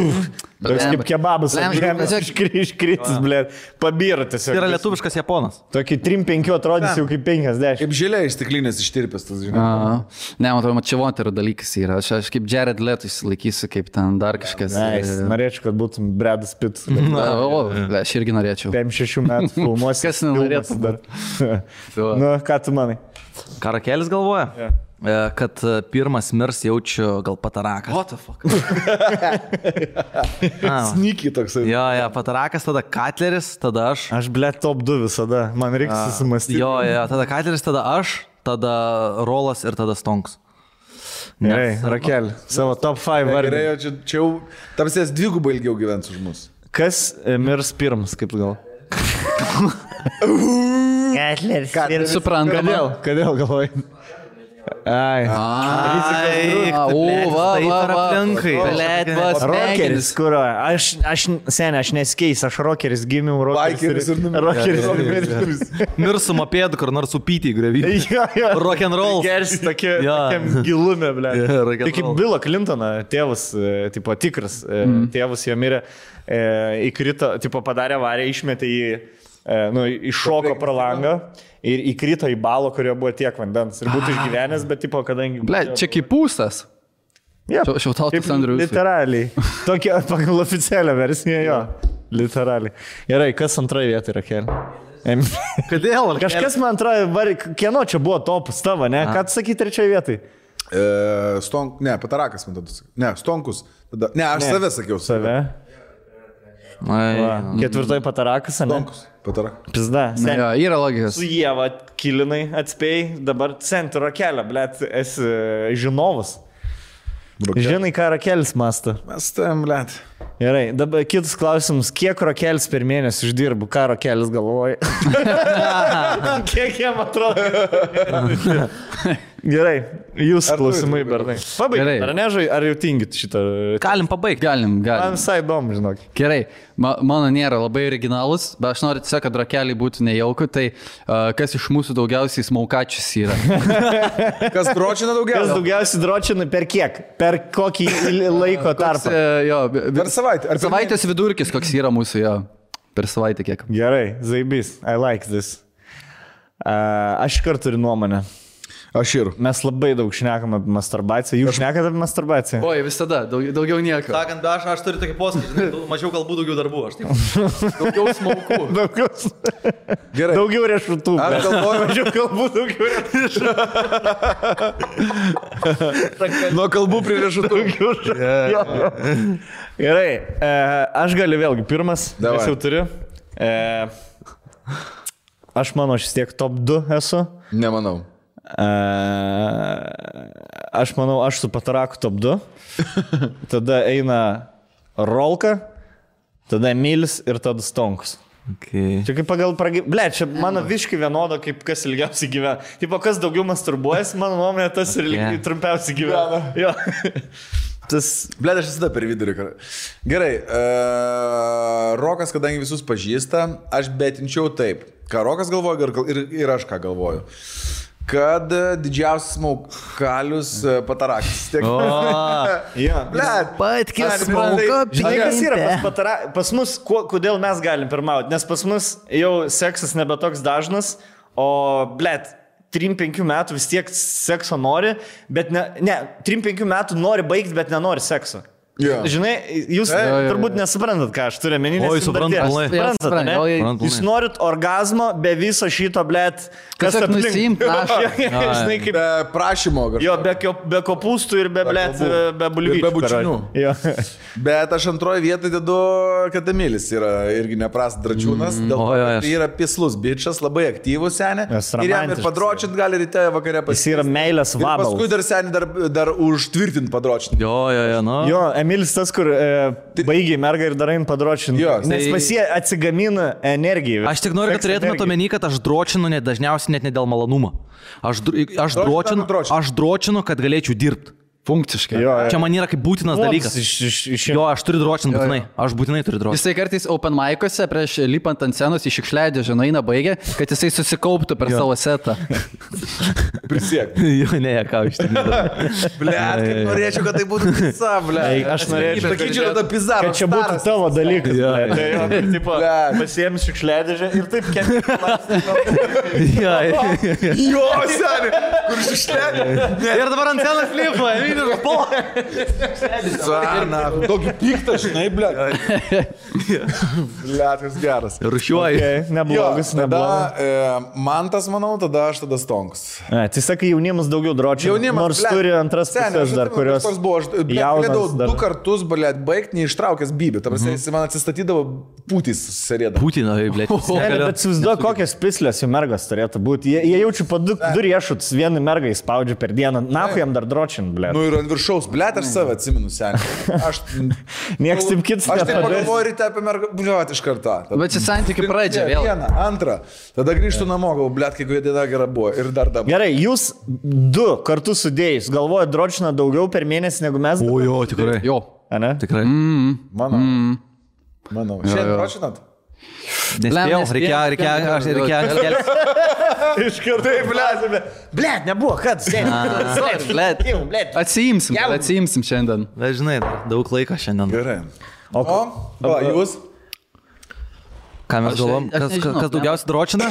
Toks kaip kebabas, iškritis, blė, pabyra tiesiog. Tai yra lietuviškas Japonas. Tokį 3-5 atrodys jau kaip 50. Kaip žilė iš stiklinės ištirpęs tas, žinai. Ne, man atrodo, čia moterų dalykas yra. Aš kaip Jared Leto išsilaikysiu, kaip ten dar kažkas. Norėčiau, kad būtum Bradas Pitt. Aš irgi norėčiau. 5-6 metų filmuosi. Kas nenorėtų dar? Nu, ką tu manai? Karakelis galvoja? Kad pirmas mirs jaučiu gal patarakas. What the fuck? Snykiai toksai. Jo, patarakas, tada Katleris, tada aš. Aš, blė, top 2 visada. Man reikia susimastyti. Jo, tada Katleris, tada aš, tada Rolas ir tada Stonks. Gerai, Rakel, savo top 5 vardį. Gerai, čia jau tamsės dvigubai ilgiau gyvens už mus. Kas mirs pirmas, kaip gal? Katleris. Suprantama. Kodėl galvoji? Ai. Rokeris, kur aš neskeis, aš rokeris gimiau, rokeris ir Mirsu mopėdu, kur nors upytį grevį. Rock'n'roll. Geris tokiam gilume, blė. Tai kaip Bilo Clintoną, tėvas, tipo tikras, tėvas jo mirė, įkrito, tipo padarė avariją, išmetė į, iššoko pro langą. Ir įkrito į balą, kurio buvo tiek vandens. Ir būtų išgyvenęs, bet tipo, kadangi... Ble, čia kaip pūstas. Šiautautas Andrius. Literaliai. Tokia pagal oficialią versiją, jo. Literaliai. Gerai, kas antroje vietoje yra Kelė? Kodėl? Kažkas man antroje, kieno čia buvo topas tavo, ne? Ką tu sakai trečioje vietoje? Patarakas man tada. Ne, Stonkus. Ne, aš save sakiau. Save. Ketvirtoji patarakas, ne? Stonkus. Pizda. Yra logikos. Su Ieva kilinai atspėjai, dabar centro kelią, blėt, esi žinovas. Žinai, ką Rakelis mąsto. Mes tam, blėt. Gerai, dabar kitus klausimus. Kiek Rakelis per mėnesį uždirbu? Ką Rakelis galvoja? Kiek jam atrodo? Gerai, jūs klausimai, bernai. Pabaigit, ar nežai, ar jau tingit šitą? Galim pabaigti. Galim. Man visai įdomu, žinok. Gerai, mano nėra labai originalus, bet aš noriu tiesiog, kad Rakeliai būtų nejauku, tai kas iš mūsų daugiausiai smaukačius yra? Kas dročina daugiausiai? Kas daugiausiai dročina per kiek? Per kokį laiko tarpą? Per savaitę. Per savaitės vidurkis, koks yra mūsų, jo. Per savaitę kiek. Gerai, zaibys, I like this. Aš kartu turiu nuomonę. Aš ir. Mes labai daug šnekam apie masturbaciją. Jūs šnekate apie masturbaciją? Oi, visada, daugiau nieko. Sakant, aš turiu tokį posakį, mažiau kalbų, daugiau darbų. Aš taip. Daugiau smaukų. Gerai. Daugiau riešutų. Aš galvoju, mažiau kalbų, daugiau riešutų. Nuo kalbų prie riešutų. Gerai, aš galiu vėlgi pirmas. Davai. Aš jau turiu. Aš manau, aš vis tiek top 2 esu. Nemanau. Aš manau, aš su Pataraku top 2. Tada eina Rolka, tada Emilis ir tada Stonkus. Okay. Čia kaip pagal Ble, čia mano viškai vienodo, kaip kas ilgiausiai gyvena. Tipo, kas daugiau masturbuojas, mano nuomonė, tas ir trumpiausiai gyvena. Jo. Ble, aš visada per vidurį. Gerai, Rokas, kadangi visus pažįsta, aš betinčiau taip. Ką Rokas galvoja ir aš ką galvoju. Kad didžiausias smaukalius Patarakas. Blet, patkis smauka. Žinai, kas yra pas mus, kodėl mes galim pirmauti? Nes pas mus jau seksas nebe toks dažnas, o blet, 3-5 metų vis tiek sekso nori, bet ne 3-5 metų nori baigti, bet nenori sekso. Jo. Žinai, jūs turbūt nesuprantat, ką aš turiu menį. Oi, suprantu, pilnai. Suprantat, ne? Suprantu, Jūs norit orgazmo be viso šito, blėt, kas Tiesiog aplink. nusiimt našą. Žinai, kaip... Be prašymo kažko. Jo, be kopūstų ir be, blėt, be bulvyčių. Be bučinių. Jo. Bet aš antroje vietoje dedu Katamilis, yra irgi neprast dračiūnas, dėl to, kad tai yra pislus bičias, labai aktyvus senė. Ir jam ir padročint gali ryte vakare Jis yra meilės vabalas. Paskui dar senį dar užtvirtint padročint. Jo, nu. Jo, Emilis tas, kur baigiai mergą ir darai padročinti. Nes pas jie atsigamina energiją. Aš tik noriu, kad turėtumėte omeny, kad aš dročinu dažniausiai net ne dėl malonumo. Aš dročinu, kad galėčiau dirbti. Funkciškai. Čia man yra kaip būtinas dalykas. Jo, aš turiu dročinti būtinai. Aš būtinai turiu dročinti. Jisai kartais open mic'uose prieš lipant ant scenos į šiukšliadį žinai baigia, kad jisai susikauptų per savo setą. Prisiek. Jo, ne, ką iš tikrųjų. Blet, kaip norėčiau, kad tai būtų pizza, blet. Aš norėčiau, sakyčiau, kad pizarro. kad čia būtų tavo dalykas. Tai jo, tipo, pasiėmė šiukšliadėžę ir taip Jo, seniai, kur šiukšliadė. Ir dabar ant scenos flipuoja. Tokį piktą, žinai, blet. Blet, kas geras. Rušiuoju. Neblogas, neblogas. Man tas, manau, tada aš tada stonks. Tai sakai, jaunimas daugiau dročia. Nors turi antras pusės dar, kurios jaunas. Du kartus, blet, baigti neištraukęs bybį. Ta prasme, jis man atsistatydavo pūtys susirėdavo. Putino, blet. Bet įsivaizduoju, kokias pislės jų mergas turėtų būti. Jie jaučiu po du riešutus, vieną mergą įspaudžia per dieną. Nahu jam dar dročin, blet. Nu ir ant viršaus, blet, aš save atsimenu, seniai. Nieks taip kitas nepadarys. Aš taip pagalvoju ryte apie mergą, blet, iš karto. Bet čia santykių pradžia vėl. Vieną, antrą. Tada grįžtų namo, gal, blet, kiekviena diena gera buvo. Ir dar dabar. Gerai, jūs du kartus sudėjus, galvojat dročina daugiau per mėnesį negu mes? O jo, tikrai. Jo. Ane? Tikrai. Manau. Šiandien dročinat? Nespėjau, reikėjo. Iš karto, blet, nebuvo, kad Atsiimsim šiandien. Bet žinai, daug laiko šiandien. Gerai. O, jūs? Ką mes galvom? Kas daugiausiai dročina?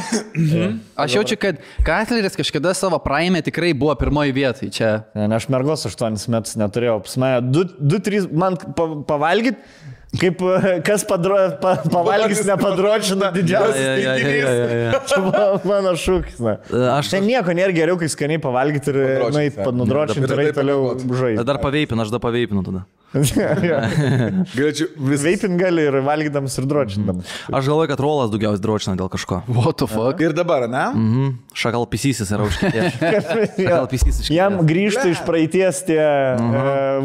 Aš jaučiu, kad Katleris kažkada savo praime tikrai buvo pirmoji vietai čia. Aš mergos 8 metus neturėjau. Pas mane 2-3 man pavalgyt. Kaip kas pavalgys nepadročina didžiausias tinginys. Čia mano šūkis. Ten nieko nėra geriau, kai skaniai pavalgyti ir nudročinti ir toliau žaisti. Dar paveipinu, aš dar paveipinu tada. Veipin gali ir valgydamas ir dročindamas. Aš galvoju, kad Rolas daugiausiai dročina dėl kažko. What the fuck? Ir dabar, ne? Šakal pisysis yra užkėtėjęs. Jam grįžta iš praeities tie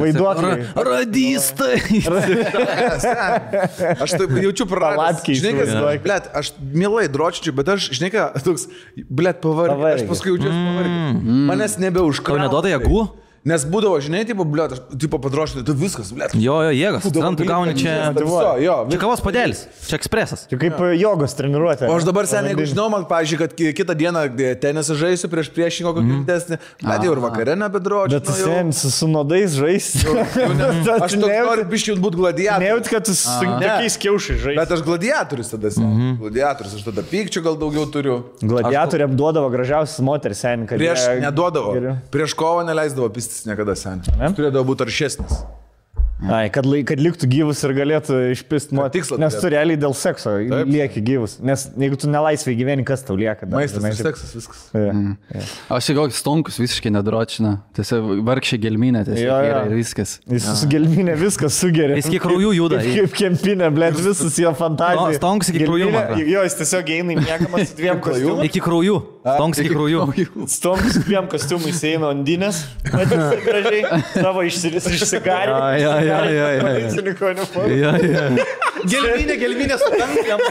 vaiduokliai. Radistai. Aš taip jaučiu praradęs. Žinai, kas, blet, aš mielai dročinčiau, bet aš, žinai ką, toks, blet, pavargęs. Aš paskui jaučiuosi pavargęs. Manęs nebeužkrauja. Tau neduoda jėgų? Nes būdavo, žinai, tipo, blet, aš tipo padrošinau, tu viskas, blet. Jo, jėgas. Tu gauni čia... Čia kavos padėlis. Čia ekspresas. Čia kaip jogos treniruotė. O aš dabar seniai, jeigu žinau, man, pavyzdžiui, kad kitą dieną tenisą žaisiu prieš priešingo kokį didesnį, bet jau ir vakare nebedročinu. Bet tu senis su nodais žaisti. Aš noriu biškiai būti gladiatorius. Nejaut, kad tu su tokiais kiaušai žaisti. Bet aš gladiatorius tada seniai. Gladiatorius, aš tada pykčių gal daugiau turiu. Gladiatoriam duodavo gražiausias moteris seniai. Prieš neduodavo. Prieš kovą neleisdavo pistis niekada seniai. Turėdavo būti aršesnis. Ai, kad liktų gyvus ir galėtų išpist moteris. Nes tu realiai dėl sekso lieki gyvus. Nes jeigu tu nelaisvai gyveni, kas tau lieka? Maistas ir seksas, viskas. Aš jau koks stonkus visiškai nedročina. Tiesiog vargšė gelminė, tiesiog ir viskas. Jis su gelminė viskas sugeria. Jis kiek kraujų juda. Kaip kempinė, blėt, visas jo fantazija. Stonkus iki kraujų. Jo, jis tiesiog eina į mėgamas su 2 kostiumais. Iki kraujų. Stonkus iki kraujų. Stonkus 2 kostiumais eina Ondinės. Matys gražiai. Savo išsigarį. Gelminė sutankam.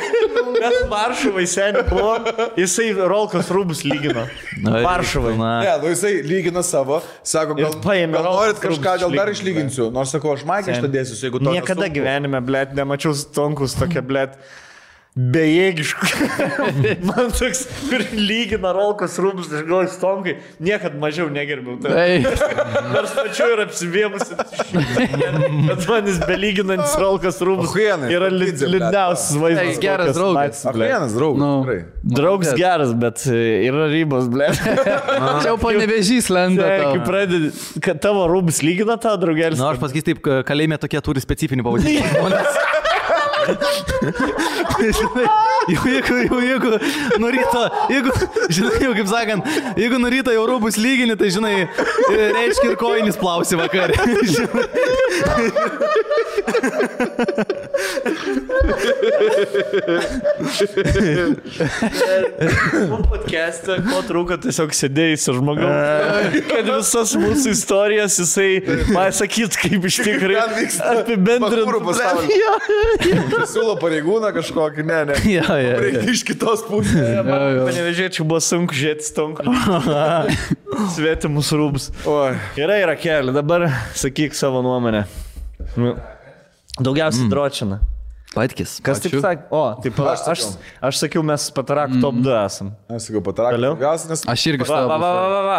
Mes Varšuvai seniai buvo, jisai Rolkos rūbus lygino. Varšuvai. Ne, nu jisai lygina savo, sako, gal norit kažką, gal dar išlyginsiu. Nors sako, aš maikę ištadėsiu, jeigu to. Niekada gyvenime, blėt, nemačiau Stonkus tokia, blėt. bejėgiškų. Man toks, kur lygina rolkos rūbus, aš galvoju, stonkai, niekad mažiau negerbiau. Nors pačiu ir apsivėmusi. Bet man jis belyginantis rolkos rūbus yra liūdniausias vaizdas. Geras draugas. Vienas draugas. Draugas geras, bet yra ribos, ble. Čia jau panevežys lenda. Kai pradedi, kad tavo rūbus lygina tavo draugelis. Na, aš pasakysiu taip, kalėjime tokie turi specifinį pavadinimą. Jeigu nuryto, žinai, kaip sakant, jeigu nuryto jau rūbus lygini, tai žinai, reiškia ir kojinis plausi vakarė. Podcast'e, ko trūko, tiesiog sėdėjai su žmogum, kad visas mūsų istorijas jisai pasakyt, kaip iš tikrai apibendrint. Siūlo pareigūną kažkokį, ne. Reikia iš kitos pusės. Panevežėčiau buvo sunku žiūrėti stonku. Svetimus rūbus. Yra keli, dabar sakyk savo nuomonę. Daugiausiai dročina. Patkis. Kas taip sakė? O, taip aš sakiau, mes Patarak top 2 esam. Aš sakiau, Patarak. Aš irgi savo.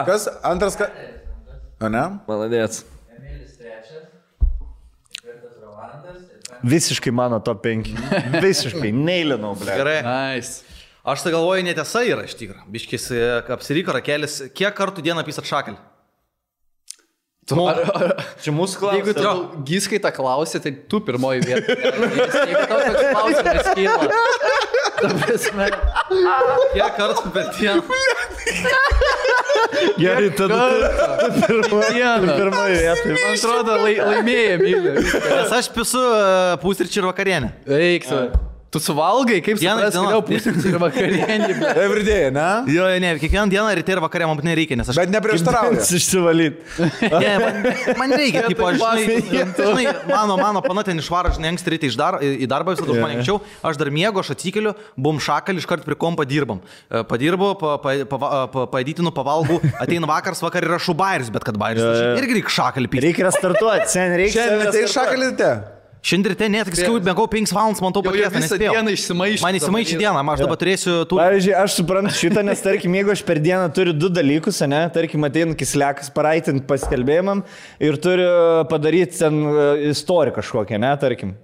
Kas? Antras, ką? O ne? Maladėts. Visiškai mano top 5. Visiškai, neįlinau, ble. Gerai. Nice. Aš tai galvoju, netiesa yra iš tikrųjų. Biškis apsiryko rakelis. Kiek kartų dieną pisat šakelį? Čia mūsų klausimas. Jeigu tu Giskai tą klausė, tai tu pirmoji vieta. Jeigu tau toks klausimas kyla. Ta prasme. Kiek kartų per dieną? Gerai, tada pirmoji vieta. Man atrodo, laimėjai, myliu. Nes aš pisu pusryčių ir vakarienę. Eiksu. Tu suvalgai, kaip supras, vėliau pusryčių ir vakarienį. Everyday, ne? Jo, ne, kiekvieną dieną ryte ir vakarė man nereikia, nes aš... Bet neprieštarauja. Išsivalyt. Ne, man reikia, tipo, žinai, mano pana ten išvaro, žinai, anksti ryte į darbą, visada už mane anksčiau, aš dar miegu, aš atsikeliu, bum šakalį, iškart prie kompa dirbam. Padirbu, paėdytinu, pavalgau, ateina vakar yra šubairis, bet kad bairis, irgi reikia šakalį pyti. Reikia restartuoti, sen reikia. Šiandien tai šakalį te. Šiandien ryte net, kai mėgau 5 valandas, man to paties nespėjau. Dieną išsimaišė. Man įsimaišė dieną, aš dabar turėsiu... Pavyzdžiui, aš suprantu šitą, nes tarkim, jeigu aš per dieną turiu 2 dalykus, ne, tarkim, ateinu kislekas paraitinti paskelbėjimam ir turiu padaryti ten istoriją kažkokią, ne, tarkim,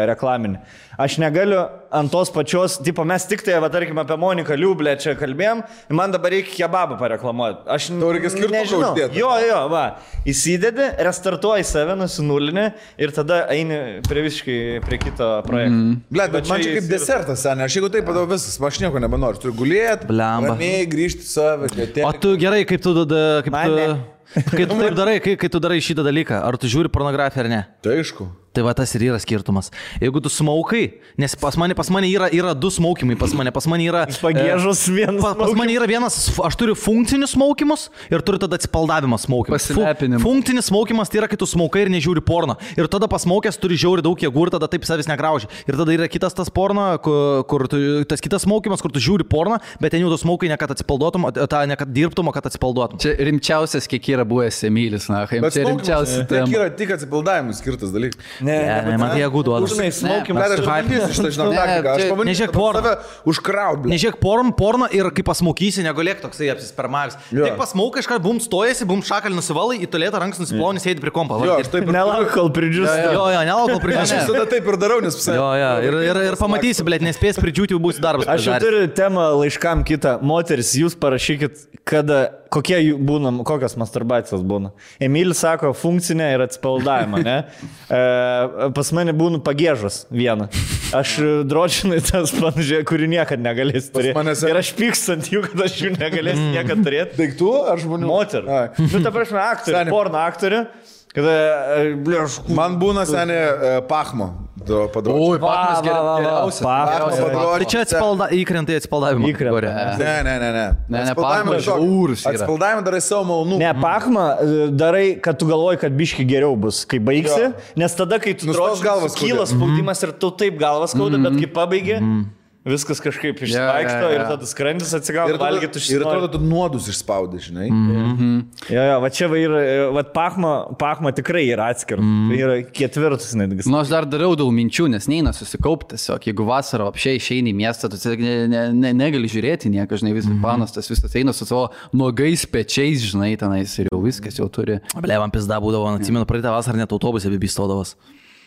reklaminį. Aš negaliu ant tos pačios, tipo, mes tik tai, va, tarkim, apie Moniką Liublę čia kalbėjom, man dabar reikia kebabą pareklamuoti. Aš nežinau. Jo, va, įsidedi, restartuoji save, nusinulinį ir tada eini prie kito projekto. Bet man čia kaip desertas, ne, aš jeigu taip padau viskas, aš nieko nebenoriu, turiu gulėti, ramiai grįžti save. O tu gerai, kaip tu darai, kai tu darai šitą dalyką, ar tu žiūri pornografiją ar ne? Tai aišku. Tai va tas ir yra skirtumas. Jeigu tu smaukai, nes pas mane yra 2 smaukimai, pas mane yra... Pagėžus vienas. Pas mane yra vienas, aš turiu funkcinius smaukimus ir turiu tada atsipaldavimo smaukimus. Funkcinis smaukimas tai yra, kai tu smaukai ir nežiūri porno. Ir tada pasmaukęs turi žiauri daug jėgų ir tada taip savęs negrauži. Ir tada yra kitas tas porno, tas kitas smaukimas, kur tu žiūri porno, bet ten jau tu smaukai ne kad atsipalduotum, ne kad dirbtum, o kad atsipalduotum. Čia rimčiausias, kiek yra buvęs Emilis, na, čia rimčiausias. Tai yra tik atsipaldavimui skirtas dalykas. Ne, man tai jėgų duoda. Žinai, smaukimas. Nežiūrėk porno. Užkraut. Nežiūrėk porno ir kai pasmaukysi, negulėk toksai apsispermavęs. Tik pasmaukai, iškart bum stojasi, bum šakalį nusivalai, į tualetą rankas nusiplovni, sėdi prie kompo. Nelauk, kol pridžiūsi. Jo, nelauk, kol pridžiūsi. Aš visada taip ir darau, nes Jo, ir pamatysi, blėt, nespės pridžiūti, jau būsi darbas. Aš jau turiu temą laiškam kitą. Moteris, jūs parašykit, kokios masturbacijos būna. Emilis sako, funkcinė ir atsipaldavimą, ne? Pas mane būna pagėžos vieną. Aš dročinai tas panašiai, kurį niekad negalėsiu turėti. Ir aš pykstant jų, kad aš jų negalėsiu niekad turėti. Daiktų ar žmonių? Moterų. Nu, ta prasme, aktorių, porno aktorių. Man būna senė pachmo. Oi, pachmas geriausias. Tai čia įkrentai atsipaldavimą. Ne. Pachmas žiaurus yra. Atsipaldavimą darai savo malonumą. Ne, pachmą darai, kad tu galvoji, kad biški geriau bus, kai baigsi. Nes tada, kai tu drožinai, kyla spaudimas ir tu taip galvas skauda, bet kai pabaigi... viskas kažkaip išvaikšto ir tada skrandis atsigauna, valgyti užsienį. Ir atrodo, tu nuodus išspaudai, žinai. Jo, va čia va Pachma tikrai yra atskiras. Yra ketvirtas netgi. Nu, aš dar dariau daug minčių, nes neina susikaupti tiesiog. Jeigu vasarą apšiai išeini į miestą, tu negali žiūrėti nieką, žinai, visas panas, tas visas eina su savo nuogais pečiais, žinai, tenais ir jau viskas jau turi. Blevam pizda būdavo, atsimenu, praeitą vasarą net autobuse bibistodavas.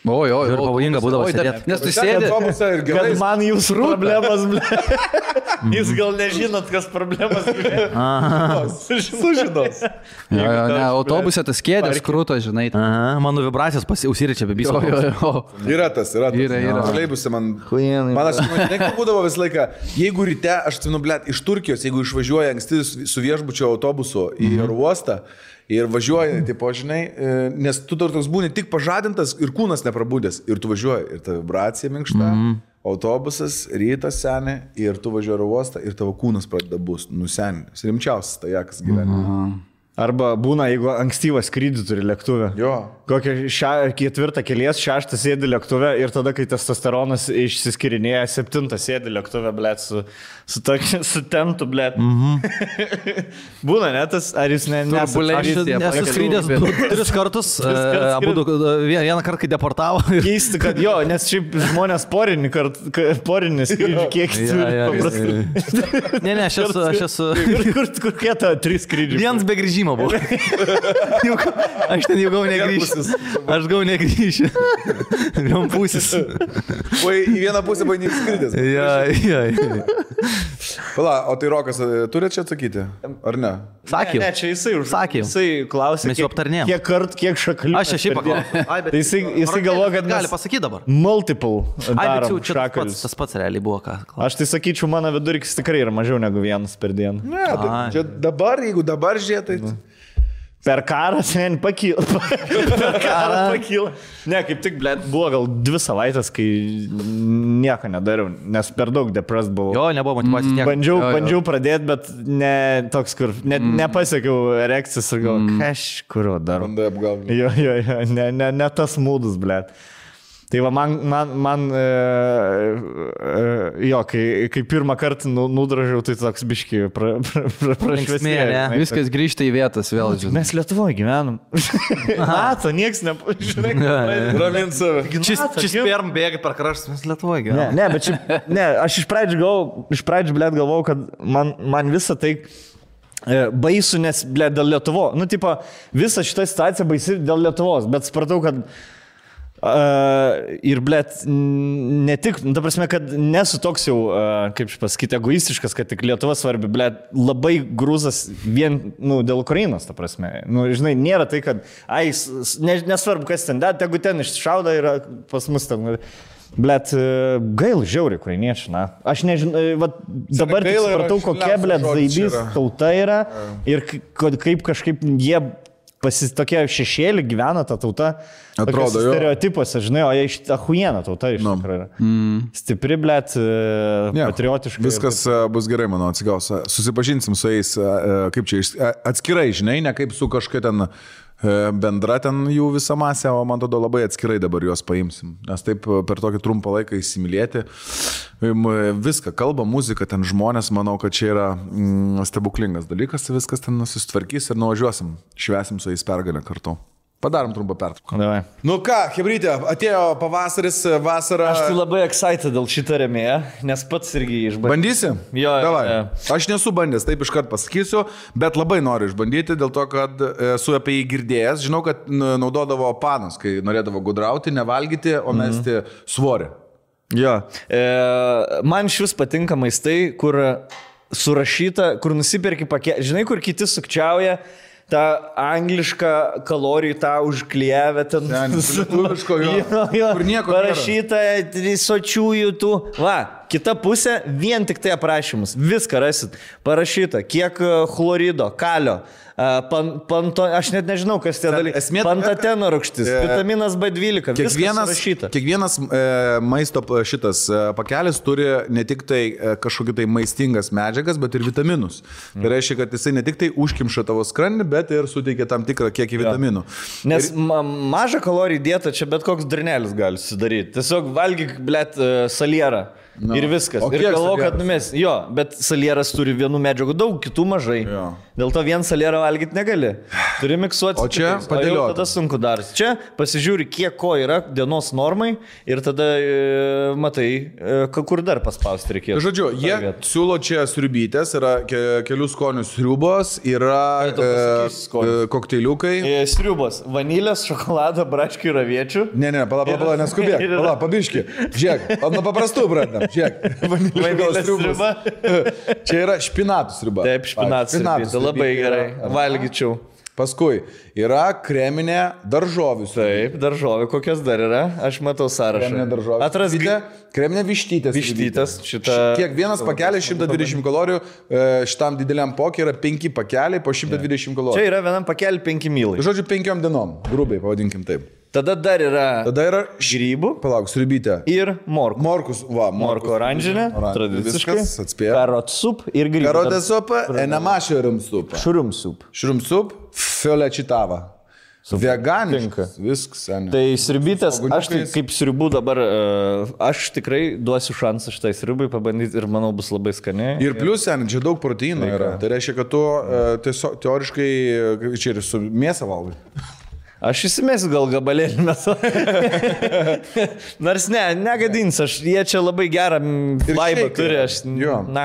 Oi, Ir pavojinga būdavo sėdėti. Nes tu sėdė. Kad man jūsų problemas, jūs gal nežinot, kas problemas. Sužinos. Ne, autobuse tas kėdės krūto, žinai. Mano vibracijos užsiričia bibistodavas. Yra tas. Yra. Troleibuse man aš būdavo visą laiką, jeigu ryte, aš atsimenu, blėt, iš Turkijos, jeigu išvažiuoja anksti su viešbučio autobusu į oro uostą, ir važiuoji, tipo, žinai, nes tu toks būni tik pažadintas ir kūnas neprabūdęs. Ir tu važiuoji, ir ta vibracija minkšta, autobusas, rytas seni, ir tu važiuoji oro uostą, ir tavo kūnas pradeda bus nusenęs. Rimčiausias tajakas gyvenime. Arba būna, jeigu ankstyvą skrydį turi lėktuvę. Jo. Kokią 4 kelies, 6 sėdi lėktuvę ir tada, kai testosteronas išsiskirinėja, 7 sėdi lėktuvę, blėt, su tentu, blėt. Būna, ne, tas, ar jūs Aš esu skrydęs 3 kartus, vieną kartą, kai deportavo. Keisti, kad jo, nes šiaip žmonės porinį skrydį kiek turi. Ne, aš esu. Kur kieta 3 skrydžiai? Vienas be grįžimo buvo. Aš ten jau gau negrįžti. Aš gau negrįžti. Vien pusis. O į vieną pusę buvo neįskridęs. Ja. Pala, o tai Rokas turi čia atsakyti? Ar ne? Sakiau. Ne, čia jisai Sakiau. Jisai klausė, Mes jau aptarnėjom. kiek kart, kiek šakalių. Aš šiaip paklausiu. Tai jisai galvoja, kad gali pasakyti dabar. Multiple darom Čia šakalius. tas pats realiai buvo ką. Aš tai sakyčiau, mano vidurkis tikrai yra mažiau negu vienas per dieną. Ne, čia dabar, jeigu dabar žiūrėtai. Per karą sen pakyla. Per karą pakyla. Ne, kaip tik, blėt, buvo gal 2 savaitės, kai nieko nedariau, nes per daug depressed buvau. Jo, nebuvo motyvacijos nieko. Bandžiau pradėti, bet ne toks, kur nepasiekiau erekcijos ir gal kažkurio darau. Bandai apgauti. Jo, ne tas mūdus, blėt. Tai va, man jo, kai pirmą kartą nudražiau, tai toks biški prašvesmėlė. Viskas grįžta į vietas vėl, žinai. Mes Lietuvoje gyvenam. Mato, nieks nepažinai. Ramint save. Čia sperm bėga per kraštus, mes Lietuvoje gyvenam. Ne, bet šiaip, aš iš pradžių, blėt, galvojau, kad man visą tai baisu, nes, blėt, dėl Lietuvo. Nu, tipo, visa šita situacija baisi dėl Lietuvos, bet supratau, kad ir, blėt, ne tik, ta prasme, kad nesu toks jau, kaip pasakyti, egoistiškas, kad tik Lietuva svarbi, blėt, labai grūzas vien, dėl Ukrainos, ta prasme. Žinai, nėra tai, kad, nesvarbu, kas ten, tegu ten iššauda ir pas mus ten. Blet, gail žiauri ukrainiečiai, na. Aš nežinau, dabar tik supratau, kokia, blet, zaibys tauta yra ir kaip kažkaip jie tokie šešėlį gyvena ta tauta. Atrodo, jo. Stereotipuose, žinai, o jie iš ahuiena tauta iš tikrųjų yra. Stipri, blėt, patriotiška. Viskas bus gerai, manau, atsigaus. Susipažinsim su jais, kaip čia, atskirai, žinai, ne kaip su kažkai ten bendra ten jų visa masė, o man tada labai atskirai dabar juos paimsim. Nes taip per tokį trumpą laiką įsimylėti. Viską, kalba, muzika, ten žmonės, manau, kad čia yra stebuklingas dalykas, viskas ten susitvarkys ir nuvažiuosim, švesim su jais pergalę kartu. Padarom trumpą pertrauką. Nu ką, hebrytė, atėjo pavasaris, vasara. Aš tai labai excited dėl šitą rėmėją, nes pats irgi išbandžiau. Bandysi? Jo. Davai. Aš nesu bandęs, taip iškart pasakysiu, bet labai noriu išbandyti, dėl to, kad esu apie jį girdėjęs. Žinau, kad naudodavo panas, kai norėdavo gudrauti, nevalgyti, o mesti svorį. Jo. Man šis patinka maistai, kur surašyta, kur nusipirki pakelį. Žinai, kur kiti sukčiauja. Ta angliška kalorijų, tą užklijavę ten. Lietuviško, jo. Kur nieko parašyta, sočiųjų tų. Va, kita pusė, vien tik tai aprašymus. Viską rasit. Parašyta, kiek chlorido, kalio. Aš net nežinau, kas tie dalykai. Pantateno rūgštis, vitaminas B12. Kiekvienas maisto šitas pakelis turi ne tik tai kažkokį tai maistingas medžiagas, bet ir vitaminus. Tai reiškia, kad jisai ne tik tai užkimša tavo skrandį, bet ir suteikia tam tikrą kiekį vitaminų. Nes mažą kalorijų dietą čia bet koks dranelis gali sudaryti. Tiesiog valgyk, blėt, salierą. No. Ir viskas. O ir kiek galvoju, kad salieras? numes. Jo, bet salieras turi vienų medžiagų daug, kitų mažai. Jo. Dėl to vien salierą valgyti negali. Turi miksuoti. O čia kitais. padėlioti. Tada sunku daras. Čia pasižiūri, kiek ko yra dienos normai ir tada matai, kur dar paspausti reikės. Žodžiu, jie siūlo čia sriubytės, yra kelių skonių sriubos, yra kokteiliukai. Sriubos. Vanilės, šokolado, braškių ir aviečių. Ne, pala, neskubėk. Pala, pabiški. Žiūrėk, nuo paprastų pradedam. Žiūrėk. Vanilės sriuba. Čia yra špinatų sriuba. Taip, špinatų sriuba. Labai gerai. Valgyčiau. Paskui yra kreminė daržovių. Taip, daržovė kokios dar yra? Aš matau sąrašą. Kreminė daržovė. Atraskite. Kreminė vištytės. Vištytės. Kiekvienas pakelis 120 kalorijų, šitam dideliam pokė yra 5 pakeliai po 120 kalorijų. Čia yra vienam pakelį 5 mylai. Žodžiu, 5 dienom, grubiai pavadinkim taip. Tada dar yra grybų. Palauk, sriubytė. Ir morkų. Morkus, va. Morkų oranžinė. Tradiciškai. Viskas, atspėjo. Karot sup ir grybų. Karotė supa, enama šurum supa. Šurum sup. Šurum sup, fiolečitava. Veganiškas. Viskas, seniai. Tai sriubytės, aš tai kaip sriubų dabar, aš tikrai duosiu šansą šitai sriubai pabandyti ir manau bus labai skaniai. Ir plius, seniai, čia daug proteino yra. Tai reiškia, kad tu tiesiog teoriškai čia ir su mėsą valgai. Aš įsimesiu gal gabalėlį metu. Nors negadins, jie čia labai gerą vaibą turi, aš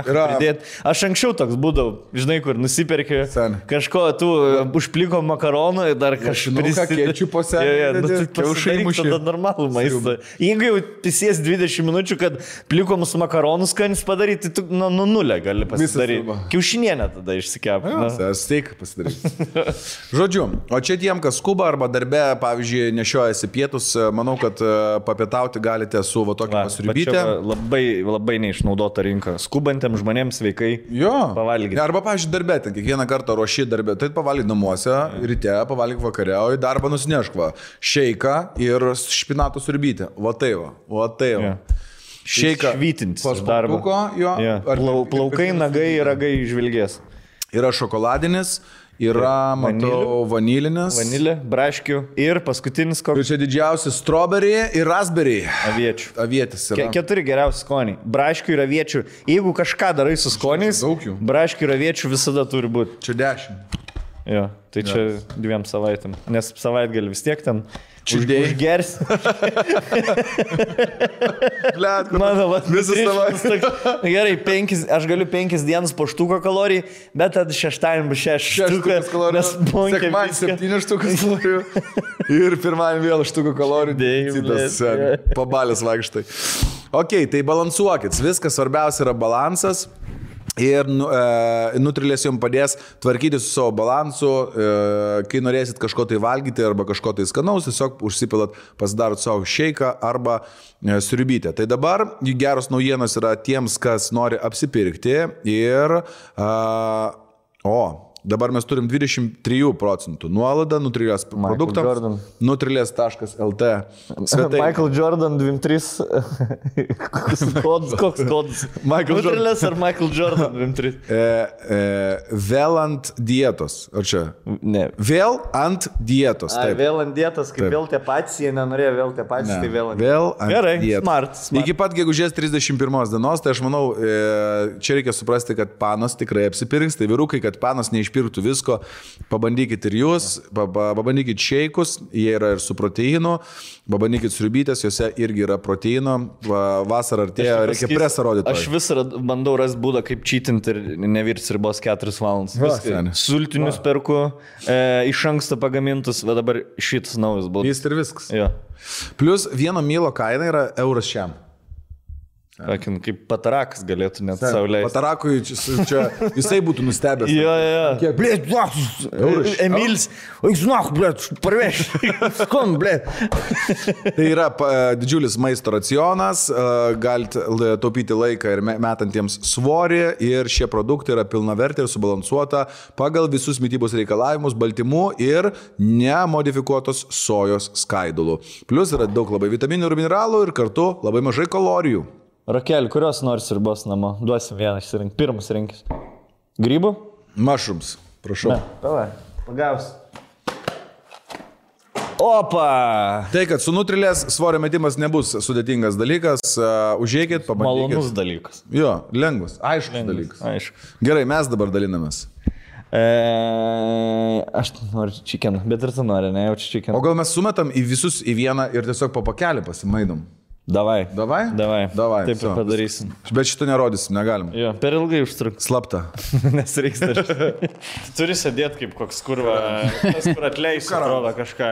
pridėt. Aš anksčiau toks būdavau, žinai, kur nusiperki kažko, tu užpliko makaronų ir dar kažką kečiu po senį. Tada normalų maistą. Jeigu jau tisies 20 minučių, kad plikomus makaronus skanis padaryti, tu nuo nulio gali pasidaryti. Kiaušinienę tada išsikep. Steik pasidaryti. Žodžiu, o čia tiem, kas skuba arba darbe, pavyzdžiui, nešiojasi pietus, manau, kad papietauti galite su va tokia pasriubytė. Labai neišnaudota rinka. Skubantiem žmonėms sveikai pavalgyti. Arba, pavyzdžiui, darbe, ten kiekvieną kartą ruoši darbę, tai pavalgyk namuose, ryte, pavalgyk vakare, o į darbą nusinešk va. Šeiką ir špinatų sriubytę. Va tai va. Šeiką. Švytintis darbą. Plaukai, nagai ir ragai žvilgės. Yra šokoladinis. Yra, matau, vanilinis. Vanilė, braškių ir paskutinis koks. Ir čia didžiausi strawberry ir raspberry. Aviečių. Avietis yra. 4 geriausi skoniai. Braškių ir aviečių. Jeigu kažką darai su skoniais, braškių ir aviečių visada turi būti. Čia 10. Jo, tai čia 2 savaitėm. Nes savaitgalį vis tiek ten užgers. Mano, visą savaitę. Gerai, aš galiu 5 dienas po štuko kalorijų, bet tada šeštadienį bus 6 štukas kalorijų. Sekmadienį 7 štukas kalorijų. Ir pirmadienį vėl štuko kalorijų. Pabalės vaikštai. Ok, tai balansuokit. Viskas svarbiausia yra balansas. Ir Nutrilės jums padės tvarkyti su savo balansu, kai norėsit kažko tai valgyti arba kažko tai skanaus, tiesiog užsipilat, pasidarot savo šeiką arba sriubytę. Tai dabar geros naujienos yra tiems, kas nori apsipirkti ir dabar mes turim 23% nuolaidą Nutrilės produktams. Nutrilės.lt. Michael Jordan 23. Koks kodas? Nutrilės ar Michael Jordan 23? Vėl ant dietos. Ar čia? Ne. Vėl ant dietos. Vėl ant dietos, kaip vėl tie patys, jie nenorėjo vėl tie patys, tai vėl ant dietos. Vėl ant gerai, dietos. Smart. Iki pat gegužės 31 dienos, tai aš manau, čia reikia suprasti, kad panos tikrai apsipirks, tai vyrukai, kad panos neišpirktų visko, pabandykit ir jūs, pabandykit šeikus, jie yra ir su proteinu, pabandykit sriubytės, juose irgi yra proteino, vasarą artėja, reikia presą rodyti. Aš vis bandau rasti būdą, kaip čytinti ir nevirti sriubos 4 valandas. Sultinius perku, iš anksto pagamintus, bet dabar šitas naujas būdas. Jis ir viskas. Jo. Plus 1 mylo kaina yra euras šiam. Kaip patarakas galėtų net sauliaisti. Patarakui čia jisai būtų nustebęs. Jo. Blėt, Emilis, žinok, blėt, parveš. Skon, blėt. Tai yra didžiulis maisto racionas, galite taupyti laiką ir metantiems svorį ir šie produktai yra pilnavertė ir subalansuota pagal visus mitybos reikalavimus, baltymų ir nemodifikuotos sojos skaidulų. Plus yra daug labai vitaminų ir mineralų ir kartu labai mažai kalorijų. Rakel, kurios nors sriubos namo? Duosim vieną išsirinkti. Pirmas rinkis. Grybų? Mushrooms, prašau. Ne, pavai, pagaus. Opa! Tai, kad su nutrilės svorio metimas nebus sudėtingas dalykas, užėjkit, pabandykit. Malonus dalykas. Jo, lengvas, aiškus dalykas. Aišku. Gerai, mes dabar dalinamės. Aš noriu chicken, bet ir tu nori, ne, jaučiu chicken. O gal mes sumetam į visus į vieną ir tiesiog po pakelį pasimaidom? Davai. Davai? Davai. Taip so. ir padarysim. Bet šito nerodysim, negalim. Jo, per ilgai užtruks. Slapta. Nes reiks dar. Turi sėdėti kaip koks kurva, tas kur atleis, atrodo kažką.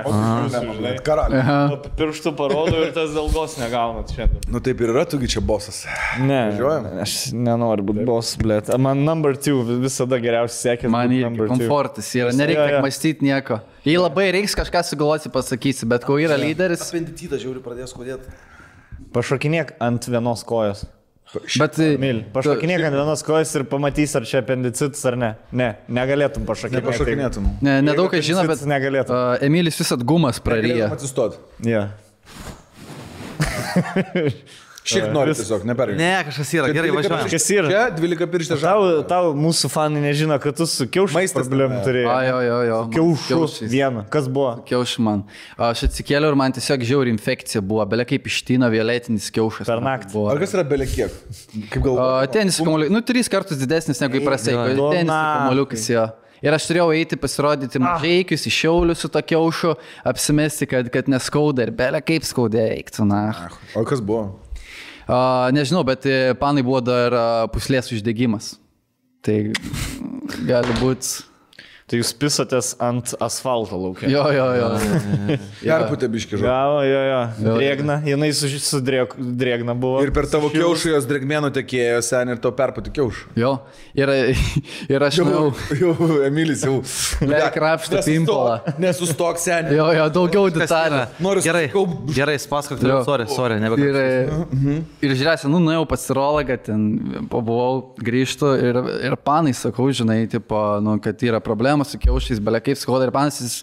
Karalius. Pirštų parodo ir tas ilgos negaunat šiandien. Nu taip ir yra, tugi čia bosas. Ne, Važiuojam? aš nenoriu būti boss, blėt. Man number 2 visada geriausiai sekė. Man irgi komfortas yra, nereikia mąstyti nieko. Jei labai reiks kažką sugalvoti, pasakysi, bet kol yra lyderis. Apendicitas žiauri pradės kodėti. Pašokinėk ant vienos kojos. Bet Pašokinėk ant vienos kojos ir pamatys, ar čia apendicitas ar ne. Ne, negalėtum pašokinėti. Nepašokinėtum. nedaug kas žino, bet negalėtum. Emilis visat gumas praryja. Atsistot. Ja. Šiek nori tiesiog, neperėjai. Ne, kažkas yra, gerai važiuojam. Kas yra? Čia 12 pirštė žalą. Tau mūsų fanai nežino, kad tu su kiaušais Maistas problemų tame. turėjai. Jo. Kiaušus vieną. Kas buvo? Kiaušų man. Aš atsikėliau ir man tiesiog žiauri infekcija buvo. Belia kaip ištyno violetinis kiaušas. Per naktį. Ar kas yra belekiek? Kaip galvoju? Tenis kamuoliukas. 3 kartus didesnis negu įprastai. Jo, Tenis kamuoliukas jo. Ir aš turėjau eiti pasirodyti mažaikius, iš Šiaulių su to kiaušu, apsimesti, kad neskauda ir belia kaip skaudė eiktų. O kas buvo? Nežinau, bet panai buvo dar puslės uždegimas. Tai gali būti. Tai jūs pisatės ant asfalto laukia. Jo. Perputė biški žodžiu. Jo. Drėgna, jinai su drėgna buvo. Ir per tavo kiaušų jos drėgmėnų tekėjo sen ir tau perputė kiaušų. Jo. Ir aš Jau, Emilis jau. krapštą pimpalą. Nesustok sen. Jo, daugiau detalių. Gerai, spasakok, sorry, nebekalbėjau. Ir žiūrėsi, nuėjau pas urologą, ten pabuvau, grįžtu ir panai sakau, žinai, tipo, kad yra problema su kiaušais, belia kaip skauda ir panas,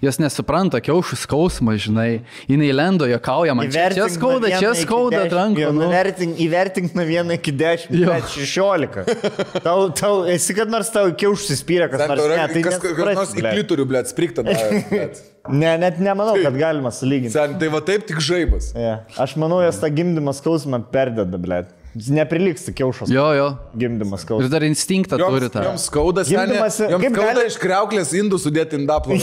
jos nesupranta kiaušų skausmą, žinai. Jinai lendo, juokauja, man čia skauda rankų. Įvertink nuo 1 iki 10, bet 16. Tau esi kad nors tau kiaušus įspyrė, kas nors ne. Tai kas nors į klitorių, blėt, sprikta. Ne, net nemanau, kad galima sulyginti. Tai va taip tik žaibas. Aš manau, jos tą gimdymą skausmą perdeda, blėt. Neprilygsta kiaušos. Jo. Gimdymas skausmas. Ir dar instinktą turi tą. Joms skauda, joms skauda iš kriauklės indų sudėti indaplovą.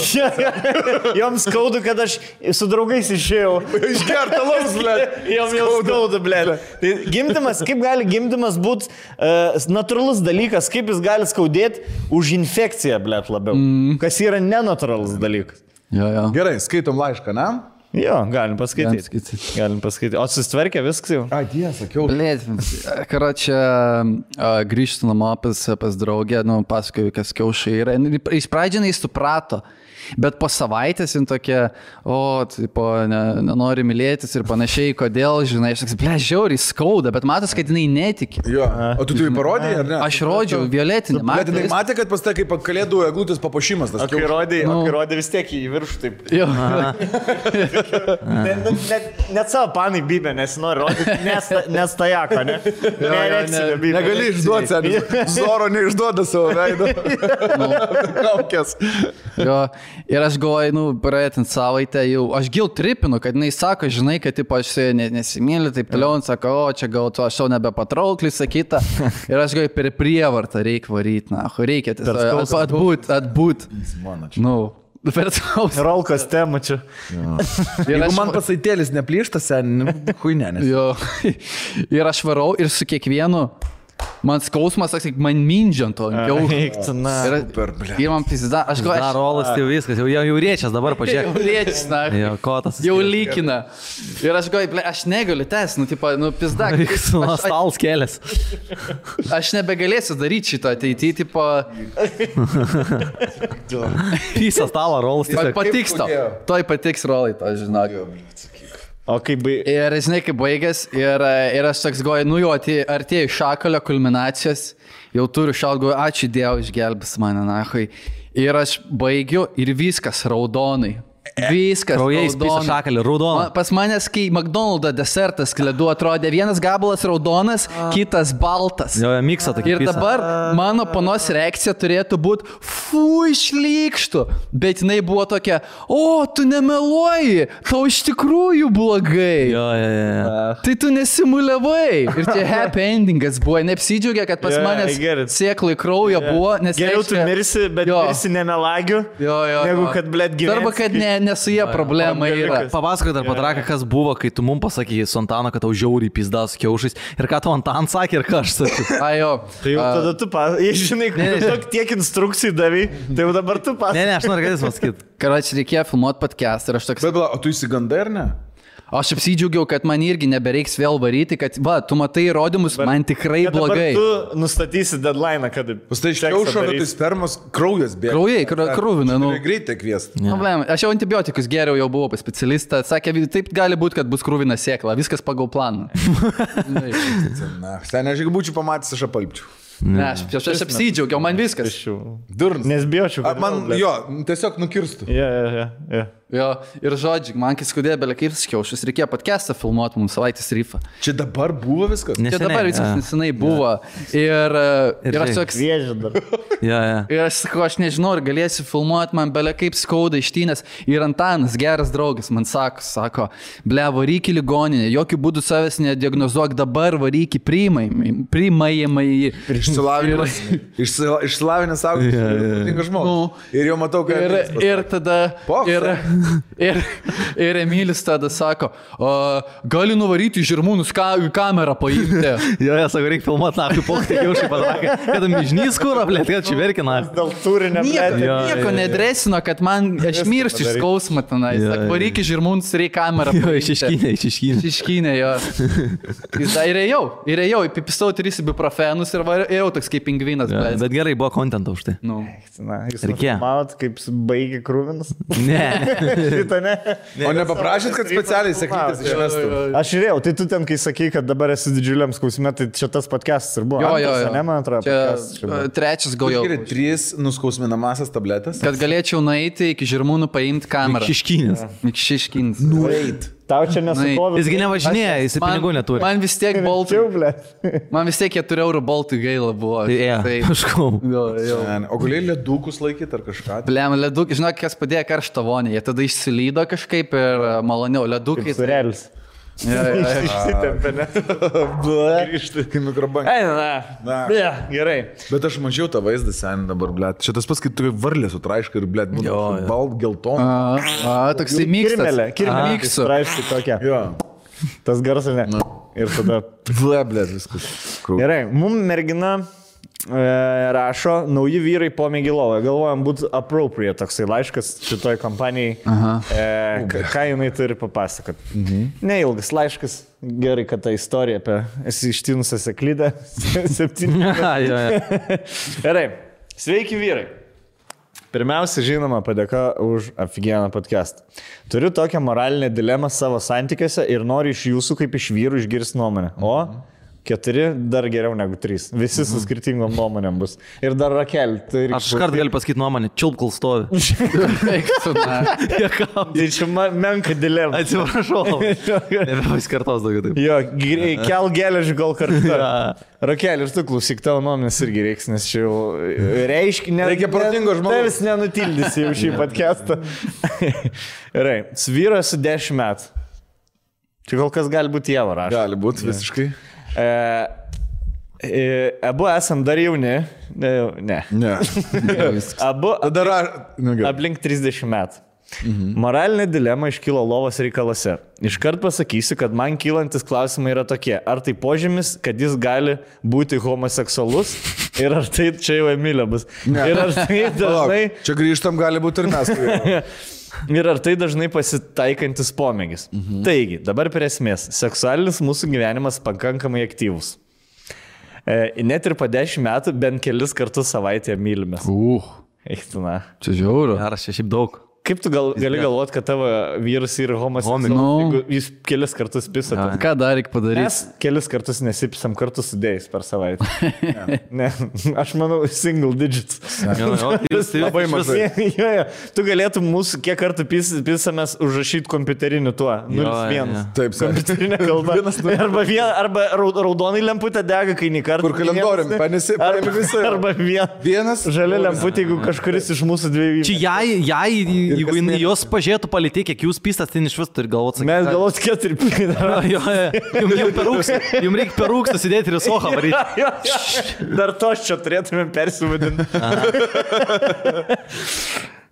Joms skauda, kad aš su draugais išėjau. Išgerta laus, blė. Joms skauda, blė. Tai gimdymas, kaip gali gimdymas būti natūralus dalykas, kaip jis gali skaudėti už infekciją, blė, labiau. Kas yra nenatūralus dalykas. Jo. Gerai, skaitom laišką, ne? Jo, galim paskaityti. O susitvarkė viskas jau? Dieve, sakiau. Blėt, čia grįžtu namo pas draugę, pasakoju, kas kiaušai yra. Iš pradžių jis suprato, bet po savaitės jin tokia, nenori mylėtis ir panašiai, kodėl, žinai, aš sakai, žiauriai skauda, bet matas, kad jinai netiki. Jo. O tu tai parodėjai, ar ne? Aš rodžiau violetinį. Bet jinai matė, kad pas tai kaip kalėdų eglutės papuošimas. O kai rodė vis tiek į viršų taip. Jo. Net savo panai bybė, nes nori rodyti, nes tajako, ne? Negali išduoti, sen. Zoro neišduoda savo veido. Kaukės. Jo. Ir aš galvoju, praeitant savaitę jau, aš gil tripinu, kad jinai sako, žinai, kad aš su ja nesimyliu, taip toliau, jin sako, čia gal tu aš jau nebepatrauklis, sakyta. Ir aš galvoju, per prievartą reikia varyti, reikia tiesiog atbūt. Per skausmą. Rolkos temą čia. Jeigu man pasaitėlis neplyšta, sen, huinenės. Jo. Ir aš varau ir su kiekvienu. Man skausmas, man mindžiant ant kiaušų. Ir man pizda, aš galvoju. Rolas tai viskas, jau riečias dabar, pažiūrėk. Jau riečias, na. Jo, kotas. Jau lykina. Ir aš galvoju, aš negaliu tęs, pizda. Stals kelias. Aš nebegalėsiu daryti šito ateityje, Pisa stalą, rolas. Patiks tau. Toj patiks rolai, to žinok. O kaip Ir žinai, kaip baigęs, ir aš toks galvoju, jau artėjau šakalio kulminacijos, jau turiu šaut, galvoju, ačiū Dievui, išgelbės mane, nahui. Ir aš baigiu ir viskas raudonai. Viskas. Kraujais pisa šakalį, raudona. Pas manęs, kai McDonald's desertas kledu atrodė vienas gabalas raudonas, kitas baltas. Jo, miksą tokį. Ir dabar mano panos reakcija turėtų būti, šlykštų, bet jinai buvo tokia, o, tu nemeluoji, tau iš tikrųjų blogai. Jo. Tai tu nesimuliavai. Ir čia happy endingas buvo, neapsidžiaugia, kad pas manęs sėklai kraujo buvo, nes geriau tu mirsi, bet mirsi nemelagiu, negu kad, blėt, gyveni. Arba, kad ne su jie problema yra. Papasakok dar Patraka, kas buvo, kai tu mums pasakėjai su Antanu, kad tau žiauriai pizdas su kiaušais. Ir ką tu Antan sakė ir ką aš sakiau. Ajo. Tai jau tada tu žinai, kad tiek instrukcijų davai, tai jau dabar tu pasakė. Ne, aš noriu, kad jis pasakyti. Karoči, reikėjo filmuoti podcast ir aš toks... Bet, o tu įsigandai ar ne? Aš apsidžiaugiau, kad man irgi nebereiks vėl varyti, kad, va, tu matai įrodymus, man tikrai blogai. Tu nustatysi deadline, kad... Pastai iš kiaušo, bet tai spermos kraujas bėga. Krūvina, nu. Greitai kviest. Problema. Aš jau antibiotikus geriau, jau buvau pas specialistą, sakė, taip gali būti, kad bus krūvina sėkla, viskas pagal planą. Na, sen, aš jeigu būčiau pamatęs, aš apalpčiau. Ne, aš apsidžiaugiau, man viskas. Durnas. Nes bijočiau. Man, jo, tiesiog nukirstų. Jo, ir žodžiai, man kai skudėjo belė kaip skiaušus, reikėjo podcastą filmuoti mums savaitės ryfą. Čia dabar buvo viskas? Čia dabar viskas nesenai buvo. Ir aš toks... Vėžė dar. Ir aš sakau, aš nežinau, ar galėsiu filmuoti, man belė kaip skauda ištynės. Ir Antanas, geras draugas, man sako, ble, varyk į ligoninę, jokių būdų savęs nediagnozuok dabar, varyk į priimamąjį. Išsilavinęs savo, tinka žmogus. Ir jau matau, kad... Ir tada... Ir Emilis tada sako, gali nuvaryti žirmūnus kamerą paimti. Jo, sako, reikia filmuoti naktį pokštį kiaušį Patraką. Kad mižnys kūro, blėt, kad čia verkina. Dėl turinio, blėt. Nieko nedresino, kad man aš miršti iš skausmą tenai. Sako, varyk į žirmūnus, reikia kamerą paimti. Išiškynė, jo. Ir ėjau, įpipisau 3 ibuprofenus ir ėjau toks kaip pingvinas. Bet gerai, buvo kontento už tai. Reikėjo. Matot, kaip baigė krūvinas? Ne. Šitą ne. O nepaprašyt, kad specialiai sakytis išvestų? Aš žiūrėjau, tai tu ten, kai sakai, kad dabar esi didžiuliam skausme, tai čia tas podcastas ir buvo. Jo. Ne, man atrodo. Trečias gal jau. 3 nuskausminamasias tabletės. Kad galėčiau nueiti iki žirmūnų paimti kamerą. Išiškins. Nueit. Tau čia nesukovė. Jisgi nevažinėja, jis pinigų neturi. Man vis tiek boltų. Man vis tiek 4 eurų boltų gaila buvo. Kažkau. O galėjai ledūkus laikyti ar kažką? Blem, ledūkai, žinok, kas padėjo karštą vonę. Jie tada išsilydo kažkaip ir maloniau. Ledūkai. Surelis. Išsitempė, ne? Grįžti į mikrobangą. Gerai. Bet aš mačiau tą vaizdą sen dabar, blėt. Šitas pas, kai tu varlė sutraiškai ir, blėt, būna balt geltoną. Toksai miksas. Miksu. Traiškai tokia. Tas garsas, ne? Ir tada... Blėt, viskas. Gerai, mum mergina rašo, nauji vyrai pomėgį lovą. Galvojam, būtų appropriate toksai laiškas šitoj kompanijai. Ką jinai turi papasakot. Neilgas laiškas. Gerai, kad ta istorija apie esi ištinusią seklydę. 7. Gerai. Sveiki vyrai. Pirmiausia, žinoma, padėka už aфиgeną podcastą. Turiu tokią moralinę dilemą savo santykiuose ir noriu iš jūsų kaip iš vyrų išgirsti nuomonę. O 4 dar geriau negu 3. Visi su skirtingom nuomonėm bus. Ir dar Rakel. Aš iškart galiu pasakyti nuomonę. Čiulp, kol stovi. Tai čia menka dilema. Atsiprašau. Nebepaskartos daugiau taip. Jo, kel geležį gal kartu. Rakel, ir tu klausyk, tavo nuomonės irgi reiks, nes čia jau reiškia... Reikia protingo žmogaus. Tevis nenutildysi jau šį podcastą. Gerai, vyras su 10 metų. Čia kol kas gali būti Jeva rašo. Gali būti visiškai. Abu esam dar jauni. Ne. Abu aplink 30 metų. Moralinė dilema iškilo lovos reikalose. Iškart pasakysiu, kad man kylantis klausimai yra tokie. Ar tai požymis, kad jis gali būti homoseksualus? Ir ar tai čia jau Emilė bus? Ir ar tai dažnai... Čia grįžtam gali būti ir mes. Ir ar tai dažnai pasitaikantis pomėgis. Taigi, dabar prie esmės. Seksualinis mūsų gyvenimas pakankamai aktyvus. Net ir po 10 metų bent kelis kartus savaitėje mylimės. Eiktina. Čia žiauru. Ar aš šiaip daug. Kaip tu gali galvoti, kad tavo vyras yra homoseksualus, jeigu jis kelis kartus pisa? Ką dar reikia padaryti? Mes kelis kartus nesipisam kartu sudėjus per savaitę. Ne, aš manau, single digits. Labai mažai. Tu galėtum mūsų, kiek kartų pisamės užrašyti kompiuteriniu tuo. 0-1. Taip, kompiuterinė kalba. Arba raudonai lemputė dega, kai nei kartą. Kur kalendorium, paėmė visą. Arba vienas žalia lemputė, jeigu kažkuris iš mūsų dviejų. Čia jai jeigu jos pažiūrėtų palytė, kiek jūs pistas, tai iš vis turi galvoti. Mes galvoti 4 Jums reikia per rūkstą sėdėti ir sohą varyti. Dar tos čia turėtume persivadinti.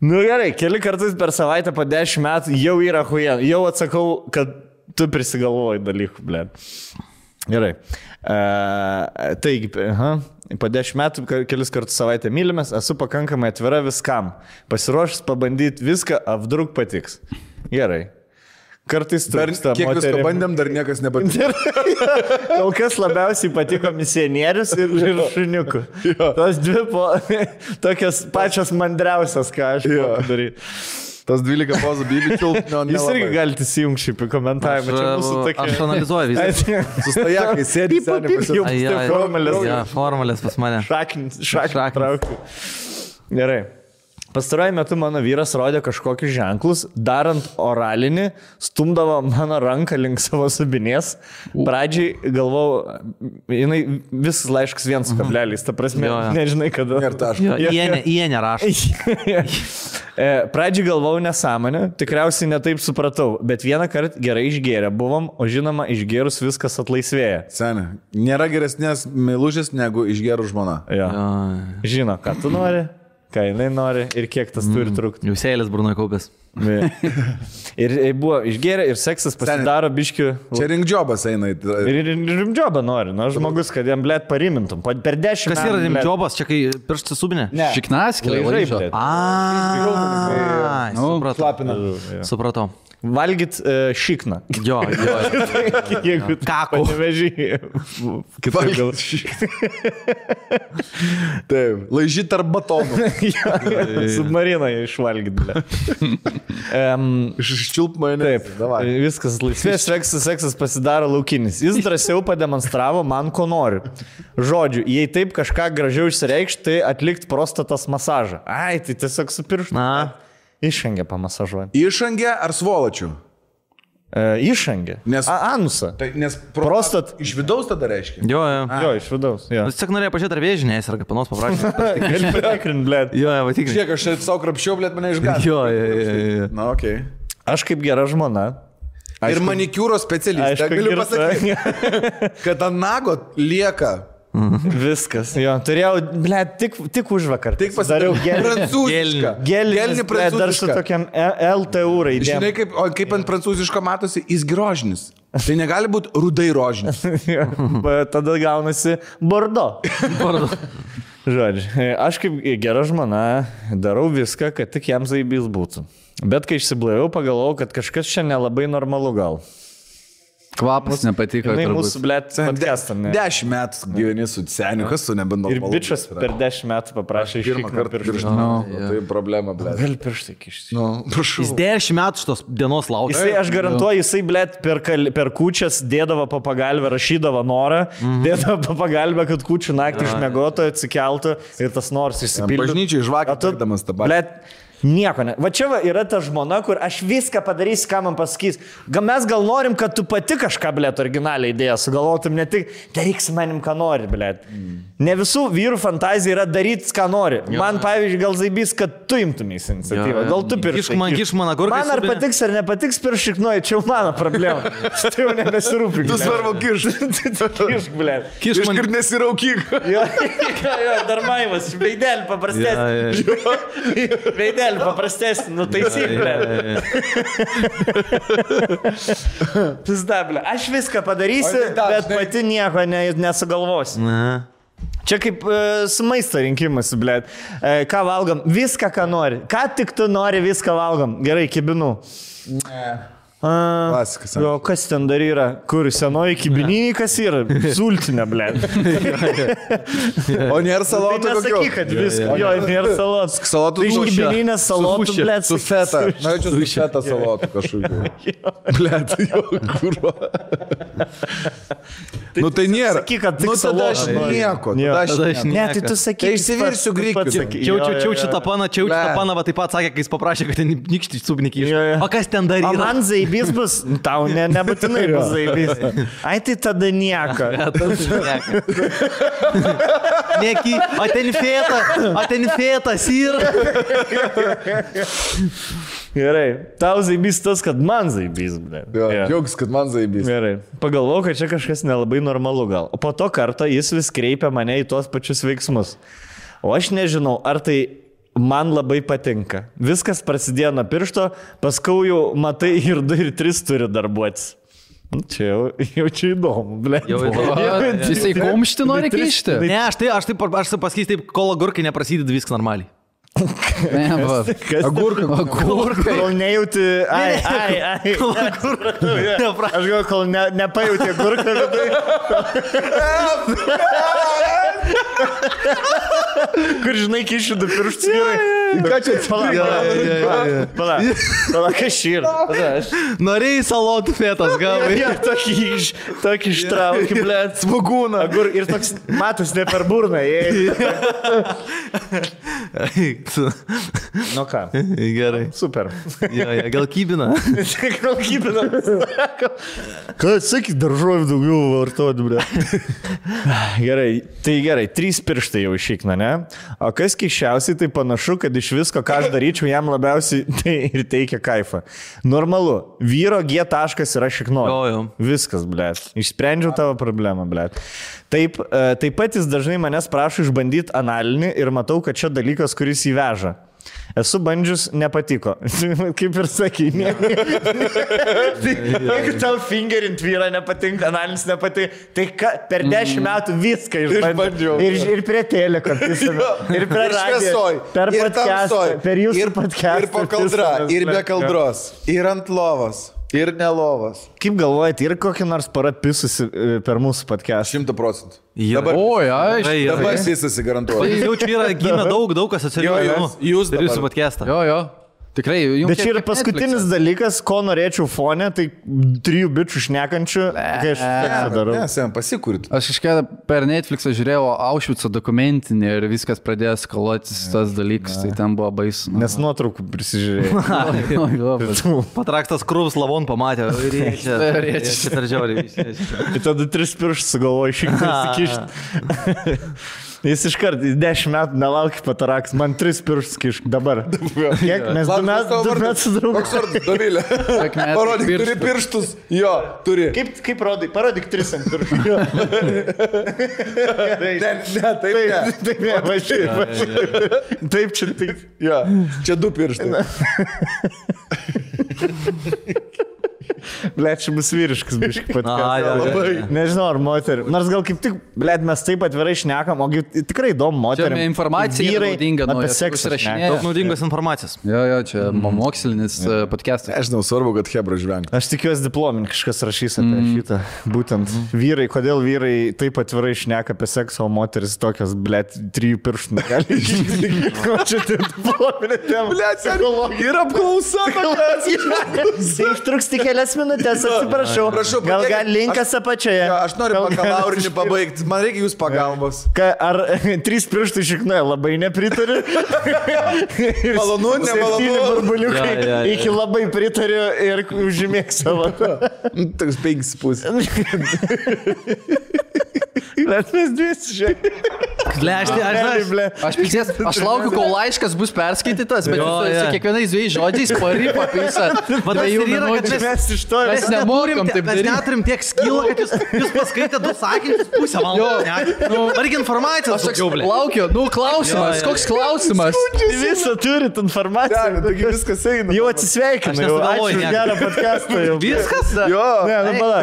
Nu gerai, keli kartus per savaitę po 10 metų jau yra huija. Jau atsakau, kad tu prisigalvoji dalykų, blė. Gerai. Taigi, po 10 metų kelis kartus savaitę mylimės, esu pakankamai atvira viskam. Pasiruošęs pabandyti viską, apdruk patiks. Gerai. Kartais trūksta kiek moterim. visko bandėm, dar niekas nepatiko. Kol kas labiausiai patiko misionierius ir šuniukų. Tos dvi tokias pačios mandriausias, ką aš daryti. Tas 12 pozų bibičių. Jūs irgi galite įsijungti šiaip į komentavimą. Aš analizuoju visą. Sustajakai, sėdi, Formalės pas mane. Šaknį traukiu. Gerai. Pastaruoju metu mano vyras rodė kažkokius ženklus, darant oralinį, stumdavo mano ranką link savo subinės. Pradžiai galvau, jinai visas laiškas 1 kablelis, ta prasme, nežinai kada. Ir taškas. Jie nerašo. Pradžiai galvau nesąmonę, tikriausiai netaip supratau, bet vieną kartą gerai išgėrę buvom, o žinoma, išgėrus viskas atlaisvėja. Seniai, nėra geresnės meilužės negu išgėrų žmona. Žino, ką tu nori. Ką jinai nori ir kiek tas turi trukti. Jūs eilės burnoje kaupės. Ir buvo išgėrę ir seksas pasidaro biškių. Čia rimdžiobas eina. Ir rimdžiobą nori. Nu, žmogus, kad jam blėt parimintum. Per 10 metų. Kas yra rimdžiobas? Čia kai pirštas subinė? Šiknaskė, laižai. Supratau. Valgyt šikną. Jo. Kako. Nevežį. Taip, laižyt tarp batonų. Submariną išvalgyt. Iščiulp mane. Taip, viskas laisvės, seksas pasidaro laukinis. Jis drąsiau pademonstravo man, ko nori. Žodžiu, jei taip kažką gražiau išsireikšti, tai atlikti prostatos masažą. Ai, tai tiesiog su pirštu. Išangę pamasažuojant. Išangę ar svolačių? Išangę. Anusą. Tai, nes prostat iš vidaus tada reiškia. Jo, iš vidaus. Jis tik norėjo pažiūrėti, ar vėžinės, ar panos paprašyti. Gali patikrinti, blėt. Jo, patikrinti. Žiūrėk, aš savo krapščiau, blėt, mane išgąsdino. Jo. Na, okei. Aš kaip gera žmona. Ir manikiūro specialistė. Galiu pasakyti, kad ant nago lieka. Viskas, jo. Turėjau, blėt, tik už vakar. Tik pasidariau prancūzišką. Gelinį prancūzišką. Dar su tokiam LTU raidėm. Žinai, kaip ant prancūziško matosi, jis grožinis. Tai negali būti rudai rožinis. Tada gaunasi bordo. Žodžiu, aš kaip gera žmona darau viską, kad tik jam zaibys būtų. Bet kai išsiblaiviau, pagalvojau, kad kažkas čia nelabai normalu gal. Kvapas nepatiko. Tai mūsų, blėt, podcastam. 10 metų gyveni su seniu, kas su nebenormalu. Ir bičias per 10 metų paprašė pirmą kartą pirštą. Tai problema, blėt. Gal pirštai kišti. Jis 10 metų šitos dienos laukia. Jisai, aš garantuoju, jisai, blėt, per kūčias dėdavo po pagalbę, rašydavo norą, dėdavo po pagalbę, kad kūčių naktį išmiegotų, atsikeltų ir tas noras išsipildė. Bažnyčiai žvakė atlikdamas tą balę. Nieko ne. Va čia yra ta žmona, kur aš viską padarysiu, ką man pasakys. Mes gal norim, kad tu pati kažką, blėt, originalią idėją sugalvotum, ne tik daryk su manim, ką nori, blėt. Ne visų vyrų fantazija yra daryti, ką nori. Man, pavyzdžiui, gal zaibys, kad tu imtumės iniciatyvą. Gal tu pirštai. Man ar patiks ar nepatiks piršiknuoji, čia jau mano problema. Tai jau nebesirūpink. Tu svarbu kišk, blėt. Kišk ir nesiraukyk. Jo, dar maimas, veidelį paprastesnį. Paprastesnį, nutaisyklę. Pizdablė. Aš viską padarysiu, bet pati nieko nesugalvosiu. Čia kaip su maisto rinkimas, blėt. Ką valgom? Viską, ką nori. Ką tik tu nori, viską valgom. Gerai, kibinu. Klasikas. O kas ten dar yra? Kur senoji kibininė, kas yra? Sultinė, ble. O nėra salotų Tai nesakyk, kad viską. Jo, nėra salotų. Salotų Tai iš kibininės salotų, ble. Su feta. Norėčiau su feta salotų kažkokiu. Blet, jo, kurva. Nu tai nėra. Sakyk, kad tik Nu tada aš salotų nori. nieko. Jo. Tada aš Ne, tai tu sakyk. Tai išsivirsiu grikių. Čiaučiu tą paną, va taip pat sakė, kai jis paprašė, kad ten nykštį subnikį iš. Jo, jo. O kas ten dar O yra? man zaibys bus, tau nebūtinai bus zaibys. Ai, tai tada nieko. Neki, o ten fėtas yra. Gerai, tau zaibys tas, kad man zaibys, ble. Jo, Jo. džiaugs, kad man zaibys. Gerai. Pagalvojau, kad čia kažkas nelabai normalu gal. O po to karto jis vis kreipia mane į tuos pačius veiksmus. O aš nežinau, ar tai man labai patinka. Viskas prasidėjo nuo piršto, paskui jau matai ir 2 ir 3 turi darbuotis. Čia jau čia įdomu, ble. Jisai kumštį nori kišti. Ne, aš pasakysiu taip, kol agurkai neprasideda, viskas normaliai. Ne, va. Agurkai. Kol nejauti. Ai. Aš gal, kol nepajauti agurką vidai. Kur žinai, kišiu 2 pirštus vyrai. Ką čia Pala, kas yra? Norėjai salotų fėtas, gavai. Ja, tokį ištraukį, ble. Smagūną. Agur ir toks matas ne per burną. Nu ką? Gerai. Super. Gal kybina? Gal kybina. Ką sakyk, daržovių daugiau vartoti, ble. Gerai, 3 pirštai jau išeikna, ne? O kas keiščiausiai, tai panašu, kad iš visko, ką aš daryčiau, jam labiausiai tai ir teikia kaifą. Normalu, vyro G taškas yra šiknoja. Jo. Viskas, ble. Išsprendžiau tavo problemą, ble. Taip pat jis dažnai manęs prašo išbandyti analinį ir matau, kad čia dalykas, kuris įveža. Esu bandžius, nepatiko. Kaip ir sakai, ne. Jeigu tau fingerint vyrą nepatinka, analinis nepatinka, tai per 10 metų viską išbandžiau. Ir prie teliko, ir prie radijo, per podcastą, per jūsų podcastą. Ir po kaldra, ir be kaldros, ir ant lovos, ir ne lovos. Kaip galvojate, ir kokį nors paratpisusi per mūsų podcastą? 100%. Dabar, Oi, aišku. Dabar jis garantuoja. jaučiu, yra gimę daug asociacijų. Jūs ir jūsų podcastą. Jo. Tikrai, jums. Bet čia yra paskutinis dalykas, ko norėčiau fone, tai 3 bičių šnekančių, kai aš seksą darau. Nesam, pasikūrit. Aš kažkada per Netflixą žiūrėjau Auschwitzo dokumentinį ir viskas pradėjo skaluotis tas dalykas, tai ten buvo baisu. Nes nuotraukų prisižiūrėjau. Patraktas krūvs lavon pamatė. Rėčia per žiauriai. Ir tada 3 pirštus sugalvoju šiek tiek kišti. Jis iškart 10 metų nelaukia pataraks, man 3 pirštus kišk dabar. Kiek? Mes 2 metus draugų. Koks vardas, Dovilė? Parodyk, turi pirštus. Jo, turi. Kaip rodai? Parodyk 3 ant pirštų. Taip, važiuoju. Taip, čia taip. Jo, čia 2 pirštai. Blet, čia bus vyriškas biškai patikės. Nežinau, ar moterį. Nors gal kaip tik, blet, mes taip atvirai šnekam, o tikrai įdomu moterį. Čia informacija naudinga, apie seksą. Daug naudingos informacijos. Jo, čia mokslinis podcastas. Aš žinau, svarbu, kad hebra žvengia. Aš tikiuosi diplominį kažkas rašys apie šitą. Būtent vyrai, kodėl vyrai taip atvirai šneka apie seksą, o moteris tokios, blet, 3 pirštų negali. Ko čia tai diplominė tema? Blet, ir apklausa. Tai užtruks tik kelias minutės, atsiprašau. Gal linkas apačioje. Aš noriu bakalaurinį pabaigti. Man reikia jūs pagalbos. Ar 3 pirštų šiknoja, labai nepritariu. Malonu, nemalonu. 7 burbuliukai iki labai pritariu ir užimėk savo. Toks 5,5. Bet mes 2, žiūrėk. Aš laukiu, kol laiškas bus perskaitytas, bet su kiekvienais 2 žodžiais parypa pisą. Mes iš to mes nemokam taip daryti. Mes neturim tiek skilą, kad jūs paskaitė 2 sakinius pusę valandos. Reikia informacijos. Aš laukiu, klausimas, koks klausimas? Visą turit informaciją. Taigi viskas eina. Jau atsisveikinu. Ačiū už gerą podcastą. Viskas? Jo. Ne, pala.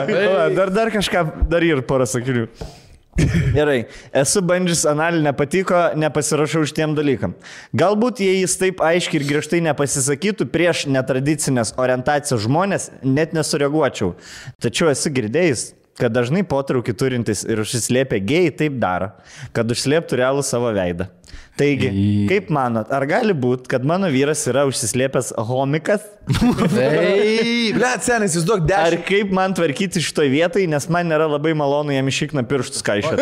Dar kažką, dar ir porą sakinių. Gerai, esu bandžius analį, nepatiko, nepasirašau šitiem dalykam. Galbūt jei jis taip aiškiai ir griežtai nepasisakytų prieš netradicinės orientacijos žmonės, net nesureaguočiau. Tačiau esu girdėjęs, kad dažnai potraukį turintis ir užsislėpę gėjai taip daro, kad užslėptų realų savo veidą. Taigi, kaip manot, ar gali būti, kad mano vyras yra užsislėpęs homikas? Blet, senis, jūs duok 10. Ar kaip man tvarkyti šitoj vietai, nes man nėra labai malonu jam išikna pirštus kaišėt.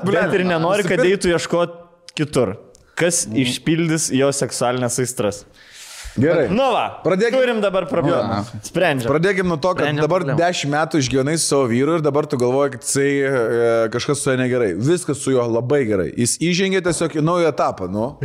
Bet ir nenori, kad eitų ieškoti kitur. Kas išpildys jo seksualinės aistras? Gerai. Nu va, turim dabar problemą. Sprendžiam. Pradėkim nuo to, kad dabar 10 metų išgyvenai su savo vyru ir dabar tu galvoji, kad jisai kažkas su juo negerai. Viskas su juo labai gerai. Jis įžengė tiesiog į naują etapą, nu.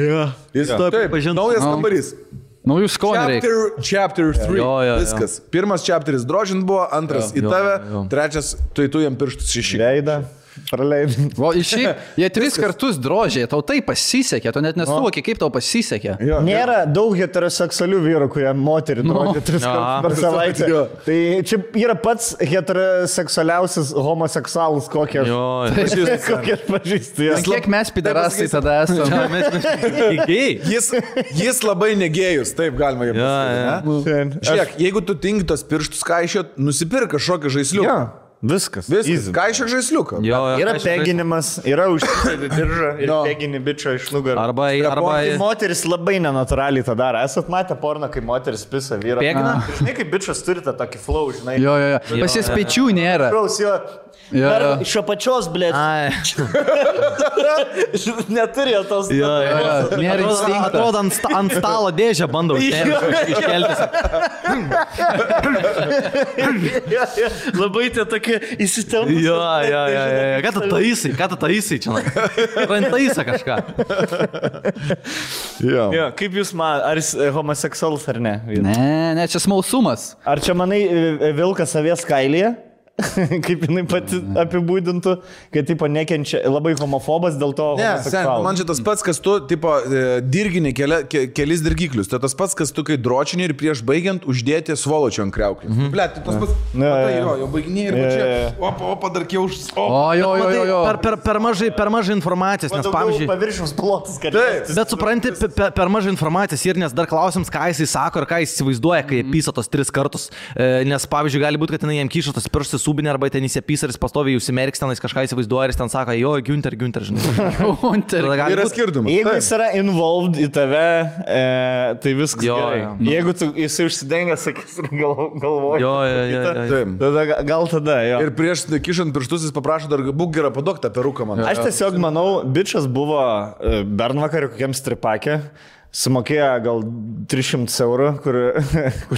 Jis taip, naujas kambarys. Naujų skonių reikia. Chapter 3. Viskas. Pirmas chapteris drožint buvo, antras į tave, trečias tu jam pirštus iššyk. Veidą. Praleidai. O iš šį, jie 3 kartus drožė, tau tai pasisekė, tu net nesuvoki, kaip tau pasisekė. Nėra daug heteroseksualių vyrų, kurie moterį drožė 3 kartus per savaitę. Tai čia yra pats heteroseksualiausias homoseksualus, kokie aš pažįstu. Kiek mes piderastai tada esame? Jis labai negėjus, taip galima jam pasakyti. Žiūrėk, jeigu tu tingi tos pirštus kaišiot, nusipirk kažkokį žaisliuką. Viskas. Kaišia žaisliuką. Yra peginimas, yra užsidėti diržą ir pegini bičio iš nugarą. Arba moteris labai nenatūraliai tą daro. Esat matę porną, kai moteris pisa vyrą. Pegina? Žinai, kaip bičias turi tą tokį flow, žinai. Jo. Pas jas pečių nėra. Iš apačios, blėt. Neturi tos. Nėra instinkto. Atrodo, ant stalo dėžę bandau iškelti. Labai tie tokie įsitempus. Jo. Ką tu taisai čia? Rantaisa kažką. Kaip jūs man, ar jis homoseksualus ar ne? Ne, čia smalsumas. Ar čia manai vilkas savęs kailyje? Kaip jinai pati apibūdintų, kad tipo nekenčia, labai homofobas dėl to homoseksualus. Man čia tas pats, kas tu, tipo, dirgini kelis dirgiklius. Tai tas pats, kas tu, kai dročini ir prieš baigiant uždėti svoločio ant kriauklių. Blet, tai tas pats, jau baiginiai ir čia, opa, dar kiauš. Jo. Per mažai informacijos, nes pavyzdžiui... Paviršiaus plotas, kad... Bet supranti, per mažai informacijos ir nes dar klausims, ką jisai sako ir ką jis įsivaizduoja, kai pysa tos 3 kartus. Nes pavyzdžiui, gali būti, kad jinai jam kyšo tos pirštus subinė arba ten įsipys ir jis pastoviai užsimerks, ten jis kažką įsivaizduoja ir jis ten sako, jo, Günther, žinai. Yra skirtumas. Jeigu jis yra involved į tave, tai viskas gerai. Jeigu jisai užsidengia, sakys, galvoja. Tada gal tada, jo. Ir prieš kišant pirštus jis paprašo dar būk gerą padok tą peruką man. Aš tiesiog manau, bičas buvo bernvakarį kokiam stripakė. Sumokėjo gal 300 eurų, kur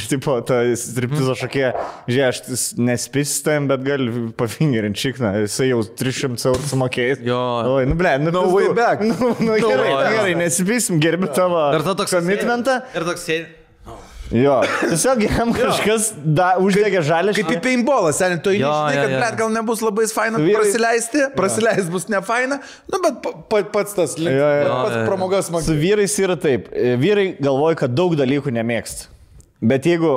tipo ta striptizo šokėja, žiūrėk, aš nespėsiu tam, bet gali pafingerinti šikną, jisai jau 300 eurų sumokėjęs. Oi, no way back. Gerai, nespėsim, gerbi tavo komitmentą. Ir toks sėdi. Jo, tiesiog jam kažkas uždegė žalę. Kaip į paintballą, seniai, tu žinai, kad blet, gal nebus labai faina prasileist bus ne faina, nu, bet pats tas pats pramogas man. Su vyrais yra taip, vyrai galvoja, kad daug dalykų nemėgsta. Bet jeigu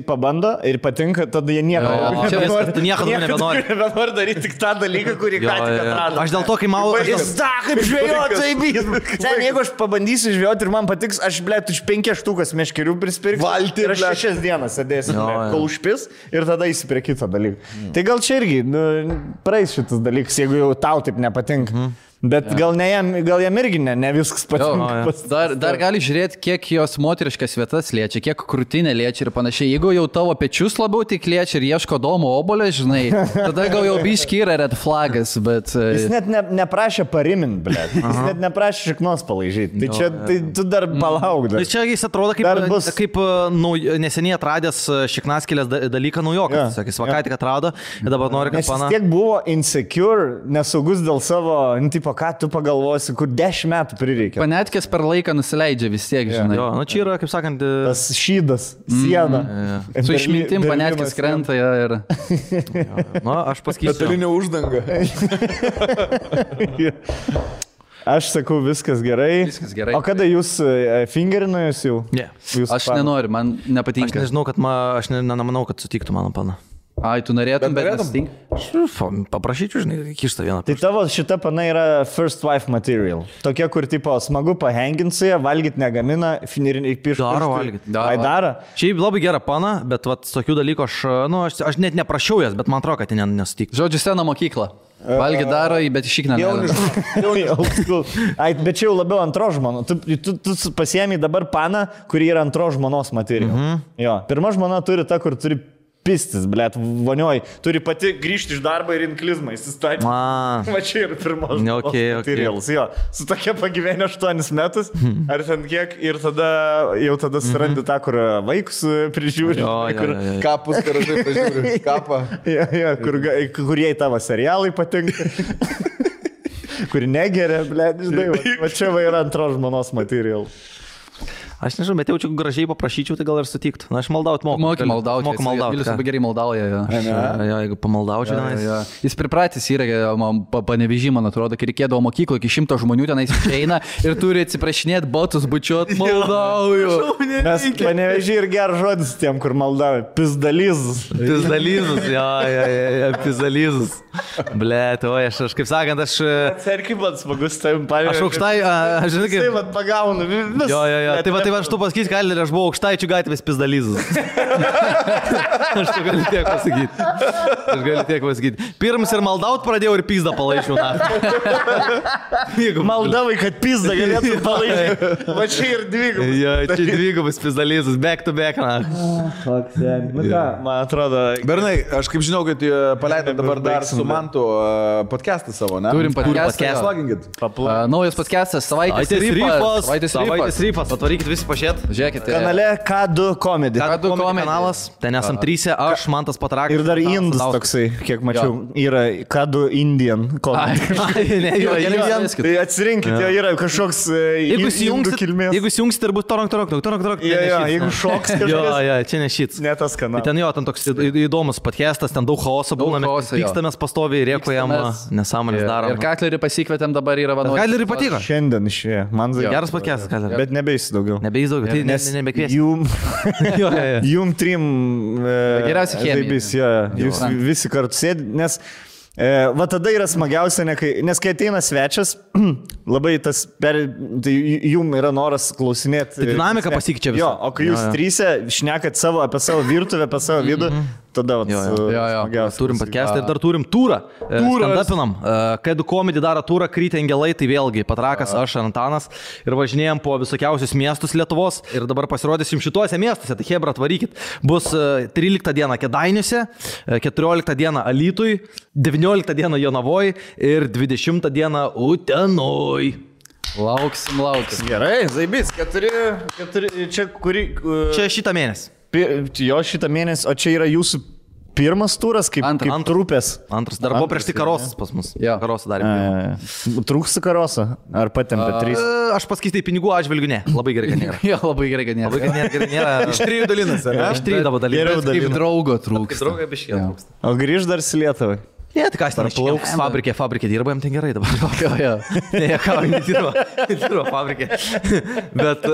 pabando ir patinka, tada jie nieko nebenori daryti tik tą dalyką, kurį ką tik atrado. Aš dėl to, kai mau... Kaip žvejot, taip. Sen, jeigu aš pabandysiu žvejot ir man patiks, aš, blėt, už 5 štukas meškerių prispirksiu. Valti. Ir aš 6 dienas sėdėsiu, kol užpis ir tada eisi prie kito dalyko. Tai gal čia irgi praeis šitas dalykas, jeigu jau tau taip nepatinka. Bet gal jam irgi ne viskas patinka. Dar gali žiūrėti, kiek jos moteriškas vietas liečia, kiek krūtinė liečia ir panašiai. Jeigu jau tavo pečius labiau tik liečia ir ieško domo obolio, žinai, tada gal jau biški yra red flagas, bet... Jis net neprašė parimint, blėt. Jis net neprašė šiknos palaižyti. Tai čia tu dar palauk. Čia jis atrodo kaip neseniai atradęs šiknaskėlės dalyką naujokas. Sakys, vakai tik atrado ir dabar nori, kad pana... Nes tiek buvo insecure, nesaugus dėl savo, tipo, ką tu pagalvosi, kur 10 metų prireikia. Panetkės per laiką nusileidžia vis tiek, žinai. Jo, nu čia yra, kaip sakant... Tas šydas, siena. Su išmintim panetkės krenta ir... Nu, aš pasakysiu. Metalinė uždanga. Aš sakau, viskas gerai. O kada jūs fingerino jūs jau? Ne. Aš nenoriu, man nepatinka. Aš nežinau, kad aš nemanau, kad sutiktų mano pana. Ai, tu norėtum, bet norėtum? nesitink. Paprašyčiau, žinai, kištą vieną. Tai tavo šita pana yra first wife material. Tokia, kur tipo smagu pahenginti su ją, valgyti negamina, finiriniai piškai. Daro valgyt. Ai, daro. Šiaip labai gera pana, bet vat, tokių dalykų aš net neprašiau jas, bet man atrodo, kad jie nesutiktų. Žodžiu, sena mokykla. Valgy daro, bet išikna. Ai, bet čia jau labiau antro žmono. Tu pasiemi dabar paną, kuri yra antro žmonos material. Jo. Pirma žmona turi ta, kur turi pistis, blėt, vonioj. Turi pati grįžti iš darbo ir inklizmą įsistatyti. Va čia ir pirmos materials. Jo. Su tokia pagyvenė 8 metus, ar ten kiek, ir jau tada surandi tą, kur vaikus prižiūri. Kapus, karažai prižiūri. Kapą. Kur jai tavo serialai patinka. Kur negeria, blėt, žinai. Va čia va yra antros žmonos material. Aš nežinau, bet jaučiu gražiai paprašyčiau, tai gal ir sutiktų. Na, aš maldaut moku. Moku maldauti. Moku maldauti. Vilius labai gerai maldauja. Jo, jeigu pamaldaučiau tenais. Jis pripratęs yra, panevežį, man atrodo, kai reikėdavo mokyklo, iki 100 žmonių tenais išeina ir turi atsiprašinėti, botus bučiuot, maldauju. Mes panevežį ir geras žodis tiem, kur maldauja. Pizdalizus. Pizdalizus, jo, pizdalizus. Blet, o aš kaip sakant, aš... Serkiai man smagus, tai pavyzdžiui. Aš aukštai, aš žinai kaip... Tai man pagaunu. Jo. Tai aš tu pasakysiu, Kalė, aš buvau aukštaičių gatvės pizdalizus. Aš tu galiu tiek pasakyti. Pirms ir maldaut pradėjau ir pizdą palaišiau. Maldavai, kad pizdą galėtų palaišyti. Va čia ir dvigubas. Jo, čia dvigubas pizdalizus, back to back. Man atrodo... Bernai, aš kaip žinau, kad paleidai dabar dar su Mantu podcastą savo, ne? Turim podcastą. Sloginkit. Naujas podcastas, savaitės rypas. Atvarykit visi pažiūrėt. Žiūrėkit. Kanale K2 Comedy. K2 kanalas. Ten esam 3, aš, Mantas Patrakas. Ir dar Indus toksai, kiek mačiau, yra K2 Indian Comedy. Tai atsirinkit, jo yra kažkoks indų kilmės. Jeigu įjungsit ir bus torok. Jeigu šoks kažkas. Jo, čia ne šits. Ne tas kanalas. Ten jo, ten toks įdomus podcastas, ten daug chaoso būna, pykstamės pastoviai, rėkojam, nesąmonės darom. Ir Katlerį pasikvietėm, dabar yra vadovas. Katlerį patiko. Šiandien išėjo. Man geras podcastas, Katlerį. Bet nebeis daugiau. Nebeis daugiau, tai nebekvies. Jum trim geriausia chemija. Jūs visi kartu sėdi, nes va tada yra smagiausia, nes kai ateina svečias, labai tas, tai jum yra noras klausinėti. Tai dinamika pasikeičia visą. Jo, o kai jūs trysia šnekat apie savo virtuvę, apie savo vidų, tada smagiausia. Turim podcastą ir dar turim turą. Stand-upinam. K2 Comedy daro turą, Krytė Angelai, tai vėlgi Patrakas, aš, Antanas. Ir važinėjom po visokiausius miestus Lietuvos. Ir dabar pasirodysim šituose miestuose. Tai hebra, atvarykit. Bus 13 dieną Kėdainiuose, 14 dieną Alytui, 19 dieną Jonavoj ir 20 dieną Utenoj. Lauksim. Gerai, zaibys, 4, čia kurį... Čia šitą mėnesį. Jo šitą mėnesį, o čia yra jūsų pirmas turas, kaip trupės. Antras, dar buvo prieš tai karosas pas mus. Karosą darėme. Trūksta karosą? Ar patempė 3? Aš paskaitai pinigų atžvilgiu, ne. Labai gerai, kad nėra. Jo, labai gerai, kad nėra. Iš 3 dalinasi, ne? Iš 3 dalinasi. Kaip draugo trūksta. Kaip draugo biškė trūksta. O grįž dar į Lietuvą? Ne, tai kas ten plauks. Fabrikė dirba, jam ten gerai dabar. Ne, ką, nedirba fabrikė. Bet,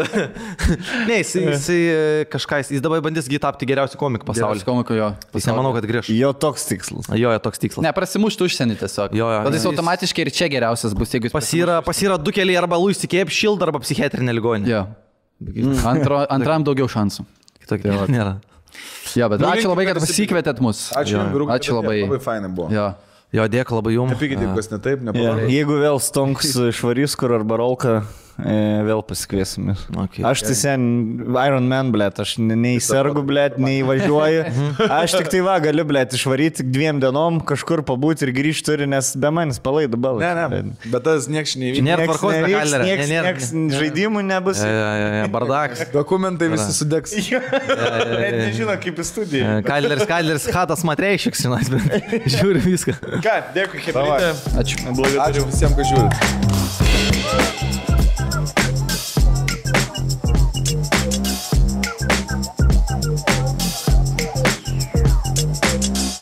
ne, jisai kažką, jis dabar bandys tapti geriausių komikų pasaulyje. Komikų, jo. Jis nemanau, kad grįž. Jo toks tikslas. Toks tikslas. Ne, prasimušti užsienį tiesiog. Tada jis automatiškai ir čia geriausias bus, jeigu jis Pas yra 2 keliai, arba Luis Kėp Šild, arba psichiatrinė ligoninė. Jo. Antram daugiau šansų. Kitokio nėra. Jo, bet ačiū labai, kad pasikvietėt mus. Ačiū labai. Labai fainai buvo. Jo, dėkui labai jums. Nepykite, kas ne taip, nepavarė. Jeigu vėl Stonks išvarys kur arba Rolka, vėl pasikviesim. Aš tai sen Iron Man, blėt, aš nei sergu, blėt, nei važiuoju. Aš tik tai galiu, blėt, išvaryti 2 dienom, kažkur pabūti ir grįžti turi, nes be manis palaidu balą. Ne, bet tas nieks nevyks. Nėra tvarkos, nieks žaidimų nebus. Bardakas. Dokumentai visi sudegs. Net nežino, kaip į studiją. Kalderis, Hatas Matreišiks, žiūri viską. Ką, dėkui, Hebrytė. Ačiū visiems, kad žiūrit.